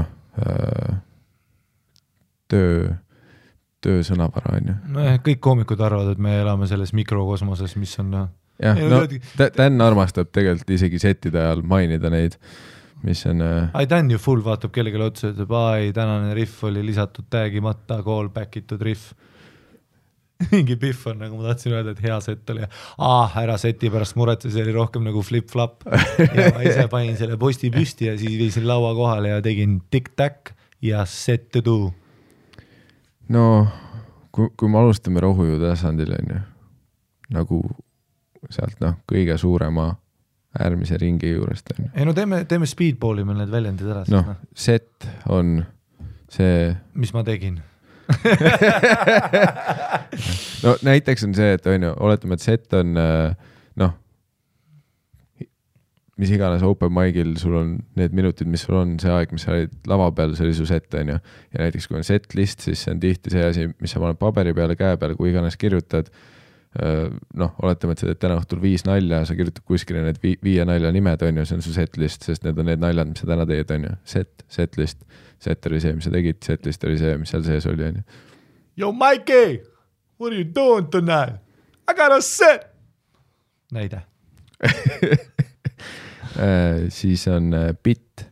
töö sõnavara, on ju. Kõik koomikud arvavad, et me elame selles mikrokosmoses, mis on Dan armastab tegelikult isegi settide ajal mainida neid, mis on Dan ju full vaatab kellegile otsa, ütleb, tänane riff oli lisatud tagimata, callback itud riff. Mingi piff on, nagu ma tahtsin öelda, et hea set oli. Ära seti pärast muretse, see oli rohkem nagu flip-flop. Ja ma ise panin selle posti püsti ja siis viisin laua kohale ja tegin tic-tac ja set to do. No, kui me alustame rohuju tasandil, on ju, nagu sealt kõige suurema äärmise ringi juurest. Ei teeme speedballi meil need väljendid ära. Set on see mis ma tegin? no näiteks on see, et on ju, oletame, et set on noh, mis iganes open mic'il sul on need minutid, mis sul on, see aeg, mis sa olid lava peal, see oli su set, on ju. Ja näiteks kui on set list, siis see on tihti see asi, mis sa paned paberi peale, käe peale, kui iganes kirjutad, noh, oletame, et sa teed täna õhtul 5 nalja, sa kirjutad kuskile need 5 nalja nimed, on ju, see on su set list, sest need on need naljad, mis sa täna teed, on ju. Set list, set oli see, mis sa tegid, set list oli see, mis seal sees oli, on ju. Yo, Mikey, what are you doing tonight? I got a set! Näide. Siis on bit.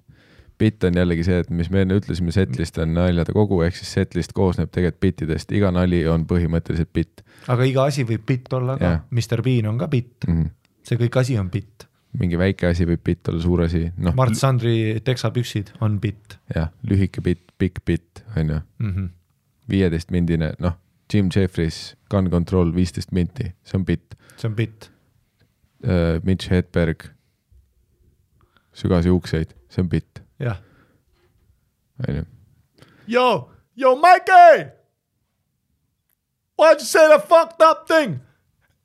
Bit on jällegi see, et mis me enne ütlesime, setlist on naljade kogu, ehk siis setlist koosneb tegelikult bitidest. Iga nali on põhimõtteliselt bit. Aga iga asi võib bit olla ka. Mr. Bean on ka bit. See kõik asi on bit. Mingi väike asi võib bit olla, suur asi. No, Mart Sandri teksapüksid on bit. Jah, lühike bit, pikk bit, on ju. 15 mindine, noh, Jim Jeffries, Gun Control, 15 minti, see on bit. See on bit. Mitch Hedberg, sügas juukseid, see on bit. Jah. Yo, Mikey! Why'd you say the fucked up thing?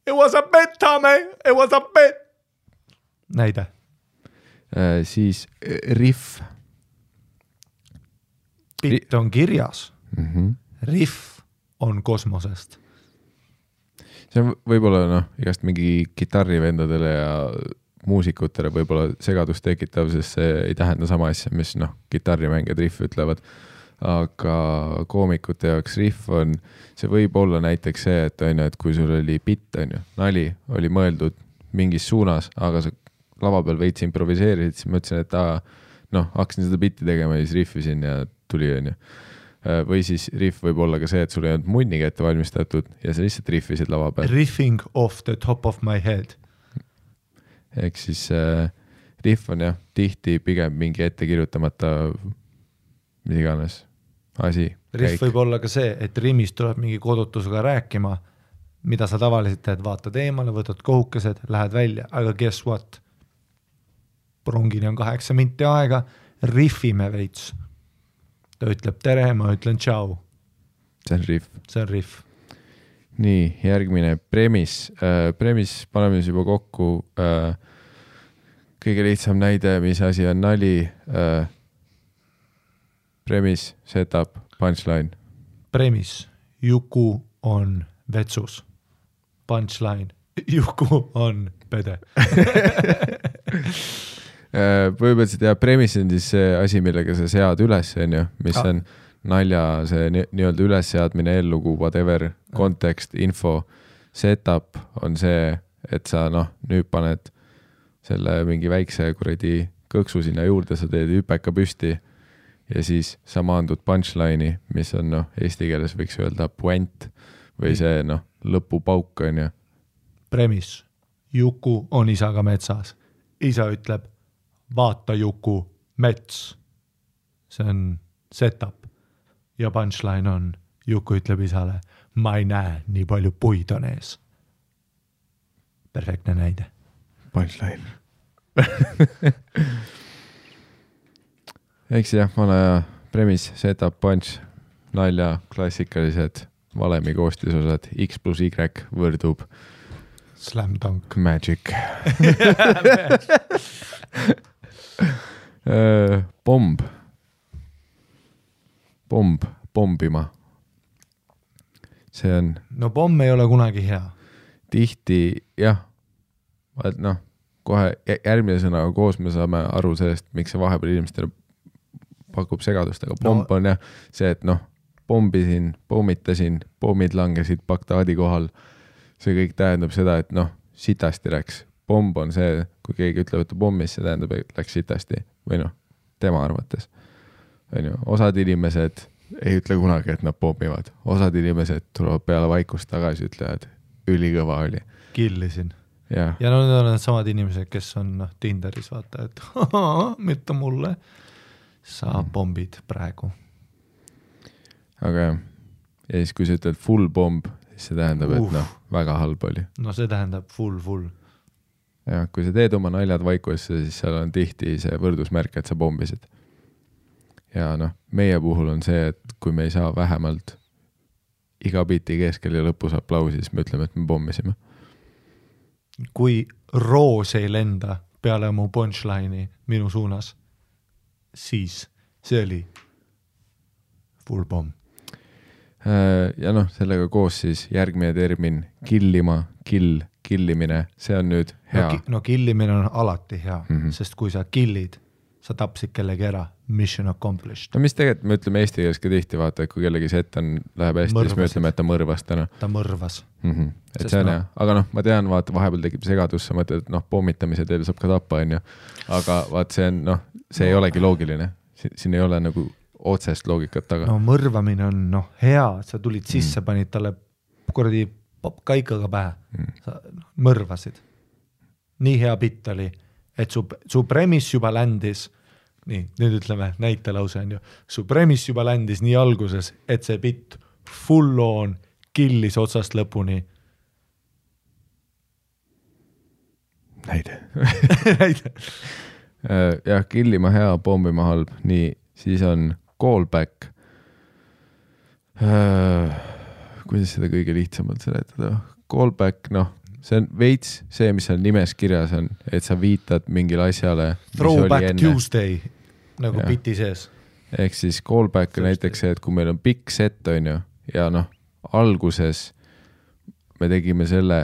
It was a bit, Tommy. It was a bit. Näide. Siis riff. Bit on kirjas. Riff on kosmosest. See on võib-olla noh, igast mingi kitarrivendadele ja muusikutele võib-olla segadust tekitav, sest see ei tähenda sama asja, mis noh, kitarrimängijad riff ütlevad, aga koomikute jaoks riff on, see võib olla näiteks see, et on ju, et kui sul oli bit, on ju, nali oli mõeldud mingis suunas, aga sa lava peal veits improviseerisid, siis ma ütlesin, et noh, hakkasin seda bitti tegema ja siis riffisin ja tuli, on ju. Või siis riff võib olla ka see, et sul ei olnud munniga ette valmistatud ja sa lihtsalt riffisid lava peal. Riffing off the top of my head. Ehk siis riff on jah, tihti pigem mingi ette kirjutamata mis iganes asi. Riff võib olla ka see, et rimmis tuleb mingi kodutusega rääkima, mida sa tavaliselt teed, vaatad eemale, võtad kohukesed, lähed välja, aga guess what? Prongini on 8 minti aega, riffime veits. Ta ütleb tere, ma ütlen tšau. See on riff. See on riff. Nii, järgmine premis. Premis paneme siis juba kokku. Kõige lihtsam näide, mis asi on nali. Premis, setup, punchline. Premis, Juku on vetsus. Punchline, Juku on pede. Põhimõtteliselt ja premis on siis see asi, millega sa sead üles, on ju, mis on nalja, see nii-öelda ülesseadmine, eellugu, whatever, kontekst, info, setup on see, et sa nüüd paned selle mingi väikse kuradi kõksu sinna juurde, sa teed hüpeka püsti ja siis sa maandud punchline'i, mis on eesti keeles võiks öelda puent või see lõpupauk on ju. Premis, Juku on isaga metsas. Isa ütleb, vaata Juku, mets. See on setup. Ja punchline on, Juku ütleb isale, ma ei näe, nii palju puid on ees. Perfektne näide. Punchline. Eks jah, vana premis, setup, punch, nalja, klassikalised valemi koostisosad, X plus Y võrdub Slam dunk. Magic. Pomb. Pombima. See on... No pomm ei ole kunagi hea. Tihti, jah. Kohe järgmine sõnaga koos me saame aru sellest, miks see vahepeal inimestele pakub segadust, aga pomb on jah see, et pombisin, pommitasin, pommid langesid Bagdaadi kohal. See kõik tähendab seda, et sitasti läks. Pomb on see, kui keegi ütleb, et pommis, see tähendab, et läks sitasti. Või tema arvates. Osad inimesed ei ütle kunagi, et nad pommivad. Osad inimesed tulevad peale vaikust tagasi, ütlevad, ülikõva oli. Killisin. Ja need on need samad inimesed, kes on Tinderis, vaata, et mitte mulle. Sa pombid praegu. Aga jah. Ja siis, kui sa ütled full pomb, siis see tähendab, et väga halb oli. See tähendab full. Ja kui sa teed oma naljad vaikusse, siis seal on tihti see võrdusmärk, et sa pombisid. ja noh, meie puhul on see, et kui me ei saa vähemalt iga biti keskel ja lõpus aplausi, siis me ütleme, et me pommisime. Kui roos ei lenda peale mu punchline'i minu suunas, siis see oli full pomm. Ja noh, sellega koos siis järgmine termin killimine, see on nüüd hea. No killimine on alati hea, sest kui sa killid, sa tapsid kellegi ära, mission accomplished. No mis tegelikult me ütleme eesti keeles ka tihti, vaata, et kui kellegi set läheb hästi, siis me ütleme, et ta mõrvas täna. Ta mõrvas. Et see on hea, aga noh, ma tean, vaata, vahepeal tekib segadus, sa mõtled, et noh, pommitamise teel saab ka tappa, on ju. Aga vaat see on, noh, see ei olegi loogiline. Siin ei ole nagu otsest loogikat taga. No mõrvamine on hea, sa tulid sisse, panid talle kuradi kaikaga pähe. Sa mõrvasid. Nii hea bitt oli, et su premis juba ländis, nii, nüüd ütleme näitelause on ju, su premis juba ländis nii alguses, et see bitt full on killis otsast lõpuni. Näide. Jah, killima hea, pommima halb, nii, siis on callback. Kuidas seda kõige lihtsamalt seletada? Callback, noh, see on veits see, mis on nimes kirjas on, et sa viitad mingile asjale, Throwback Tuesday, nagu biti sees. Ehk siis callback on näiteks see, et kui meil on pikk set, on ju, ja noh, alguses me tegime selle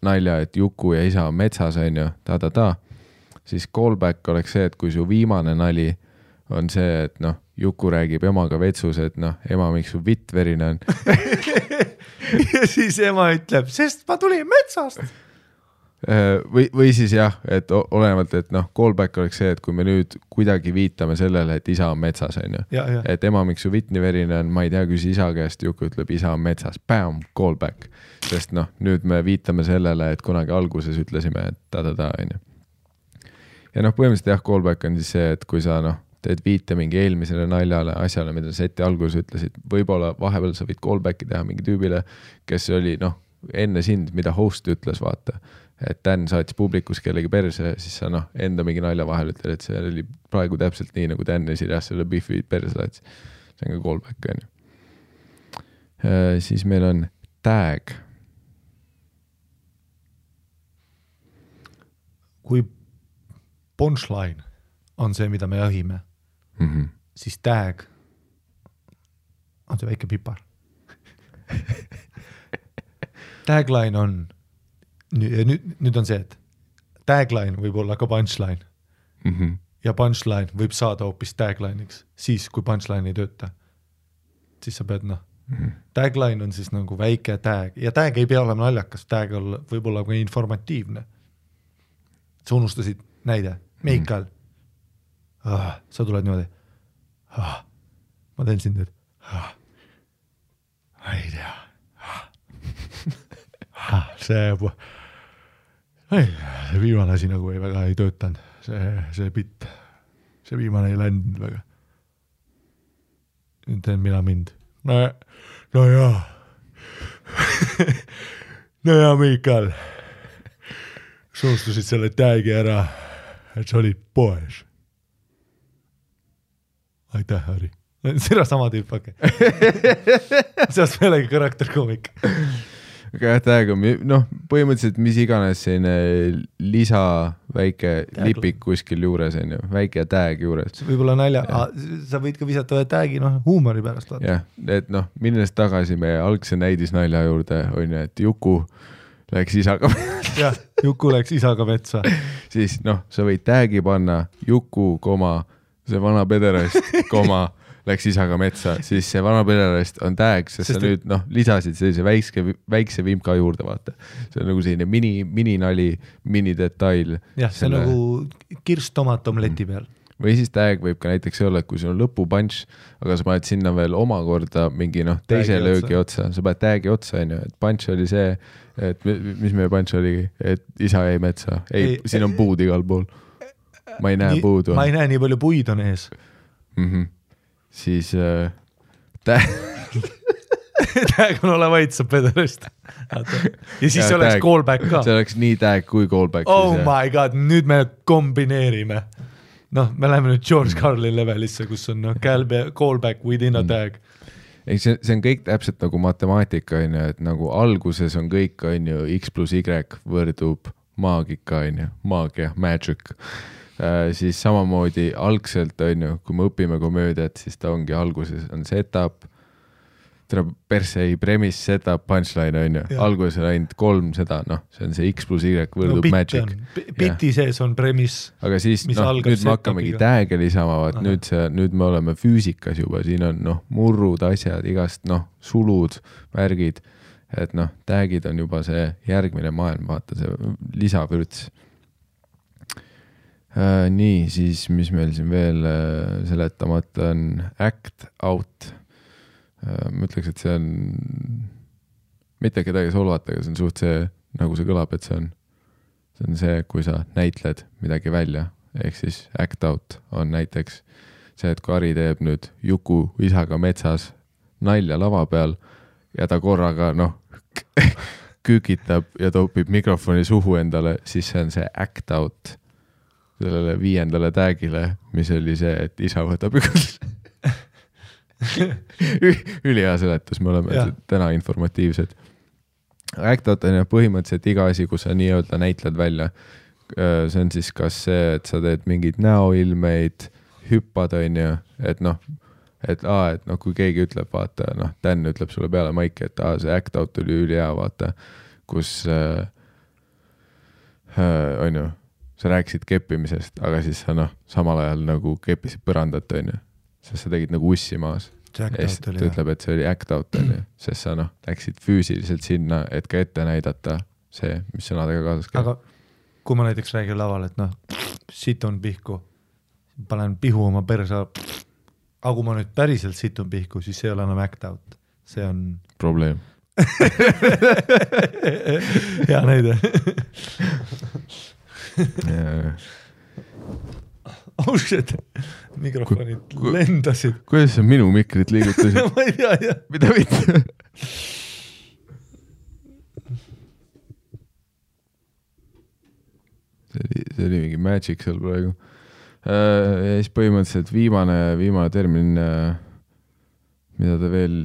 nalja, et Juku ja isa on metsas, on ju, siis callback oleks see, et kui su viimane nali on see, et noh, Juku räägib emaga vetsus, et noh, ema, miks su vitt verine on. Ja siis ema ütleb, sest ma tulin metsast. Või siis jah, et olenevalt, et noh, callback oleks see, et kui me nüüd kuidagi viitame sellele, et isa on metsas, on ju. Et ema, miks su vitt nii verine on, ma ei tea, küsi isa käest, Juku ütleb, isa on metsas. Bam, callback. Sest noh, nüüd me viitame sellele, et kunagi alguses ütlesime, et on ju. Ja noh, põhimõtteliselt jah, callback on siis see, et kui sa noh, teed viite mingi eelmisele naljale asjale, mida seti alguses ütlesid, võib-olla vahepeal sa võid callbacki teha mingi tüübile, kes oli noh, enne sind, mida host ütles, vaata, et Dan saatis publikus kellegi perse, siis sa noh, enda mingi nalja vahel ütled, et see oli praegu täpselt nii, nagu Dan esirjas selle Biffi perse saatis. See on ka callback, on ju. Siis meil on tag. Kui punchline on see, mida me jahime, siis tag on see väike pipar. Tagline on, nüüd on see, et tagline võib olla ka punchline ja punchline võib saada hoopis tagline'iks, siis kui punchline ei tööta. Siis sa pead noh, tagline on siis nagu väike tag ja tag ei pea olema naljakas, tag võib olla ka informatiivne. Sa unustasid näide, Meikal, sa tuled niimoodi, ma teen sind nüüd, ma ei tea, see viimane asi nagu väga ei töötanud, see bitt, see viimane ei läinud väga. Nüüd teen mina mind. No jaa, Meikal, sa unustasid selle tagi ära, et sa olid poes. Aitäh, Harri. Sira sama tüüp, okei. Seast meelegi karakterkoomik. Aga tag on, noh, põhimõtteliselt mis iganes selline lisa väike lipik kuskil juures, on ju, väike tag juures. Võib-olla nalja, sa võid ka visata tagi, noh, huumori pärast. Jah, et noh, minnes tagasi meie algse näidisnalja juurde, on ju, et Juku läks isaga metsa. Jah, Juku läks isaga metsa. Siis noh, sa võid tagi panna Juku, see vana pederast, läks isaga metsa, siis see vana pederast on tag, sest sa nüüd noh, lisasid sellise väikse vimka juurde, vaata. See on nagu selline mini-nali, mini-detail. Jah, see on nagu kirstomat omleti peal. Või siis tag võib ka näiteks olla, et kui sul on lõpupunch, aga sa paned sinna veel omakorda mingi noh, teise löögi otsa, sa paned tagi otsa, on ju, et punch oli see, et mis meie punch oligi, et isa jäi metsa. Ei, siin on puud igal pool. Ma ei näe puudu. Ma ei näe nii palju puid on ees. Siis tag on ole vaid sa pederast. Ja siis see oleks callback ka. See oleks nii tag kui callback. Oh my god, nüüd me kombineerime. noh, me läheme nüüd George Carlin levelisse, kus on callback within a tag. Ei, see on kõik täpselt nagu matemaatika, on ju, et nagu alguses on kõik, on ju, X plus Y võrdub maagika, on ju, maagia, magic. Siis samamoodi algselt, on ju, kui me õpime komöödiat, siis ta ongi alguses on setup, persei, premise, setup, punchline, on ju. Alguses on ainult 3 seda, noh, see on see X plus Y võrdub magic. Biti sees on premise, aga siis, mis noh, algab nüüd me hakkamegi tääge lisama, vaat nüüd me oleme füüsikas juba, siin on, noh, murrud, asjad, igast, noh, sulud, värgid, et noh, täägid on juba see järgmine maailm, vaata see lisavürts. Nii, siis mis meil siin veel seletamata on act out. Ma ütleks, et see on mitte kedagi solvata, aga see on suht see, nagu see kõlab, et see on see, kui sa näitled midagi välja, ehk siis act out on näiteks see, et kui Ari teeb nüüd Juku isaga metsas nalja lava peal ja ta korraga, noh, kükitab ja topib mikrofoni suhu endale, siis see on see act out sellele 5. tagile, mis oli see, et isa võtab ülihea seletus, me oleme täna informatiivsed. Act out on põhimõtteliselt iga asi, kus sa nii-öelda näitled välja. See on siis kas see, et sa teed mingid näoilmeid, hüppad, on ju, et noh, kui keegi ütleb, vaata, noh, Dan ütleb sulle peale maiki, et see act out oli ülihea, vaata, kus on ju, sa rääkisid keppimisest, aga siis sa noh, samal ajal nagu keppisid põrandat, on ju, sest sa tegid nagu ussi maas. Ja siis ta ütleb, et see oli act out, on ju, sest sa noh, läksid füüsiliselt sinna, et ka ette näidata see, mis sõnadega kaasas käib. Aga kui ma näiteks räägin laval, et noh, situn pihku, panen pihu oma persa, aga kui ma nüüd päriselt situn pihku, siis see ei ole enam act out. See on probleem. Hea näide. Ausalt, mikrofonid lendasid. Kuidas sa minu mikrit liigutasid? Ma ei tea, jah. Mida mitte? See oli mingi magic seal praegu. Ja siis põhimõtteliselt viimane termin, mida ta veel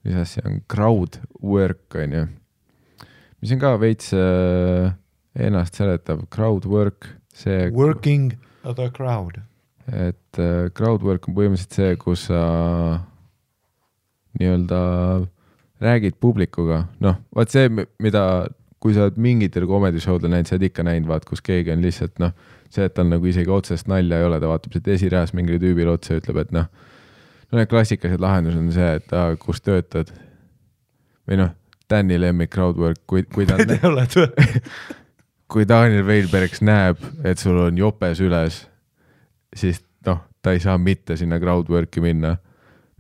lisas, see on crowd work, on ju. Mis on ka veits ennast seletav, crowd work, see working the crowd. Et crowd work on põhimõtteliselt see, kus sa nii-öelda räägid publikuga. Noh, vaat see, mida, kui sa oled mingitel komedishowdel näinud, sa oled ikka näinud, vaat, kus keegi on lihtsalt, noh, see, et tal nagu isegi otsest nalja ei ole, ta vaatab siit esireas mingile tüübile otsa ja ütleb, et noh, need klassikalised lahendused on see, et kus töötad. Või noh, Danny lemmik crowd work, kui ta kui Daniel Veilbergs näeb, et sul on jopes üles, siis noh, ta ei saa mitte sinna crowdworki minna.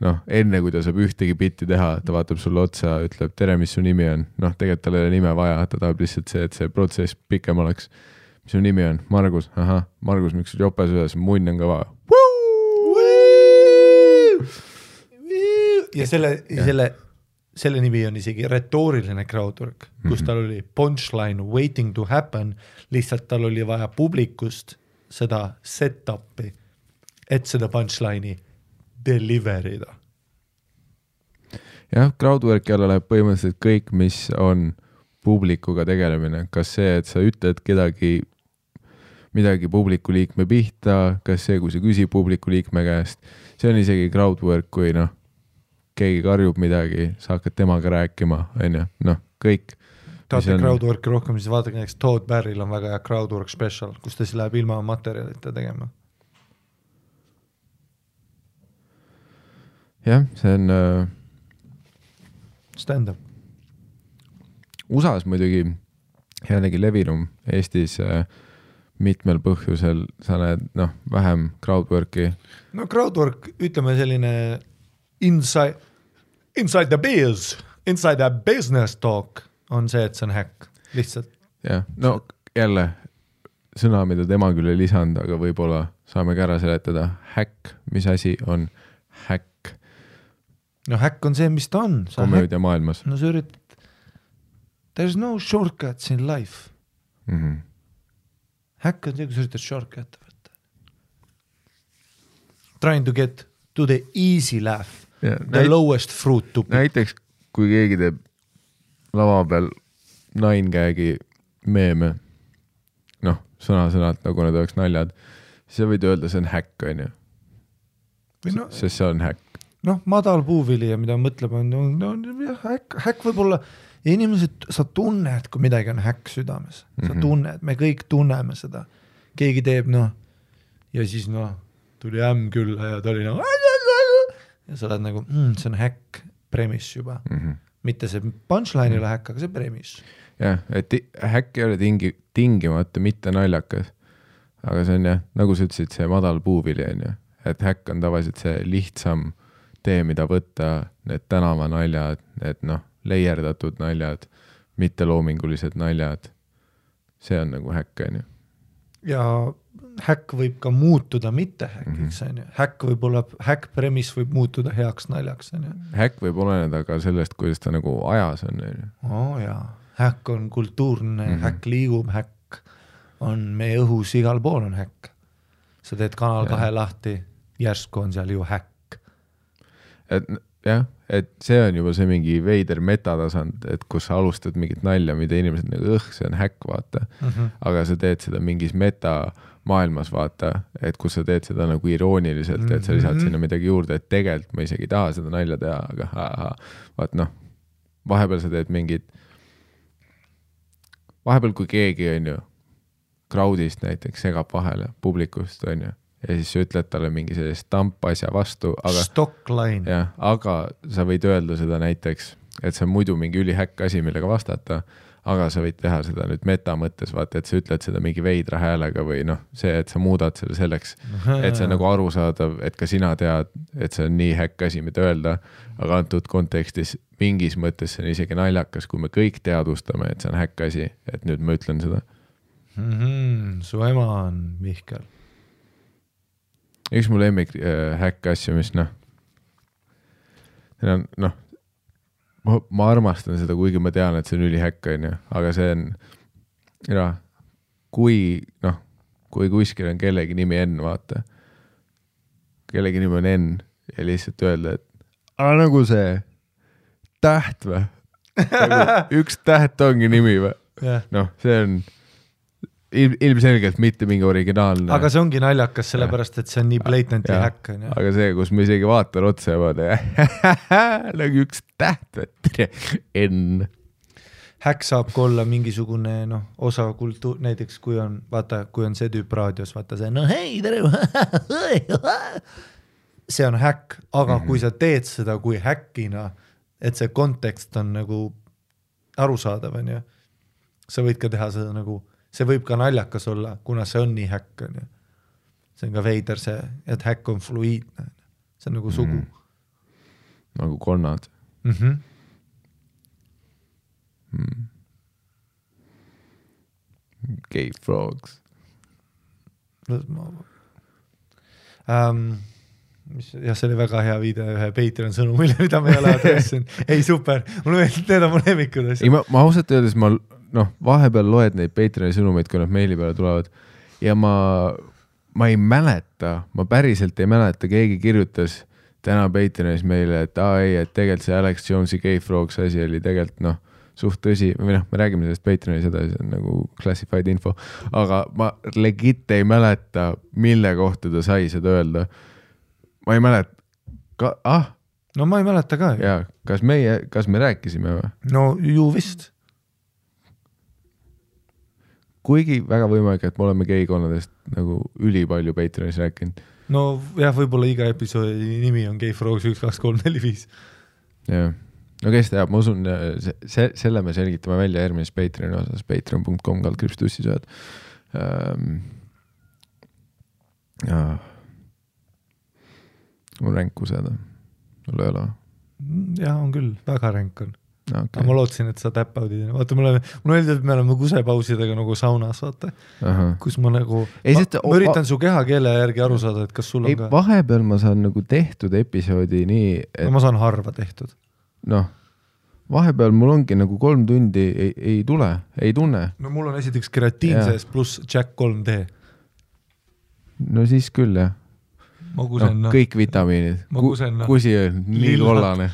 Noh, enne kui ta saab ühtegi bitti teha, ta vaatab sulle otsa, ütleb, tere, mis su nimi on. Noh, tegelikult tal ei ole nime vaja, ta tahab lihtsalt see, et see protsess pikem oleks. Mis su nimi on? Margus. Aha, Margus, miks sul jopes üles? Munn on ka vaja. Ja selle nimi on isegi retooriline crowdwork, kus tal oli punchline waiting to happen, lihtsalt tal oli vaja publikust seda set-upi, et seda punchline'i deliverida. Jah, crowdworki alla läheb põhimõtteliselt kõik, mis on publikuga tegelemine. Kas see, et sa ütled midagi publiku liikme pihta, kas see, kui sa küsid publiku liikme käest, see on isegi crowdwork, kui noh, keegi karjub midagi, sa hakkad temaga rääkima, on ju, noh, kõik. Tahate crowdworki rohkem, siis vaadake näiteks Todd Barry'l on väga hea crowdwork special, kus ta siis läheb ilma materjalite tegema. Jah, see on stand-up. USAs muidugi jällegi levinum, Eestis mitmel põhjusel sa näed, noh, vähem crowdworki. No crowdwork, ütleme selline inside the biz, inside the business talk on see, et see on häkk, lihtsalt. Jah, no jälle sõna, mida tema küll ei lisanud, aga võib-olla saame ka ära seletada. Häkk, mis asi on häkk? No häkk on see, mis ta on. Komöödia maailmas. No sa üritad, there's no shortcuts in life. Häkk on see, kui sa üritad shortcut võtta. trying to get to the easy laugh, Ja, the lowest fruit to pick. näiteks kui keegi teeb lava peal nine-gag'i meeme, noh, sõna-sõnalt nagu need oleks naljad, siis sa võid öelda, see on häkk, on ju. No, Sest see on häkk. noh, madal puuvili ja mida mõtlema on jah, häkk võib olla, ja inimesed, sa tunned, kui midagi on häkk südames, sa tunned, me kõik tunneme seda, keegi teeb, noh, ja siis noh, tuli ämm külla ja ta oli nagu ja sa oled nagu, see on häkk premise juba, mitte see punchline ei ole häkk, aga see premise. Jah, et häkk ei ole tingimata mitte naljakas, aga see on jah, nagu sa ütlesid, see madal puuvili on ju, et häkk on tavaliselt see lihtsam tee, mida võtta, need tänavanaljad, need noh, leierdatud naljad, mitte loomingulised naljad, see on nagu häkk on ju. Ja häkk võib ka muutuda mitte häkiks, on ju. Häkk võib olla, häkk premis võib muutuda heaks naljaks, on ju. Häkk võib oleneda ka sellest, kuidas ta nagu ajas on. Jaa, häkk on kultuurne, häkk liigub, häkk on meie õhus, igal pool on häkk. Sa teed Kanal 2 lahti, järsku on seal ju häkk. Et jah, et see on juba see mingi veider metatasand, et kus sa alustad mingit nalja, mida inimesed nagu see on häkk, vaata. Aga sa teed seda mingis meta maailmas, vaata, et kus sa teed seda nagu irooniliselt, et sa lisad sinna midagi juurde, et tegelikult ma isegi ei taha seda nalja teha, aga vaat noh, vahepeal sa teed mingid, vahepeal kui keegi on ju crowdist näiteks segab vahele publikust on ju, ja siis sa ütled talle mingi sellist stampasja vastu, aga stockline. Jah, aga sa võid öelda seda näiteks, et see on muidu mingi ülihäkk asi, millega vastata, aga sa võid teha seda nüüd meta mõttes, vaata, et sa ütled seda mingi veidra häälega või noh, see, et sa muudad selle selleks, et see on nagu arusaadav, et ka sina tead, et see on nii häkk asi, mida öelda, aga antud kontekstis mingis mõttes see on isegi naljakas, kui me kõik teadvustame, et see on häkk asi, et nüüd ma ütlen seda. Su ema on Mihkel. Üks mu lemmik häkk asju, mis noh, ma armastan seda, kuigi ma tean, et see on ülihäkk, on ju, aga see on, kui kuskil on kellegi nimi N, vaata, kellegi nimi on N ja lihtsalt öelda, et nagu see täht või? Üks täht ongi nimi või? Noh, see on ilmselgelt mitte mingi originaalne. Aga see ongi naljakas, sellepärast, et see on nii blatantly häkk. Aga see, kus me isegi vaatan otsa ja vaata, nagu üks täht, N. Häkk saab ka olla mingisugune osa kultuur, näiteks kui on, vaata, kui on see tüüp raadios, vaata see, no hei, tere, see on häkk, aga kui sa teed seda kui häkkina, et see kontekst on nagu arusaadav, on ju, sa võid ka teha seda nagu see võib ka naljakas olla, kuna see on nii häkk. On ju. See on ka veider see, et häkk on fluiidne. See on nagu sugu. Nagu konnad. Gay frogs. Ja see oli väga hea video ühe Patreon sõnumile, mida me ei ole adressinud. Ei, super. Mulle meeldib, need on mu lemmikud asjad. Ei, ma ausalt öeldes, vahepeal loed neid Patreoni sõnumeid, kui nad meili peale tulevad ja ma ei mäleta, ma päriselt ei mäleta, keegi kirjutas täna Patreonis meile, et et tegelikult see Alex Jones'i Gay Frogs asi oli tegelikult suht tõsi, või me räägime sellest Patreonis edasi, see on nagu classified info, aga ma legit ei mäleta, mille kohta ta sai seda öelda. Ma ei mäleta, No ma ei mäleta ka. Ja, kas me rääkisime või? No ju vist. Kuigi väga võimalik, et me oleme geikonnadest nagu ülipalju Patreonis rääkinud. No jah, võib-olla iga episoodi nimi on Gay Frogs 1, 2, 3, 4, 5. Jah. No kes teab, ma usun, selle me selgitame välja järgmises Patreoni osas, patreon.com/tussisööd. Mul ränk kuseda. Mul ei ole. Jah, on küll. Väga ränk on. Okay. Ma lootsin, et sa täppaudid. Vaata, mul öeldi, et me oleme kusepausidega nagu saunas, vaata. Kus ma nagu... ma üritan su kehakeele järgi aru saada, et kas sul on ka... Vahepeal ma saan nagu tehtud episoodi nii... Et... No, ma saan harva tehtud. Vahepeal mul ongi nagu 3 tundi ei tule, ei tunne. No mul on esiteks keratiin sees pluss Jack 3D. No siis küll, jah. Magusen, no, kõik vitamiinid. Magusen, kusi on nii kollane.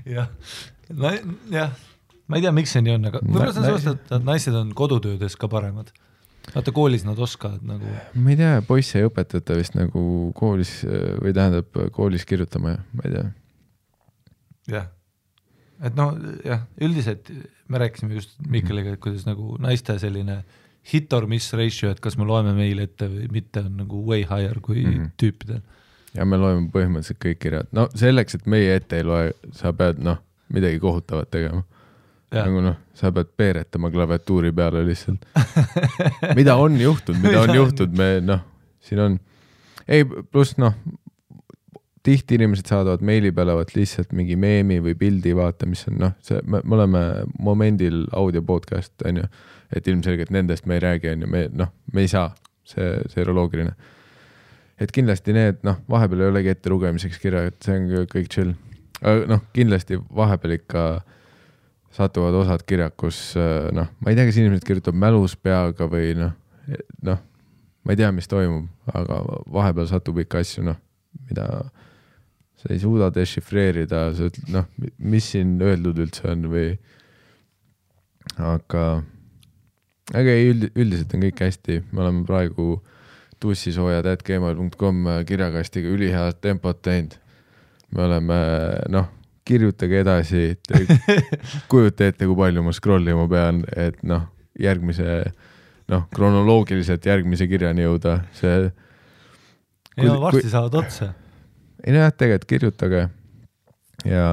jah, jah, ma ei tea, miks see nii on, aga võib-olla see on sellest, et naised on kodutöödes ka paremad. Vaata, koolis nad oskavad nagu. Ma ei tea, poisse ei õpetata vist nagu koolis või tähendab koolis kirjutama, ma ei tea. Jah, et noh, jah, üldiselt me rääkisime just Mikkeliga, et kuidas nagu naiste selline hit or miss ratio, et kas me loeme meil ette või mitte, on nagu way higher kui tüüpidel. Ja me loeme põhimõtteliselt kõik kirjad. No selleks, et meie ette ei loe, sa pead midagi kohutavat tegema. Ja. Nagu sa pead peeretama klaviatuuri peale lihtsalt. mida on juhtunud, me siin on, ei pluss tihti inimesed saadavad meili peale lihtsalt mingi meemi või pildi vaata, mis on me oleme momendil audio podcast, on ju, et ilmselgelt nendest me ei räägi, on ju, me ei saa, see eroloogiline. Et kindlasti need, vahepeal ei olegi ette lugemiseks kirja, et see on kõik chill. Kindlasti vahepeal ikka satuvad osad kirjad, kus ma ei tea, kas inimesed kirjutab mälus peaga või ma ei tea, mis toimub, aga vahepeal satub ikka asju, mida sa ei suuda dešifreerida, sa ütled, mis siin öeldud üldse on või aga üldiselt on kõik hästi, me oleme praegu tussisoojad@gmail.com kirjakastiga ülihead tempot teinud. Me oleme, kirjutage edasi, kujuta ette, kui palju ma scrollima pean, et järgmise, kronoloogiliselt järgmise kirjani jõuda. See, ja varsti saavad otsa. Ei jah, tegelikult kirjutage ja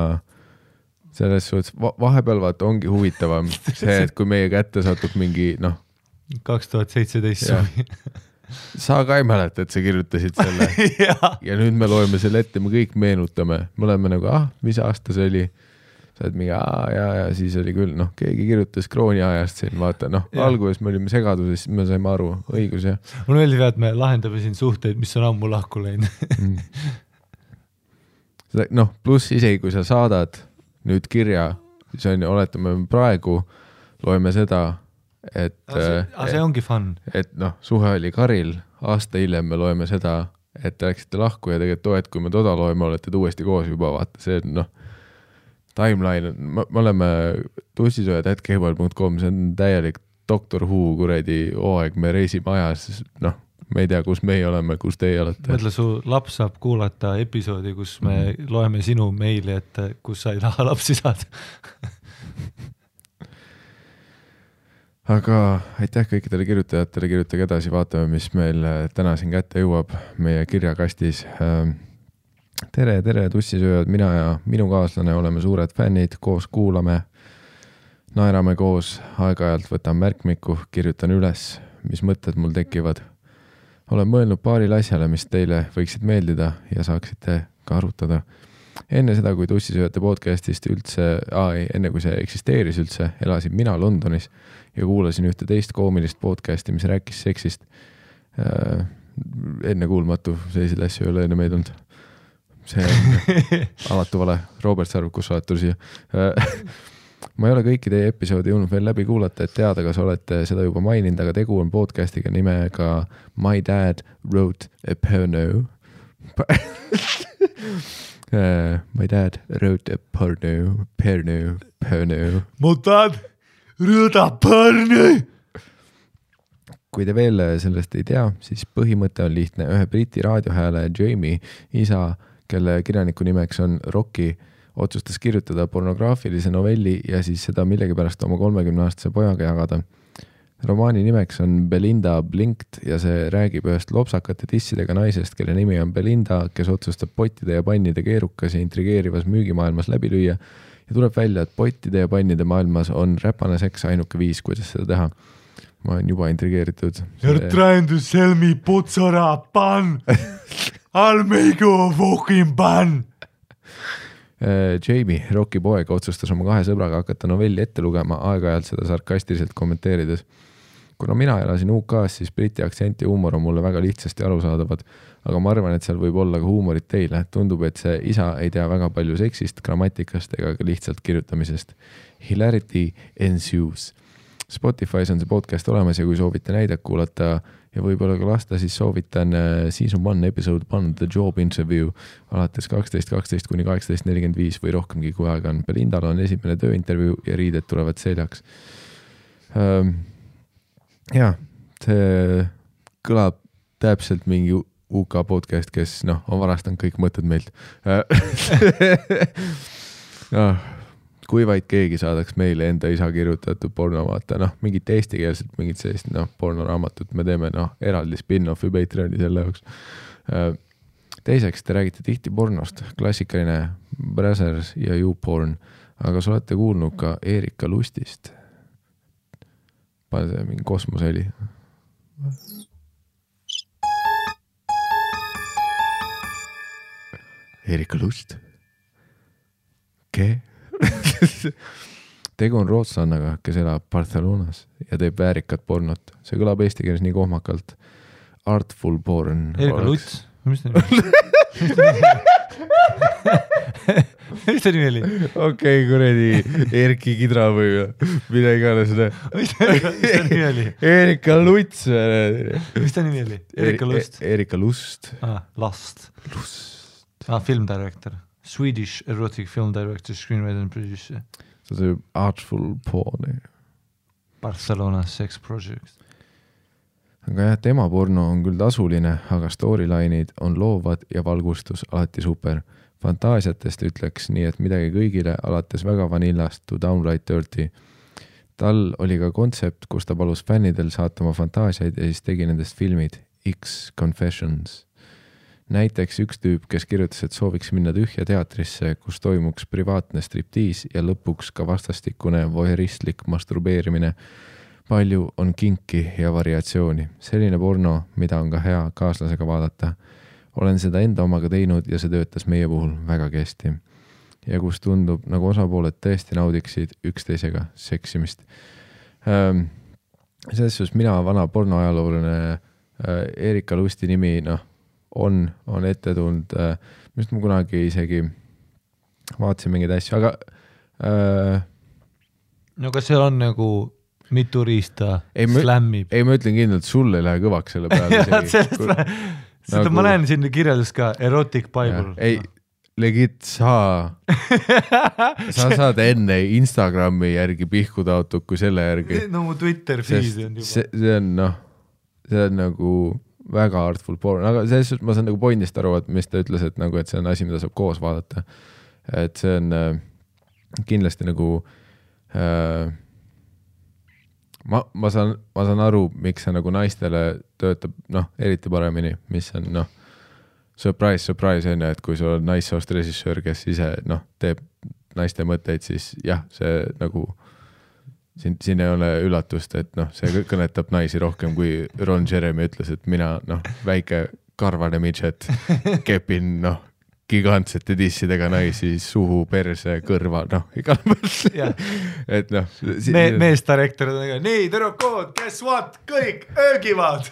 selles suhtes vahepeal ongi huvitavam see, et kui meie kätte satub mingi 2017 suvi. Sa ka ei mäleta, et sa kirjutasid selle ja nüüd me loeme selle ette, me kõik meenutame, me oleme nagu, mis aasta see oli, sa oled mingi, ja siis oli küll, keegi kirjutas krooni ajast siin, vaata, alguses me olime segaduses, me saime aru, õigus ja. Mul meeldib, et me lahendame siin suhteid, mis on ammu lahku läinud. Pluss isegi, kui sa saadad nüüd kirja, siis on, oletame praegu, loeme seda, et see ongi fun. Et suhe oli Karil, aasta hiljem me loeme seda, et te läksite lahku ja tegelikult kui me toda loeme, olete uuesti koos juba, vaata, see timeline, me oleme tussisoojad@gmail.com, see on täielik Doctor Who kuradi hooaeg, me reisime ajas, me ei tea, kus meie oleme, kus teie olete. Mõtle, su laps saab kuulata episoodi, kus me loeme sinu meili, et kus sa ei taha lapsi saada. Aga aitäh kõikidele kirjutajatele, kirjutage edasi, vaatame, mis meil täna siin kätte jõuab meie kirjakastis. Tere tussisööjad, mina ja minu kaaslane oleme suured fännid, koos kuulame, naerame koos, aeg-ajalt võtan märkmiku, kirjutan üles, mis mõtted mul tekivad. Olen mõelnud paaril asjale, mis teile võiksid meeldida ja saaksite ka arutada. Enne seda, kui tussisööjate podcastist üldse, enne kui see eksisteeris üldse, elasin mina Londonis ja kuulasin ühte teist koomilist podcasti, mis rääkis seksist. Enne kuulmatu, selliseid asju ei ole enne meid olnud. See on alatu vale. Robert Sarv, kus sa oled tuli siia? Ma ei ole kõiki teie episoodi jõudnud veel läbi kuulata, et teada, kas olete seda juba maininud, aga tegu on podcastiga nimega My Dad Wrote a Porno. My dad wrote a porno. Mu dad wrote a porno. Kui te veel sellest ei tea, siis põhimõte on lihtne. Ühe briti raadiohääle Jamie isa, kelle kirjaniku nimeks on Rocky, otsustas kirjutada pornograafilise novelli ja siis seda millegipärast oma 30-aastase pojaga jagada. Romaani nimeks on Belinda Blinked ja see räägib ühest lopsakate tissidega naisest, kelle nimi on Belinda, kes otsustab pottide ja pannide keerukas ja intrigeerivas müügimaailmas läbi lüüa ja tuleb välja, et pottide ja pannide maailmas on räpane seks ainuke viis, kuidas seda teha. Ma olen juba intrigeeritud. You're trying to sell me putsara pan. I'll make you a fucking pan. Jamie, Rocky poeg, otsustas oma 2 sõbraga hakata novelli ette lugema, aeg-ajalt seda sarkastiliselt kommenteerides. Kuna mina elasin UK-s, siis briti aktsent ja huumor on mulle väga lihtsasti arusaadavad, aga ma arvan, et seal võib olla ka huumorit teile. Tundub, et see isa ei tea väga palju seksist, grammatikast ega ka lihtsalt kirjutamisest. Hilarity ensues. Spotify's on see podcast olemas ja kui soovite näidet kuulata ja võib-olla ka lasta, siis soovitan Season 1 episode 1 The Job Interview alates 12.12 kuni 18.45 või rohkemgi, kui aega on. Belindal on esimene tööintervjuu ja riided tulevad seljaks. Ja, see kõlab täpselt mingi UK podcast, kes on varastanud kõik mõtted meilt. Kui vaid keegi saadaks meile enda isa kirjutatud porno vaata, mingit eestikeelset, mingit sellist pornoraamatut me teeme eraldi spin-offi Patreoni selle jaoks. Teiseks, te räägite tihti pornost, klassikaline Brazzers ja YouPorn, aga sa olete kuulnud ka Erika Lustist. Pane see mingi kosmoseli. Erika Lust. Ke? Tegu on rootslannaga, kes elab Barcelonas ja teeb väärikat pornot. See kõlab eesti keeles nii kohmakalt. Artful porn. Erika Luts? Mis ta nimi oli? Okei, kuredi Erki Kidra või mida iganes. Mis ta nimi oli? Erika Luts. Mis ta nimi oli? Erika Lust? Erika Lust. Lust. Film director. Swedish erotic film director, screenwriter and producer. See on Artful porn. Barcelona sex project. Aga jah, tema porno on küll tasuline, aga storyline'id on loovad ja valgustus alati super. Fantaasiatest ütleks nii, et midagi kõigile alates väga vanillast to downright dirty. Tal oli ka kontsept, kus ta palus fännidel saata oma fantaasiaid ja siis tegi nendest filmid X Confessions. Näiteks üks tüüp, kes kirjutas, et sooviks minna tühja teatrisse, kus toimuks privaatne striptiis ja lõpuks ka vastastikune voyeuristlik masturbeerimine. Palju on kinki ja variatsiooni. Selline porno, mida on ka hea kaaslasega vaadata. Olen seda enda omaga teinud ja see töötas meie puhul väga hästi. Ja kus tundub, nagu osapooled tõesti naudiksid üksteisega seksimist. Selles suhtes mina vana pornoajalooline Erika Lusti nimi, on ette tulnud, mist ma kunagi isegi vaatasin mingeid asju, aga no kas seal on nagu mitu riista slämmib? Ei, ma ütlen kindlalt, sul ei lähe kõvaks selle peale. Seda ma näen siin kirjeldus ka Erotic Bible. Ei, legit sa saad enne Instagrami järgi pihku taotud kui selle järgi. No mu Twitter feed on juba. See on nagu väga artful porn, aga selles suhtes ma saan nagu pointist aru, et mis ta ütles, et see on asi, mida saab koos vaadata. Et see on kindlasti nagu ma saan aru, miks see nagu naistele töötab eriti paremini, mis on surprise, on, et kui sul on naissoost režissöör, kes ise teeb naiste mõtteid, siis jah, see nagu siin ei ole üllatust, et see kõnetab naisi rohkem, kui Ron Jeremy ütles, et mina väike karvane midget kepin gigantsete dissidega naisi suhu, perse, kõrva, igal mõtle. Et meestarektor on nii, tüdrukud, guess what, kõik öögivad.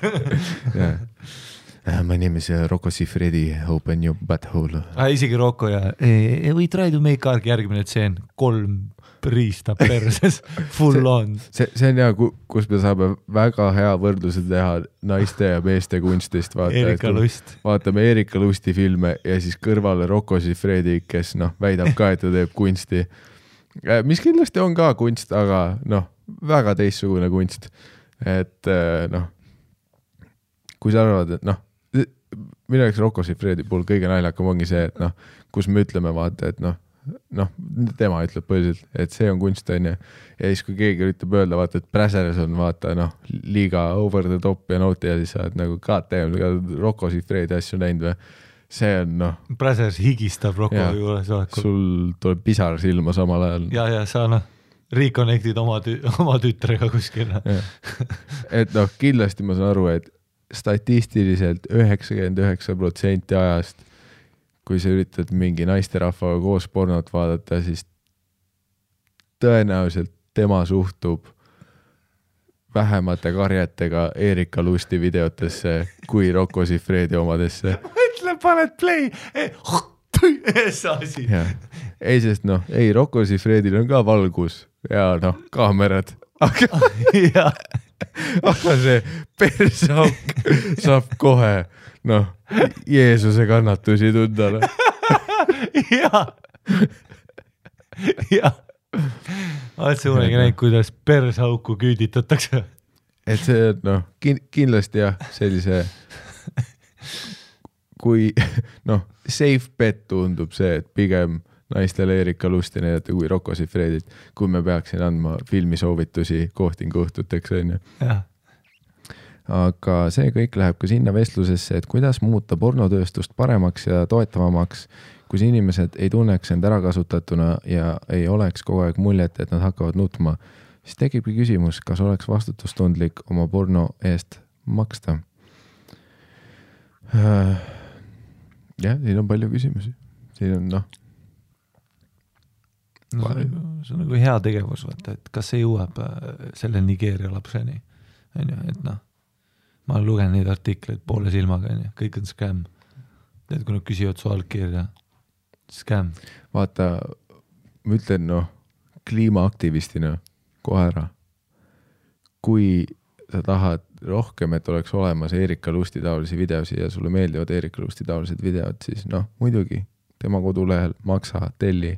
My name is Rocco Siffredi, open your butthole. Isegi Rocco ja we try to make arg järgmine tseen 3 riista perses, full on. See on hea, kus me saame väga hea võrdluse teha naiste ja meeste kunstist. Erika Lust. Vaatame Erika Lusti filme ja siis kõrvale Rocco Siffredi, kes väidab ka, et ta teeb kunsti. Mis kindlasti on ka kunst, aga väga teistsugune kunst. Et kui sa arvad, et minu jaoks Rocco Siffredi puhul kõige naljakam ongi see, et kus me ütleme vaata, et tema ütleb põhiliselt, et see on kunst, on ja siis kui keegi üritab öelda, vaata, et Brazzers on vaata, liiga over the top ja nauti ja siis sa oled nagu KTM, Rocco Siffredi asju näinud või, see on Brazzers higistab Rocco juures. Sul tuleb pisar silma samal ajal. Ja sa reconnectid oma tütrega kuskil. Et kindlasti ma saan aru, et statistiliselt 99% ajast kui sa üritad mingi naisterahvaga koos pornot vaadata, siis tõenäoliselt tema suhtub vähemate karjetega Erika Lusti videotesse kui Rocco Siffredi omadesse. Mõtle, paned play! Ei, sest Rocco Siffredil on ka valgus ja kaamerad, jah, aga see persauk saab kohe, noh, Jeesuse kannatusi tunda. jah, jah. Oled sa kunagi näinud, kuidas persauku küüditatakse? Et see, noh, kindlasti jah, sellise, kui, noh, safe bet tundub see, et pigem naistele Erika Lusti näidata kui Rocco Siffredit, kui me peaksin andma filmisoovitusi kohtinguõhtuteks, on ju. Aga see kõik läheb ka sinna vestlusesse, et kuidas muuta pornotööstust paremaks ja toetavamaks, kus inimesed ei tunneks end ära kasutatuna ja ei oleks kogu aeg muljet, et nad hakkavad nutma. Siis tekibki küsimus, kas oleks vastutustundlik oma porno eest maksta. Jah, siin on palju küsimusi. Siin on, noh. No, see on nagu hea tegevus, vaata, et kas see jõuab selle Nigeeria lapseni, on ju, et noh, ma olen lugenud neid artikleid poole silmaga, on ju, kõik on scam. Tead, kui nad küsivad su allkirja, scam. Vaata, ma ütlen, noh, kliimaaktivistina kohe ära. Kui sa tahad rohkem, et oleks olemas Erika Lusti taolisi videosi ja sulle meeldivad Erika Lusti taolised videod, siis noh, muidugi tema kodulehel maksa, telli,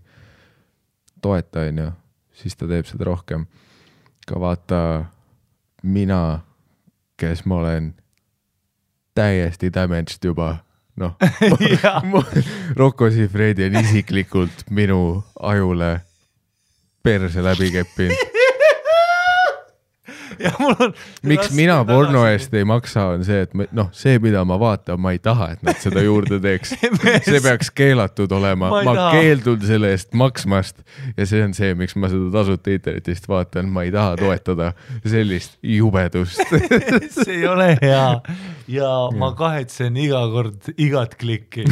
toeta, on ju, siis ta teeb seda rohkem. Ka vaata, mina, kes ma olen täiesti damaged juba, noh, Rocco Siffredi on isiklikult minu ajule perse läbi keppinud. Ja mul on miks mina porno eest ei maksa, on see, et noh, see, mida ma vaatan, ma ei taha, et nad seda juurde teeks. See peaks keelatud olema. Ma keeldun selle eest maksmast ja see on see, miks ma seda tasuta internetist vaatan. Ma ei taha toetada sellist jubedust. See ei ole hea ja ma kahetsen iga kord igat klikki.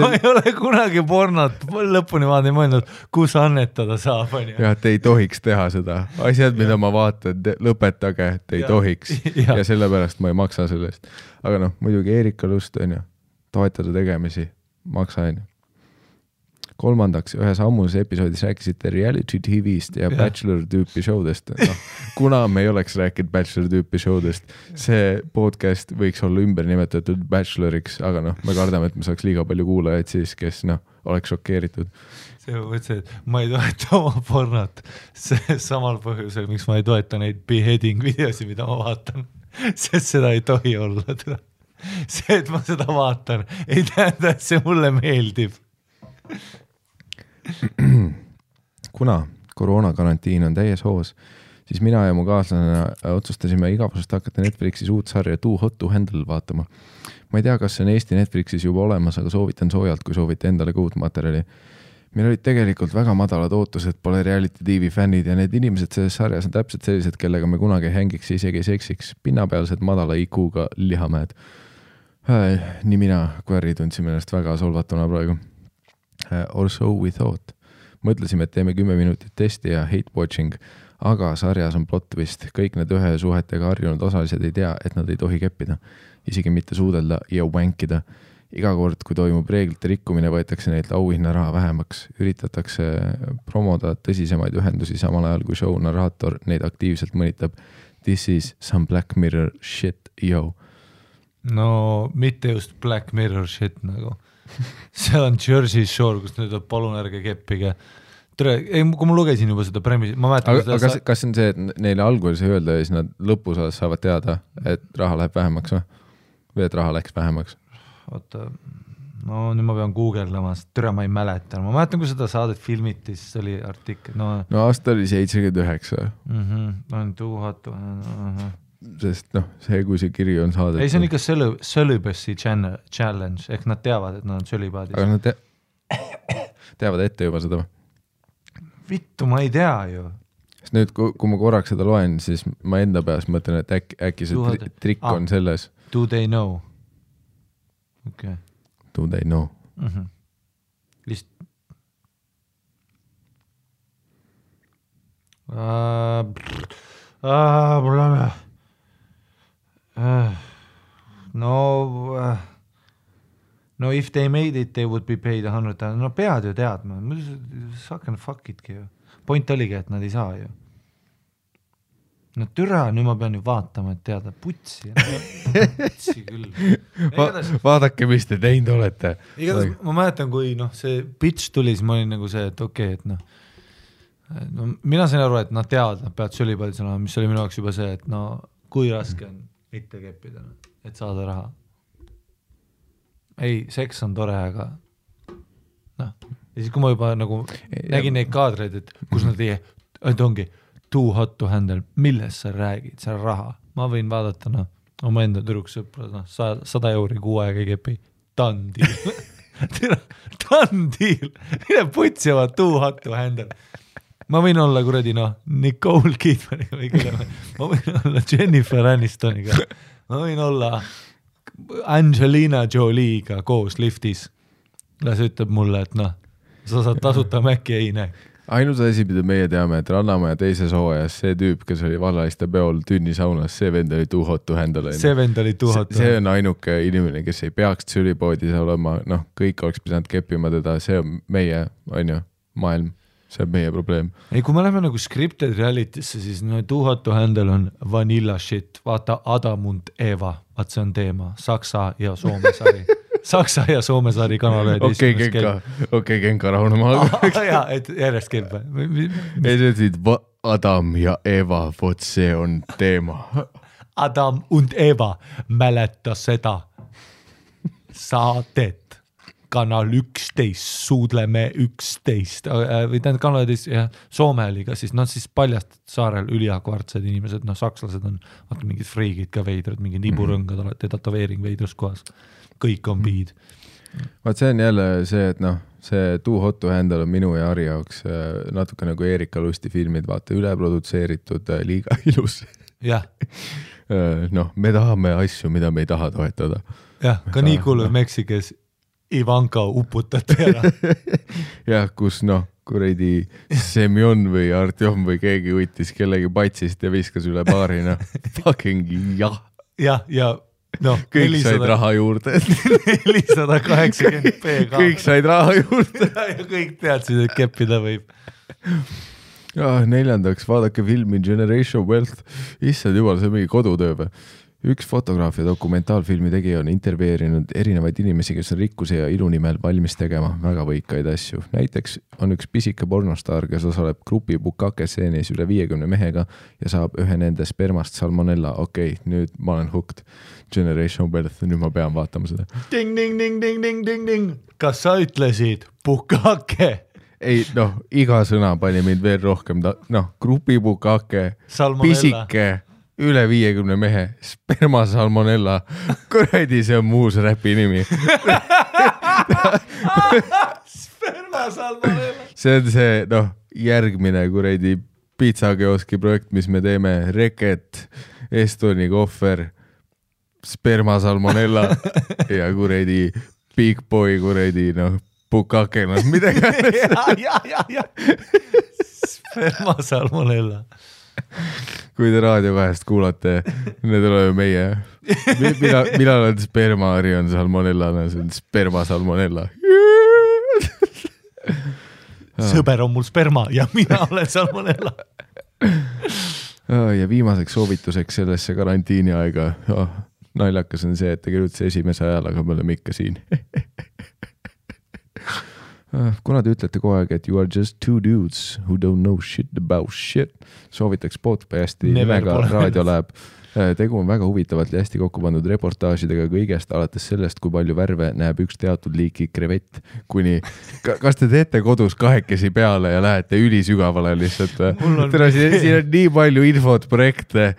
Ma ei ole kunagi pornot lõpuni vaadanud mõelnud, kus annetada saab. Ja, et ei tohiks teha seda. Asjad, mida ma vaatan, lõpetage, et ei tohiks. Ja sellepärast ma ei maksa sellest. Aga noh, muidugi Erika Lust on ju, toetada tegemisi, maksa on ju. Kolmandaks, ühes ammuses episoodis rääkisite reality TV-st ja Bachelor tüüpi showdest. No, kuna me ei oleks rääkinud Bachelor tüüpi showdest, see podcast võiks olla ümber nimetatud Bacheloriks, aga noh, me kardame, et me saaks liiga palju kuulajaid siis, kes noh, oleks šokeeritud. See mõtlesin, et ma ei toeta oma pornot samal põhjusel, miks ma ei toeta neid beheading videosi, mida ma vaatan, sest seda ei tohi olla. See, et ma seda vaatan, ei tähenda, et see mulle meeldib. Kuna koroonakarantiin on täies hoos, siis mina ja mu kaaslane otsustasime igavusest hakata Netflixis uut sarja Too Hot to Handle vaatama. Ma ei tea, kas see on Eesti Netflixis juba olemas, aga soovitan soojalt, kui soovite endale ka uut materjali. Meil olid tegelikult väga madalad ootused, pole reality TV fännid ja need inimesed selles sarjas on täpselt sellised, kellega me kunagi hängiks, isegi seksiks, pinnapealsed madala IQ-ga lihamäed. Nii mina kui Harri tundsime ennast väga solvatuna praegu. Or so we thought. Mõtlesime, et teeme 10 minutit testi ja hate watching, aga sarjas on plot twist. Kõik need ühe suhetega harjunud osalised ei tea, et nad ei tohi keppida, isegi mitte suudelda ja wankida. Iga kord, kui toimub reeglite rikkumine, võetakse neilt auhinna raha vähemaks. Üritatakse promoda tõsisemaid ühendusi samal ajal, kui show narraator neid aktiivselt mõnitab. This is some Black Mirror shit, yo. No mitte just Black Mirror shit nagu. See on Jersey Shore, kus nüüd on palun ärge keppige. Kui ma lugesin juba seda premissi, ma mäletan... Aga kas on see, et neile alguses ei öelda ja siis nad lõpusas saavad teada, et raha läheb vähemaks või et raha läks vähemaks? Oota, no nüüd ma pean googeldama, türa ma ei mäleta. Ma mäletan, kui seda saadet filmiti, siis oli artikkel. No aasta oli 79. On Too Hot to Handle. Sest noh, see kui see kiri on saadet. Ei, see on ikka celibacy challenge, ehk nad teavad, et nad on celibaadis. Aga nad teavad ette juba seda. Vittu, ma ei tea ju. Sest nüüd, kui ma korraks seda loen, siis ma enda peas mõtlen, et äkki see trikk on selles. Do they know? Okay. Do they know? No if they made it, they would be paid 100,000. No pead ju teadma. Suck and fuck itki ju. Point oligi, et nad ei saa ju. no türa, nüüd ma pean ju vaatama, et teada putsi küll. Vaadake, mis te teinud olete. Igatahes ma mäletan, kui see pitch tuli, siis ma olin nagu see, et okei, et mina sain aru, et nad teavad, nad peavad sülipaldis olema, mis oli minu jaoks juba see, et kui raske on mitte keppida, et saada raha. Ei, seks on tore, aga ja siis kui ma juba nagu nägin neid kaadreid, et kus nad et ongi too hot to handle, millest sa räägid, see on raha. Ma võin vaadata oma enda tüdruksõpra, 100 euri kuu aega ei kepi. Done deal. Done deal. Mine putsima too hot to handle. Ma võin olla kuradi Nicole Kidmaniga või kelle ma võin olla Jennifer Anistoniga. Ma võin olla Angelina Jolie'ga koos liftis. Las ütleb mulle, et sa saad tasuta Mäkki ei näe. Ainus asi, mida meie teame, et Rannamaja teises hooajas see tüüp, kes oli Vallaiste peol tünnisaunas, see vend oli too hot to handle. See vend oli too hot to handle. See on ainuke inimene, kes ei peaks sülipoodis olema, kõik oleks pidanud keppima teda, see on meie, maailm, see on meie probleem. Ei, kui me läheme nagu scripted reality'sse, siis too hot to handle on vanilla shit, vaata Adam und Eva, vaat see on teema, Saksa ja Soome sari. Saksa ja Soome saari kanal. Okei, Genka rahunema. Jaa, et järjest käib. Ei, see ütlesid Adam ja Eva, vot see on teema. Adam und Eva mäleta seda saadet. Kanal 11, suudleme 11. Või tähendab kanal 11, ja Soome oli ka siis, siis paljast saarel üliakvartsed inimesed, sakslased on mingid friigid ka veidrad, mingi niburõngad, olete tatoveering veidrus kohas. Kõik on piid. Vaat see on jälle see, et see too hot to handle on minu ja Ari jaoks natuke nagu Erika Lusti filmid, vaata üleprodutseeritud, liiga ilus. Jah. Me tahame asju, mida me ei taha toetada. Jah, ka nii kuuluv Meksikes Ivanka uputati ära. Jah, kus kuradi Semjon või Artjom või keegi võttis kellegi patsist ja viskas üle baari, fucking jah. Jah, ja kõik said raha juurde. 480p ka. Kõik said raha juurde. Ja kõik teadsid, et keppida võib. Neljandaks, vaadake filmi Generation Wealth. Issand jumal, see on mingi kodutöö või? Üks fotograaf ja dokumentaalfilmi tegija on intervjueerinud erinevaid inimesi, kes on rikkuse ja ilu nimel valmis tegema väga võikaid asju. Näiteks on üks pisike pornostaar, kes osaleb grupi Bukake stseenis üle 50 mehega ja saab ühe nende spermast salmonella. Okei, nüüd ma olen hooked. Generation Wealth, nüüd ma pean vaatama seda. Ding, ding, ding, ding, ding, ding, ding. Kas sa ütlesid Bukake? Ei, iga sõna pani mind veel rohkem. Grupi Bukake, pisike, üle 50 mehe, sperma salmonella, kuradi see on muus räpi nimi. Sperma salmonella. See on see, järgmine kuradi pitsakeoski projekt, mis me teeme, Reket, Estoni kohver, sperma salmonella ja kuradi Big Boy kuradi, Bukake, midagi. Ja. Sperma salmonella. Kui te raadio vahest kuulate, need oleme meie. Millal on sperma, Ari on salmonella, see on sperma salmonella. Sõber on mul sperma ja mina olen salmonella. Ja viimaseks soovituseks sellesse karantiini aega. Naljakas on see, et tegelikult see esimese ajal, aga me oleme ikka siin. Kuna te ütlete kogu aeg, et you are just two dudes who don't know shit about shit, soovitaks podcasti nimega Raadio Läheb. Tegu on väga huvitavalt ja hästi kokku pandud reportaažidega kõigest, alates sellest, kui palju värve näeb üks teatud liiki krevett, kuni kas te teete kodus kahekesi peale ja lähete ülisügavale lihtsalt? Siin on nii palju infot, projekte,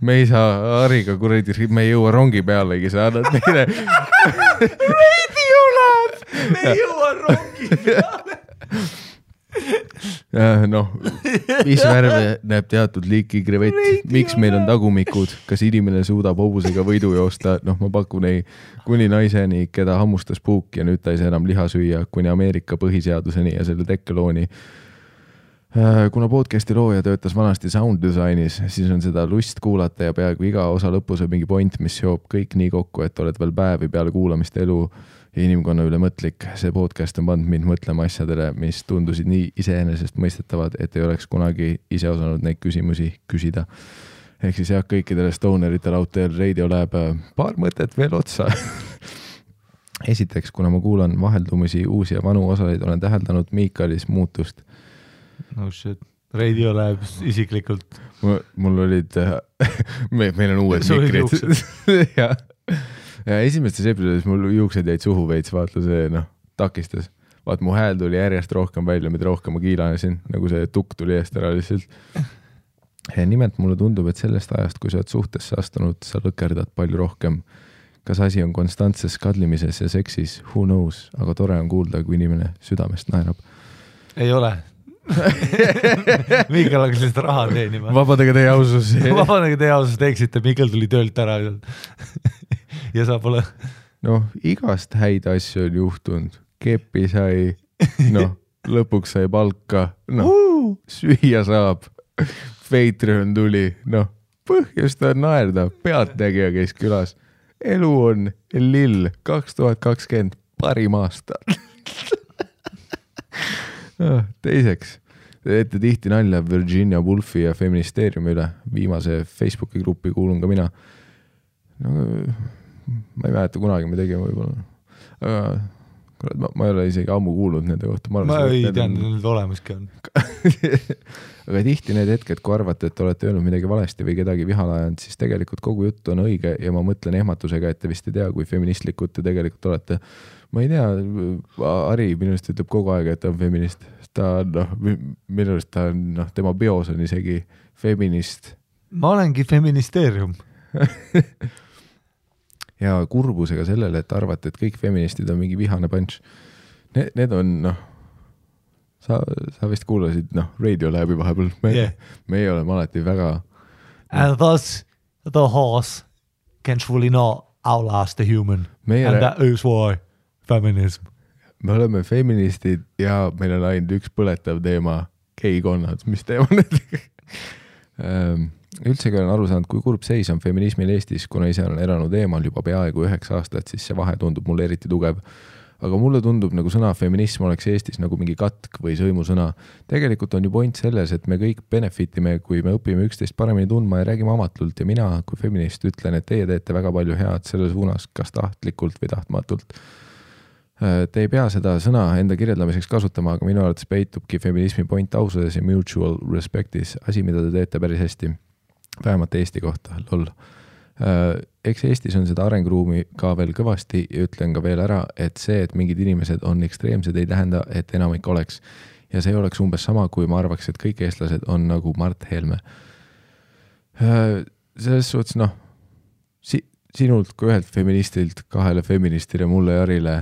me ei saa Ariga kuradi, me ei jõua rongi pealegi, sa annad meile Radio Lab, me ei jõua rongi peale. Mis värve näeb teatud liiki krevett, miks meil on tagumikud, kas inimene suudab hobusega võidu joosta, ma pakun ei, kuni naiseni, keda hammustas puuk ja nüüd ta ei saa enam liha süüa, kuni Ameerika põhiseaduseni ja selle tekkelooni. Kuna podcasti looja töötas vanasti sound designis, siis on seda lust kuulata ja peaaegu iga osa lõpus on mingi point, mis seob kõik nii kokku, et oled veel päevi peale kuulamist elu ja inimkonna üle mõtlik. See podcast on pannud mind mõtlema asjadele, mis tundusid nii iseenesest mõistetavad, et ei oleks kunagi ise osanud neid küsimusi küsida. Ehk siis jah, kõikidele stoneritele out there radio läheb paar mõtet veel otsa. Esiteks, kuna ma kuulan vaheldumisi uusi ja vanu osaleid, olen täheldanud Miikalis muutust. No shit, radio läheb isiklikult. Mul olid, meil on uued mikrid. ja esimestes episoodis mul juuksed jäid suhu veits, vaata see takistas. Vaat mu hääl tuli järjest rohkem välja, mida rohkem ma kiilanesin, nagu see tukk tuli eest ära lihtsalt. Ja nimelt mulle tundub, et sellest ajast, kui sa oled suhtesse astunud, sa lõkerdad palju rohkem. Kas asi on konstantses kadlimises ja seksis, who knows, aga tore on kuulda, kui inimene südamest naerab. Ei ole. Miikal hakkas lihtsalt raha teenima. Vabadega teie ausus. Vabadega teie ausus teeksite, Miikal tuli töölt ära ja sa pole. Igast häid asju on juhtunud. Kepi sai, lõpuks sai palka, süüa saab, Patreon tuli, põhjust on naerda, pealtnägija käis külas. Elu on lill 2020 parim aasta. Teiseks, teete tihti nalja Virginia Woolfi ja feministeeriumi üle. Viimase Facebooki gruppi kuulun ka mina. Ma ei mäleta kunagi me tegime võib-olla. Ma ei ole isegi ammu kuulnud nende kohta. Ma ei tean, need olemaski on. Aga tihti need hetked, kui arvate, et olete öelnud midagi valesti või kedagi vihale ajanud, siis tegelikult kogu jutt on õige ja ma mõtlen ehmatusega, et te vist ei tea, kui feministlikud te tegelikult olete. Ma ei tea, Ari minust ütleb kogu aeg, et ta on feminist. Ta minust ta on, tema bios on isegi feminist. Ma olengi feministeerium. Ja kurbusega sellele, et arvate, et kõik feministid on mingi vihane punch. Need on, sa vist kuulasid, radio läbi vahepeal. Me ei ole alati väga... And thus the horse can truly not outlast the human. And that is why feminism. Me oleme feministid ja meil on ainult üks põletav teema, geikonnad, mis teema need? Üldsegi olen aru saanud, kui kurb seis on feminismil Eestis, kuna ise olen elanud eemal juba peaaegu 9 aastat, siis see vahe tundub mulle eriti tugev. Aga mulle tundub, nagu sõna feminism oleks Eestis nagu mingi katk või sõimusõna. Tegelikult on ju point selles, et me kõik benefitime, kui me õpime üksteist paremini tundma ja räägime amatult ja mina kui feminist ütlen, et teie teete väga palju head selle suunas, kas tahtlikult või tahtmatult. Te ei pea seda sõna enda kirjeldamiseks kasutama, aga minu arvates peitubki feminismi point ausades ja mutual respectis, asi, mida te teete päris hästi. Vähemalt Eesti kohta, lol. Eks Eestis on seda arenguruumi ka veel kõvasti ja ütlen ka veel ära, et see, et mingid inimesed on ekstreemsed, ei tähenda, et enamik oleks. Ja see oleks umbes sama, kui ma arvaks, et kõik eestlased on nagu Mart Helme. Selles suhtes, sinult kui ühelt feministilt, 2 feministile, mulle ja Arile,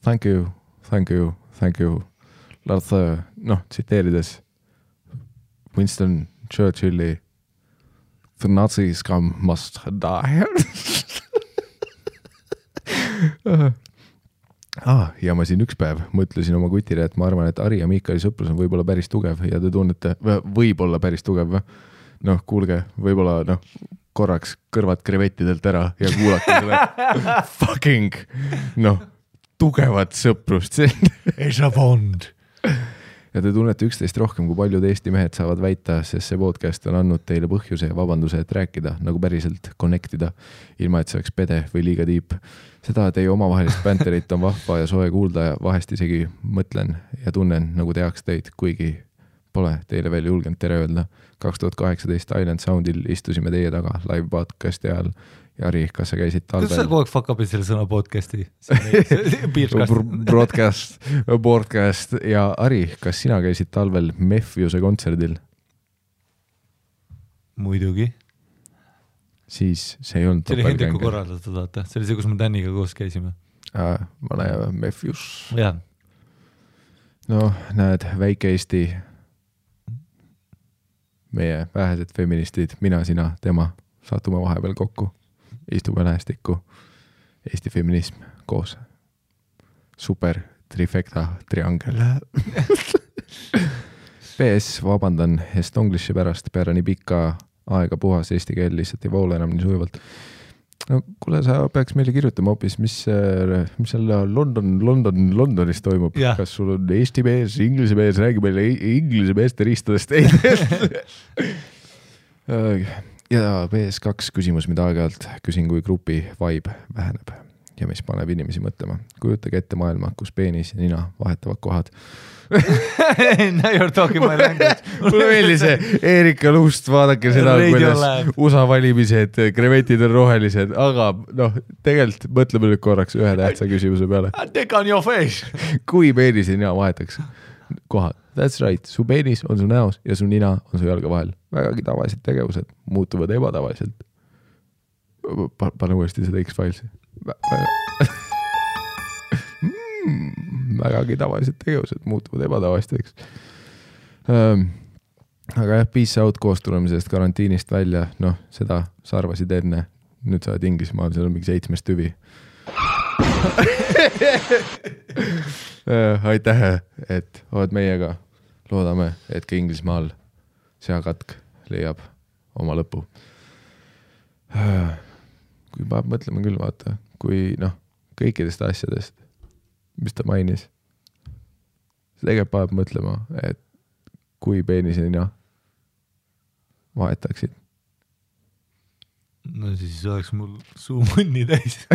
thank you. Tsiteerides Winston Churchilli The Nazi scum must die. Ja ma siin üks päev mõtlesin oma kutile, et ma arvan, et Ari ja Miikali sõprus on võib-olla päris tugev ja te tunnete, võib-olla päris tugev. Kuulge, võib-olla korraks kõrvad krevettidelt ära ja kuulake selle fucking, tugevat sõprust. It's a bond. Ja te tunnete üksteist rohkem, kui paljud Eesti mehed saavad väita, sest see podcast on andnud teile põhjuse ja vabanduse, et rääkida, nagu päriselt connectida, ilma et see oleks pede või liiga tiip. Seda teie omavahelist banterit on vahva ja soe kuulda ja vahest isegi mõtlen ja tunnen, nagu teaks teid, kuigi pole teile veel julgenud tere öelda. 2018 Island Soundil istusime teie taga live podcasti ajal. Ja Ari, kas sa käisid talvel? Kas sa kogu aeg fuck up'id selle sõna podcasti? Broadcast. Ja Ari, kas sina käisid talvel Mefjuse kontserdil? Muidugi. Siis see ei olnud see oli Hendriku korraldatud, vaata. See oli see, kus me Daniga koos käisime. Ma näe Mefjus. Jah. Näed, väike Eesti, meie vähesed feministid, mina, sina, tema, satume vahepeal kokku. Istume lähestikku, Eesti feminism koos. Super trifecta triangel. PS, vabandan Estonglishi pärast, peale nii pikka aega puhas eesti keel lihtsalt ei voole enam nii sujuvalt. No kuule, sa peaks meile kirjutama hoopis, mis seal Londonis toimub. Ja. Kas sul on eesti mees, inglise mees, räägi meile inglise meeste ristadest. Ja PS2 küsimus, mida aeg-ajalt küsin, kui grupi vibe väheneb ja mis paneb inimesi mõtlema. Kujutage ette maailma, kus peenis ja nina vahetavad kohad. Now you're talking my language. Mulle meeldis see Erika Lust, vaadake seda, kuidas USA valimised, krevetid on rohelised, aga tegelikult mõtleme nüüd korraks ühe tähtsa küsimuse peale. Take on your face. Kui peenis ja nina vahetaks kohad? That's right, su peenis on su näos ja su nina on su jalga vahel. Vägagi tavalised tegevused muutuvad ebatavaliselt. Pane uuesti seda X-Filesi. Vägagi tavalised tegevused muutuvad ebatavasteks. Aga jah, peace out koos tulemisest karantiinist välja, seda sa arvasid enne, nüüd sa oled Inglismaal, seal on mingi 7 tüvi. Aitäh, et oled meiega, loodame, et ka Inglismaal seakatk leiab oma lõpu. Kui peab mõtlema küll, vaata, kui kõikidest asjadest, mis ta mainis. See tegelikult peab mõtlema, et kui peenisena vahetaksid. No siis oleks mul suu munni täis.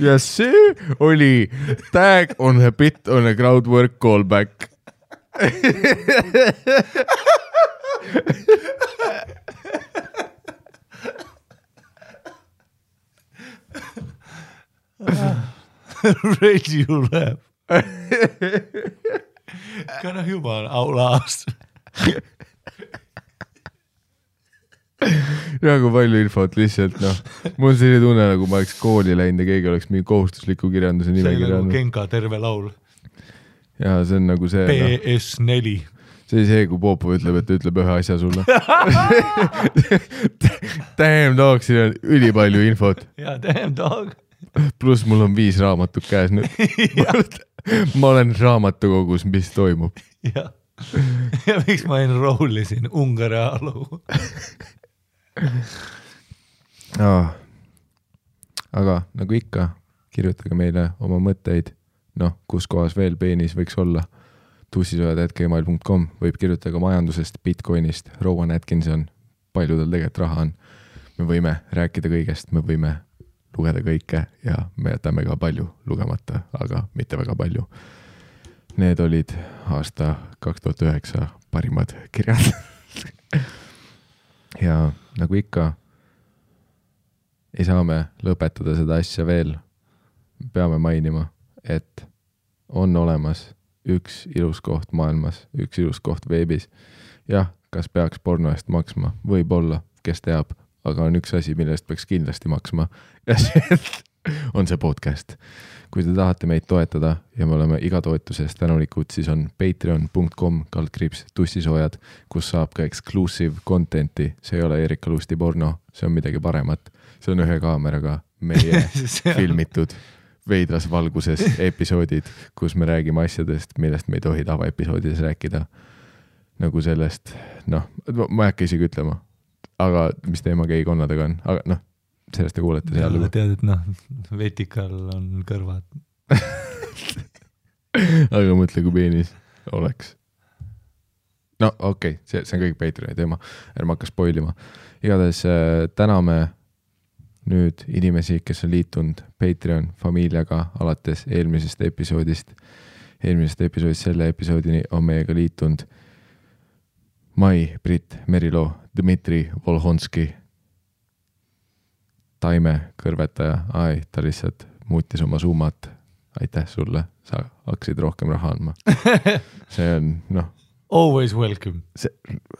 Ja see oli tag on a bit on a crowdwork callback. Ready you laugh. Kana jumala aulaast. Nagu palju infot lihtsalt, mul on selline tunne, nagu ma oleks kooli läinud ja keegi oleks mingi kohustusliku kirjanduse nimekirja. See on nagu Genka terve laul. Ja see on nagu see... PS4. See oli see, kui Popov ütleb, et ütleb ühe asja sulle. Damn dog, siin on ülipalju infot. Ja, damn dog. Plus mul on 5 raamatut käes nüüd. Ma olen raamatukogus, mis toimub. Ja miks ma enrollisin Ungari ajaloo? Aga nagu ikka, kirjutage meile oma mõtteid, kus kohas veel peenis võiks olla. tussisojad@gmail.com võib kirjutada majandusest, Bitcoinist, Rowan Atkinson, palju tal tegelikult raha on. Me võime rääkida kõigest, me võime lugeda kõike ja me jätame ka palju lugemata, aga mitte väga palju. Need olid aasta 2009 parimad kirjad. Ja nagu ikka, ei saa me lõpetada seda asja veel. Peame mainima, et on olemas üks ilus koht maailmas, üks ilus koht veebis. Jah, kas peaks porno eest maksma? Võib-olla, kes teab, aga on üks asi, millest peaks kindlasti maksma. Ja see on see podcast. Kui te tahate meid toetada ja me oleme iga toetusest tänulikud, siis on patreon.com/tussisoojad, kus saab ka exclusive contenti. See ei ole Erika Lusti porno, see on midagi paremat. See on ühe kaameraga meie filmitud veidras valguses episoodid, kus me räägime asjadest, millest me ei tohi tavaepisoodides rääkida. Nagu sellest, ma ei hakka isegi ütlema, aga mis teema geikonnadega on, aga sellest te kuulete seal. Ja tead, et vetikal on kõrvad. Aga mõtle, kui peenis oleks. Okei, see on kõik Patreoni teema. Ärme hakka spoilima. Igatahes täname nüüd inimesi, kes on liitunud Patreon familiaga alates eelmisest episoodist. Eelmisest episoodist selle episoodini on meiega liitunud Mai, Brit, Merilo, Dmitri, Volhonski, Taime kõrvetaja, ta lihtsalt muutis oma summat. Aitäh sulle, sa hakkasid rohkem raha andma. See on, Always welcome. See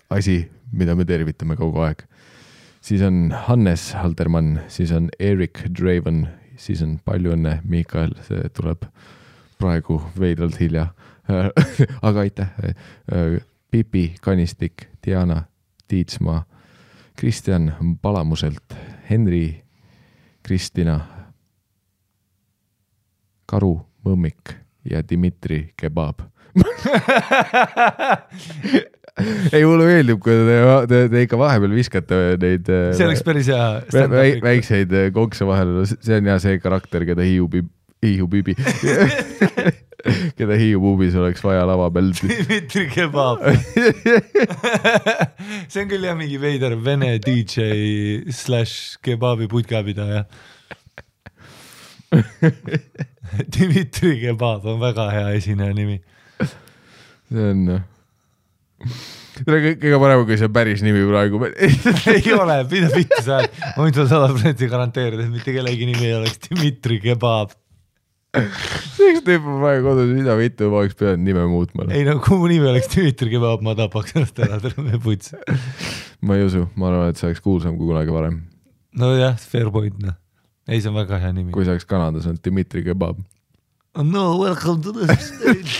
asi, mida me tervitame kogu aeg. Siis on Hannes Haldermann, siis on Erik Draven, siis on palju õnne Mikael, see tuleb praegu veidralt hilja. Aga aitäh. Pipi Kanistik, Diana Tiitsmaa, Kristjan Palamuselt, Henri, Kristina, Karu, mõmmik ja Dmitri kebab. Ei, mulle meeldib, kui te ikka vahepeal viskate neid see oleks päris hea väikseid konkse vahele. See on see karakter, keda hiiubibi keda hiiupubis oleks vaja lava peal. Dmitri kebab. See on küll jah mingi veider vene DJ / kebabi putkapidaja. Dmitri kebab on väga hea esineja nimi. See on kõige parem, kui see päris nimi praegu. Ei ole, mida vittu sa oled. Ma võin sulle 100% garanteerida, et mitte kellegi nimi ei oleks Dmitri kebab. See üks tüüp on praegu kodus, mida vittu ma oleks pidanud nime muutma. Ei no, kui mu nimi oleks Dmitri kebab, ma tapaks ennast ära terve puts. Ma ei usu, ma arvan, et see oleks kuulsam kui kunagi varem. No jah, fair point. No. Ei, see on väga hea nimi. Kui see oleks Kanadas, on Dmitri kebab. No, welcome to the stage.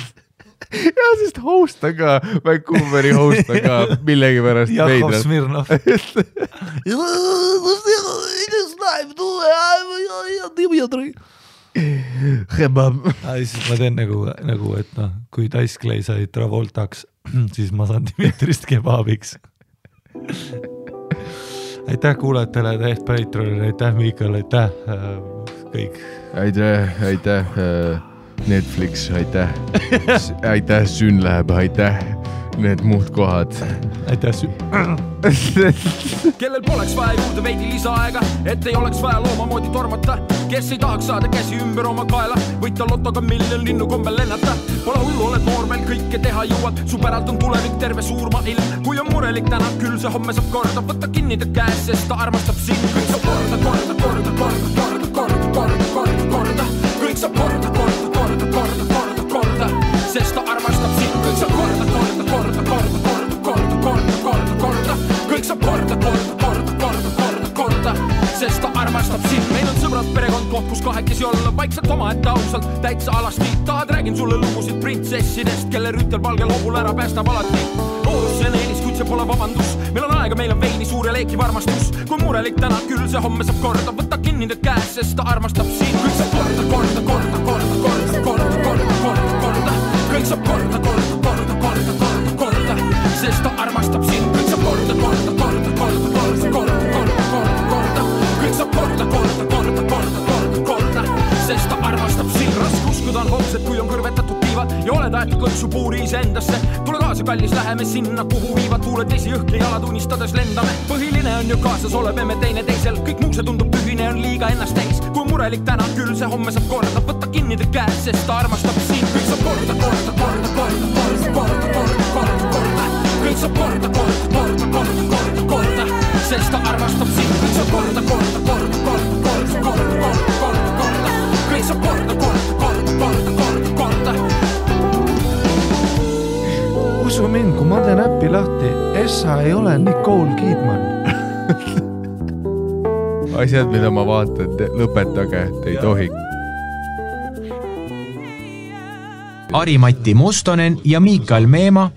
Ja, sest host on ka, Vancouveri host on ka millegi pärast Jakov Smirnov. Kebab. Siis ma teen nagu, et noh, kui Dice Clay sai Travoltaks, siis ma saan Dmitrist kebabiks. Aitäh kuulajatele, aitäh Patreonile, aitäh Miikal, aitäh kõik. Aitäh Netflix, aitäh Sün läheb, aitäh need muud kohad. Aitäh Kellel poleks vaja juurde veidi lisaaega, et ei oleks vaja looma moodi tormata, kes ei tahaks saada käsi ümber oma kaela, võita lotoga miljon linnu kombel lennata. Pole hullu, oled noor, meil kõike teha jõuad, su päralt on tulevik terve suurma ilm. Kui on murelik täna, küll see homme saab korda, võtta kinni ta käes, sest ta armastab sind. Kõik saab korda, kõik saab korda, sest ta armastab sind. Kõik saab korda, kõik saab korda, sest ta armastab sind. Meil on sõbrad, perekond, koht, kus kahekesi olla, vaikselt oma ette ausalt, täitsa alasti. Tahad, räägin sulle lugusid printsessidest, kelle rütel valgel hobul ära päästab alati. Loodus see on eelis, kuid see pole vabandus. Meil on aega, meil on veini suur ja leekiv armastus. Kui murelik täna, küll see homme saab korda, võtta kinni ta käes, sest ta armastab sind. Kõik saab korda, kõik saab korda, sest ta armastab sind. Kõik saab korda, kõik saab korda, sest ta armastab sind. Raske uskuda on homsed, kui on kõrvetatud tiivad ja oled aetud kõksu puuri iseendasse. Tule kaasa, kallis, läheme sinna, kuhu viivad tuuled esi õhk ja jalad unistades lendame. Põhiline on ju kaasas, oleme teine teisel, kõik muu see tundub tühine, on liiga ennast täis. Kui murelik täna, küll see homme saab korda, võtta kinni ta käes, sest ta armastab sind. Kõik saab korda, kõik saab korda, sest ta armastab sind. Kõik saab korda, kõik saab korda. Usu mind, kui ma teen äppi lahti, Essa ei ole Nicole Kidman. Asjad, mida ma vaatan, lõpetage, te ei tohi. Ari-Matti Mustonen ja Miikal Meema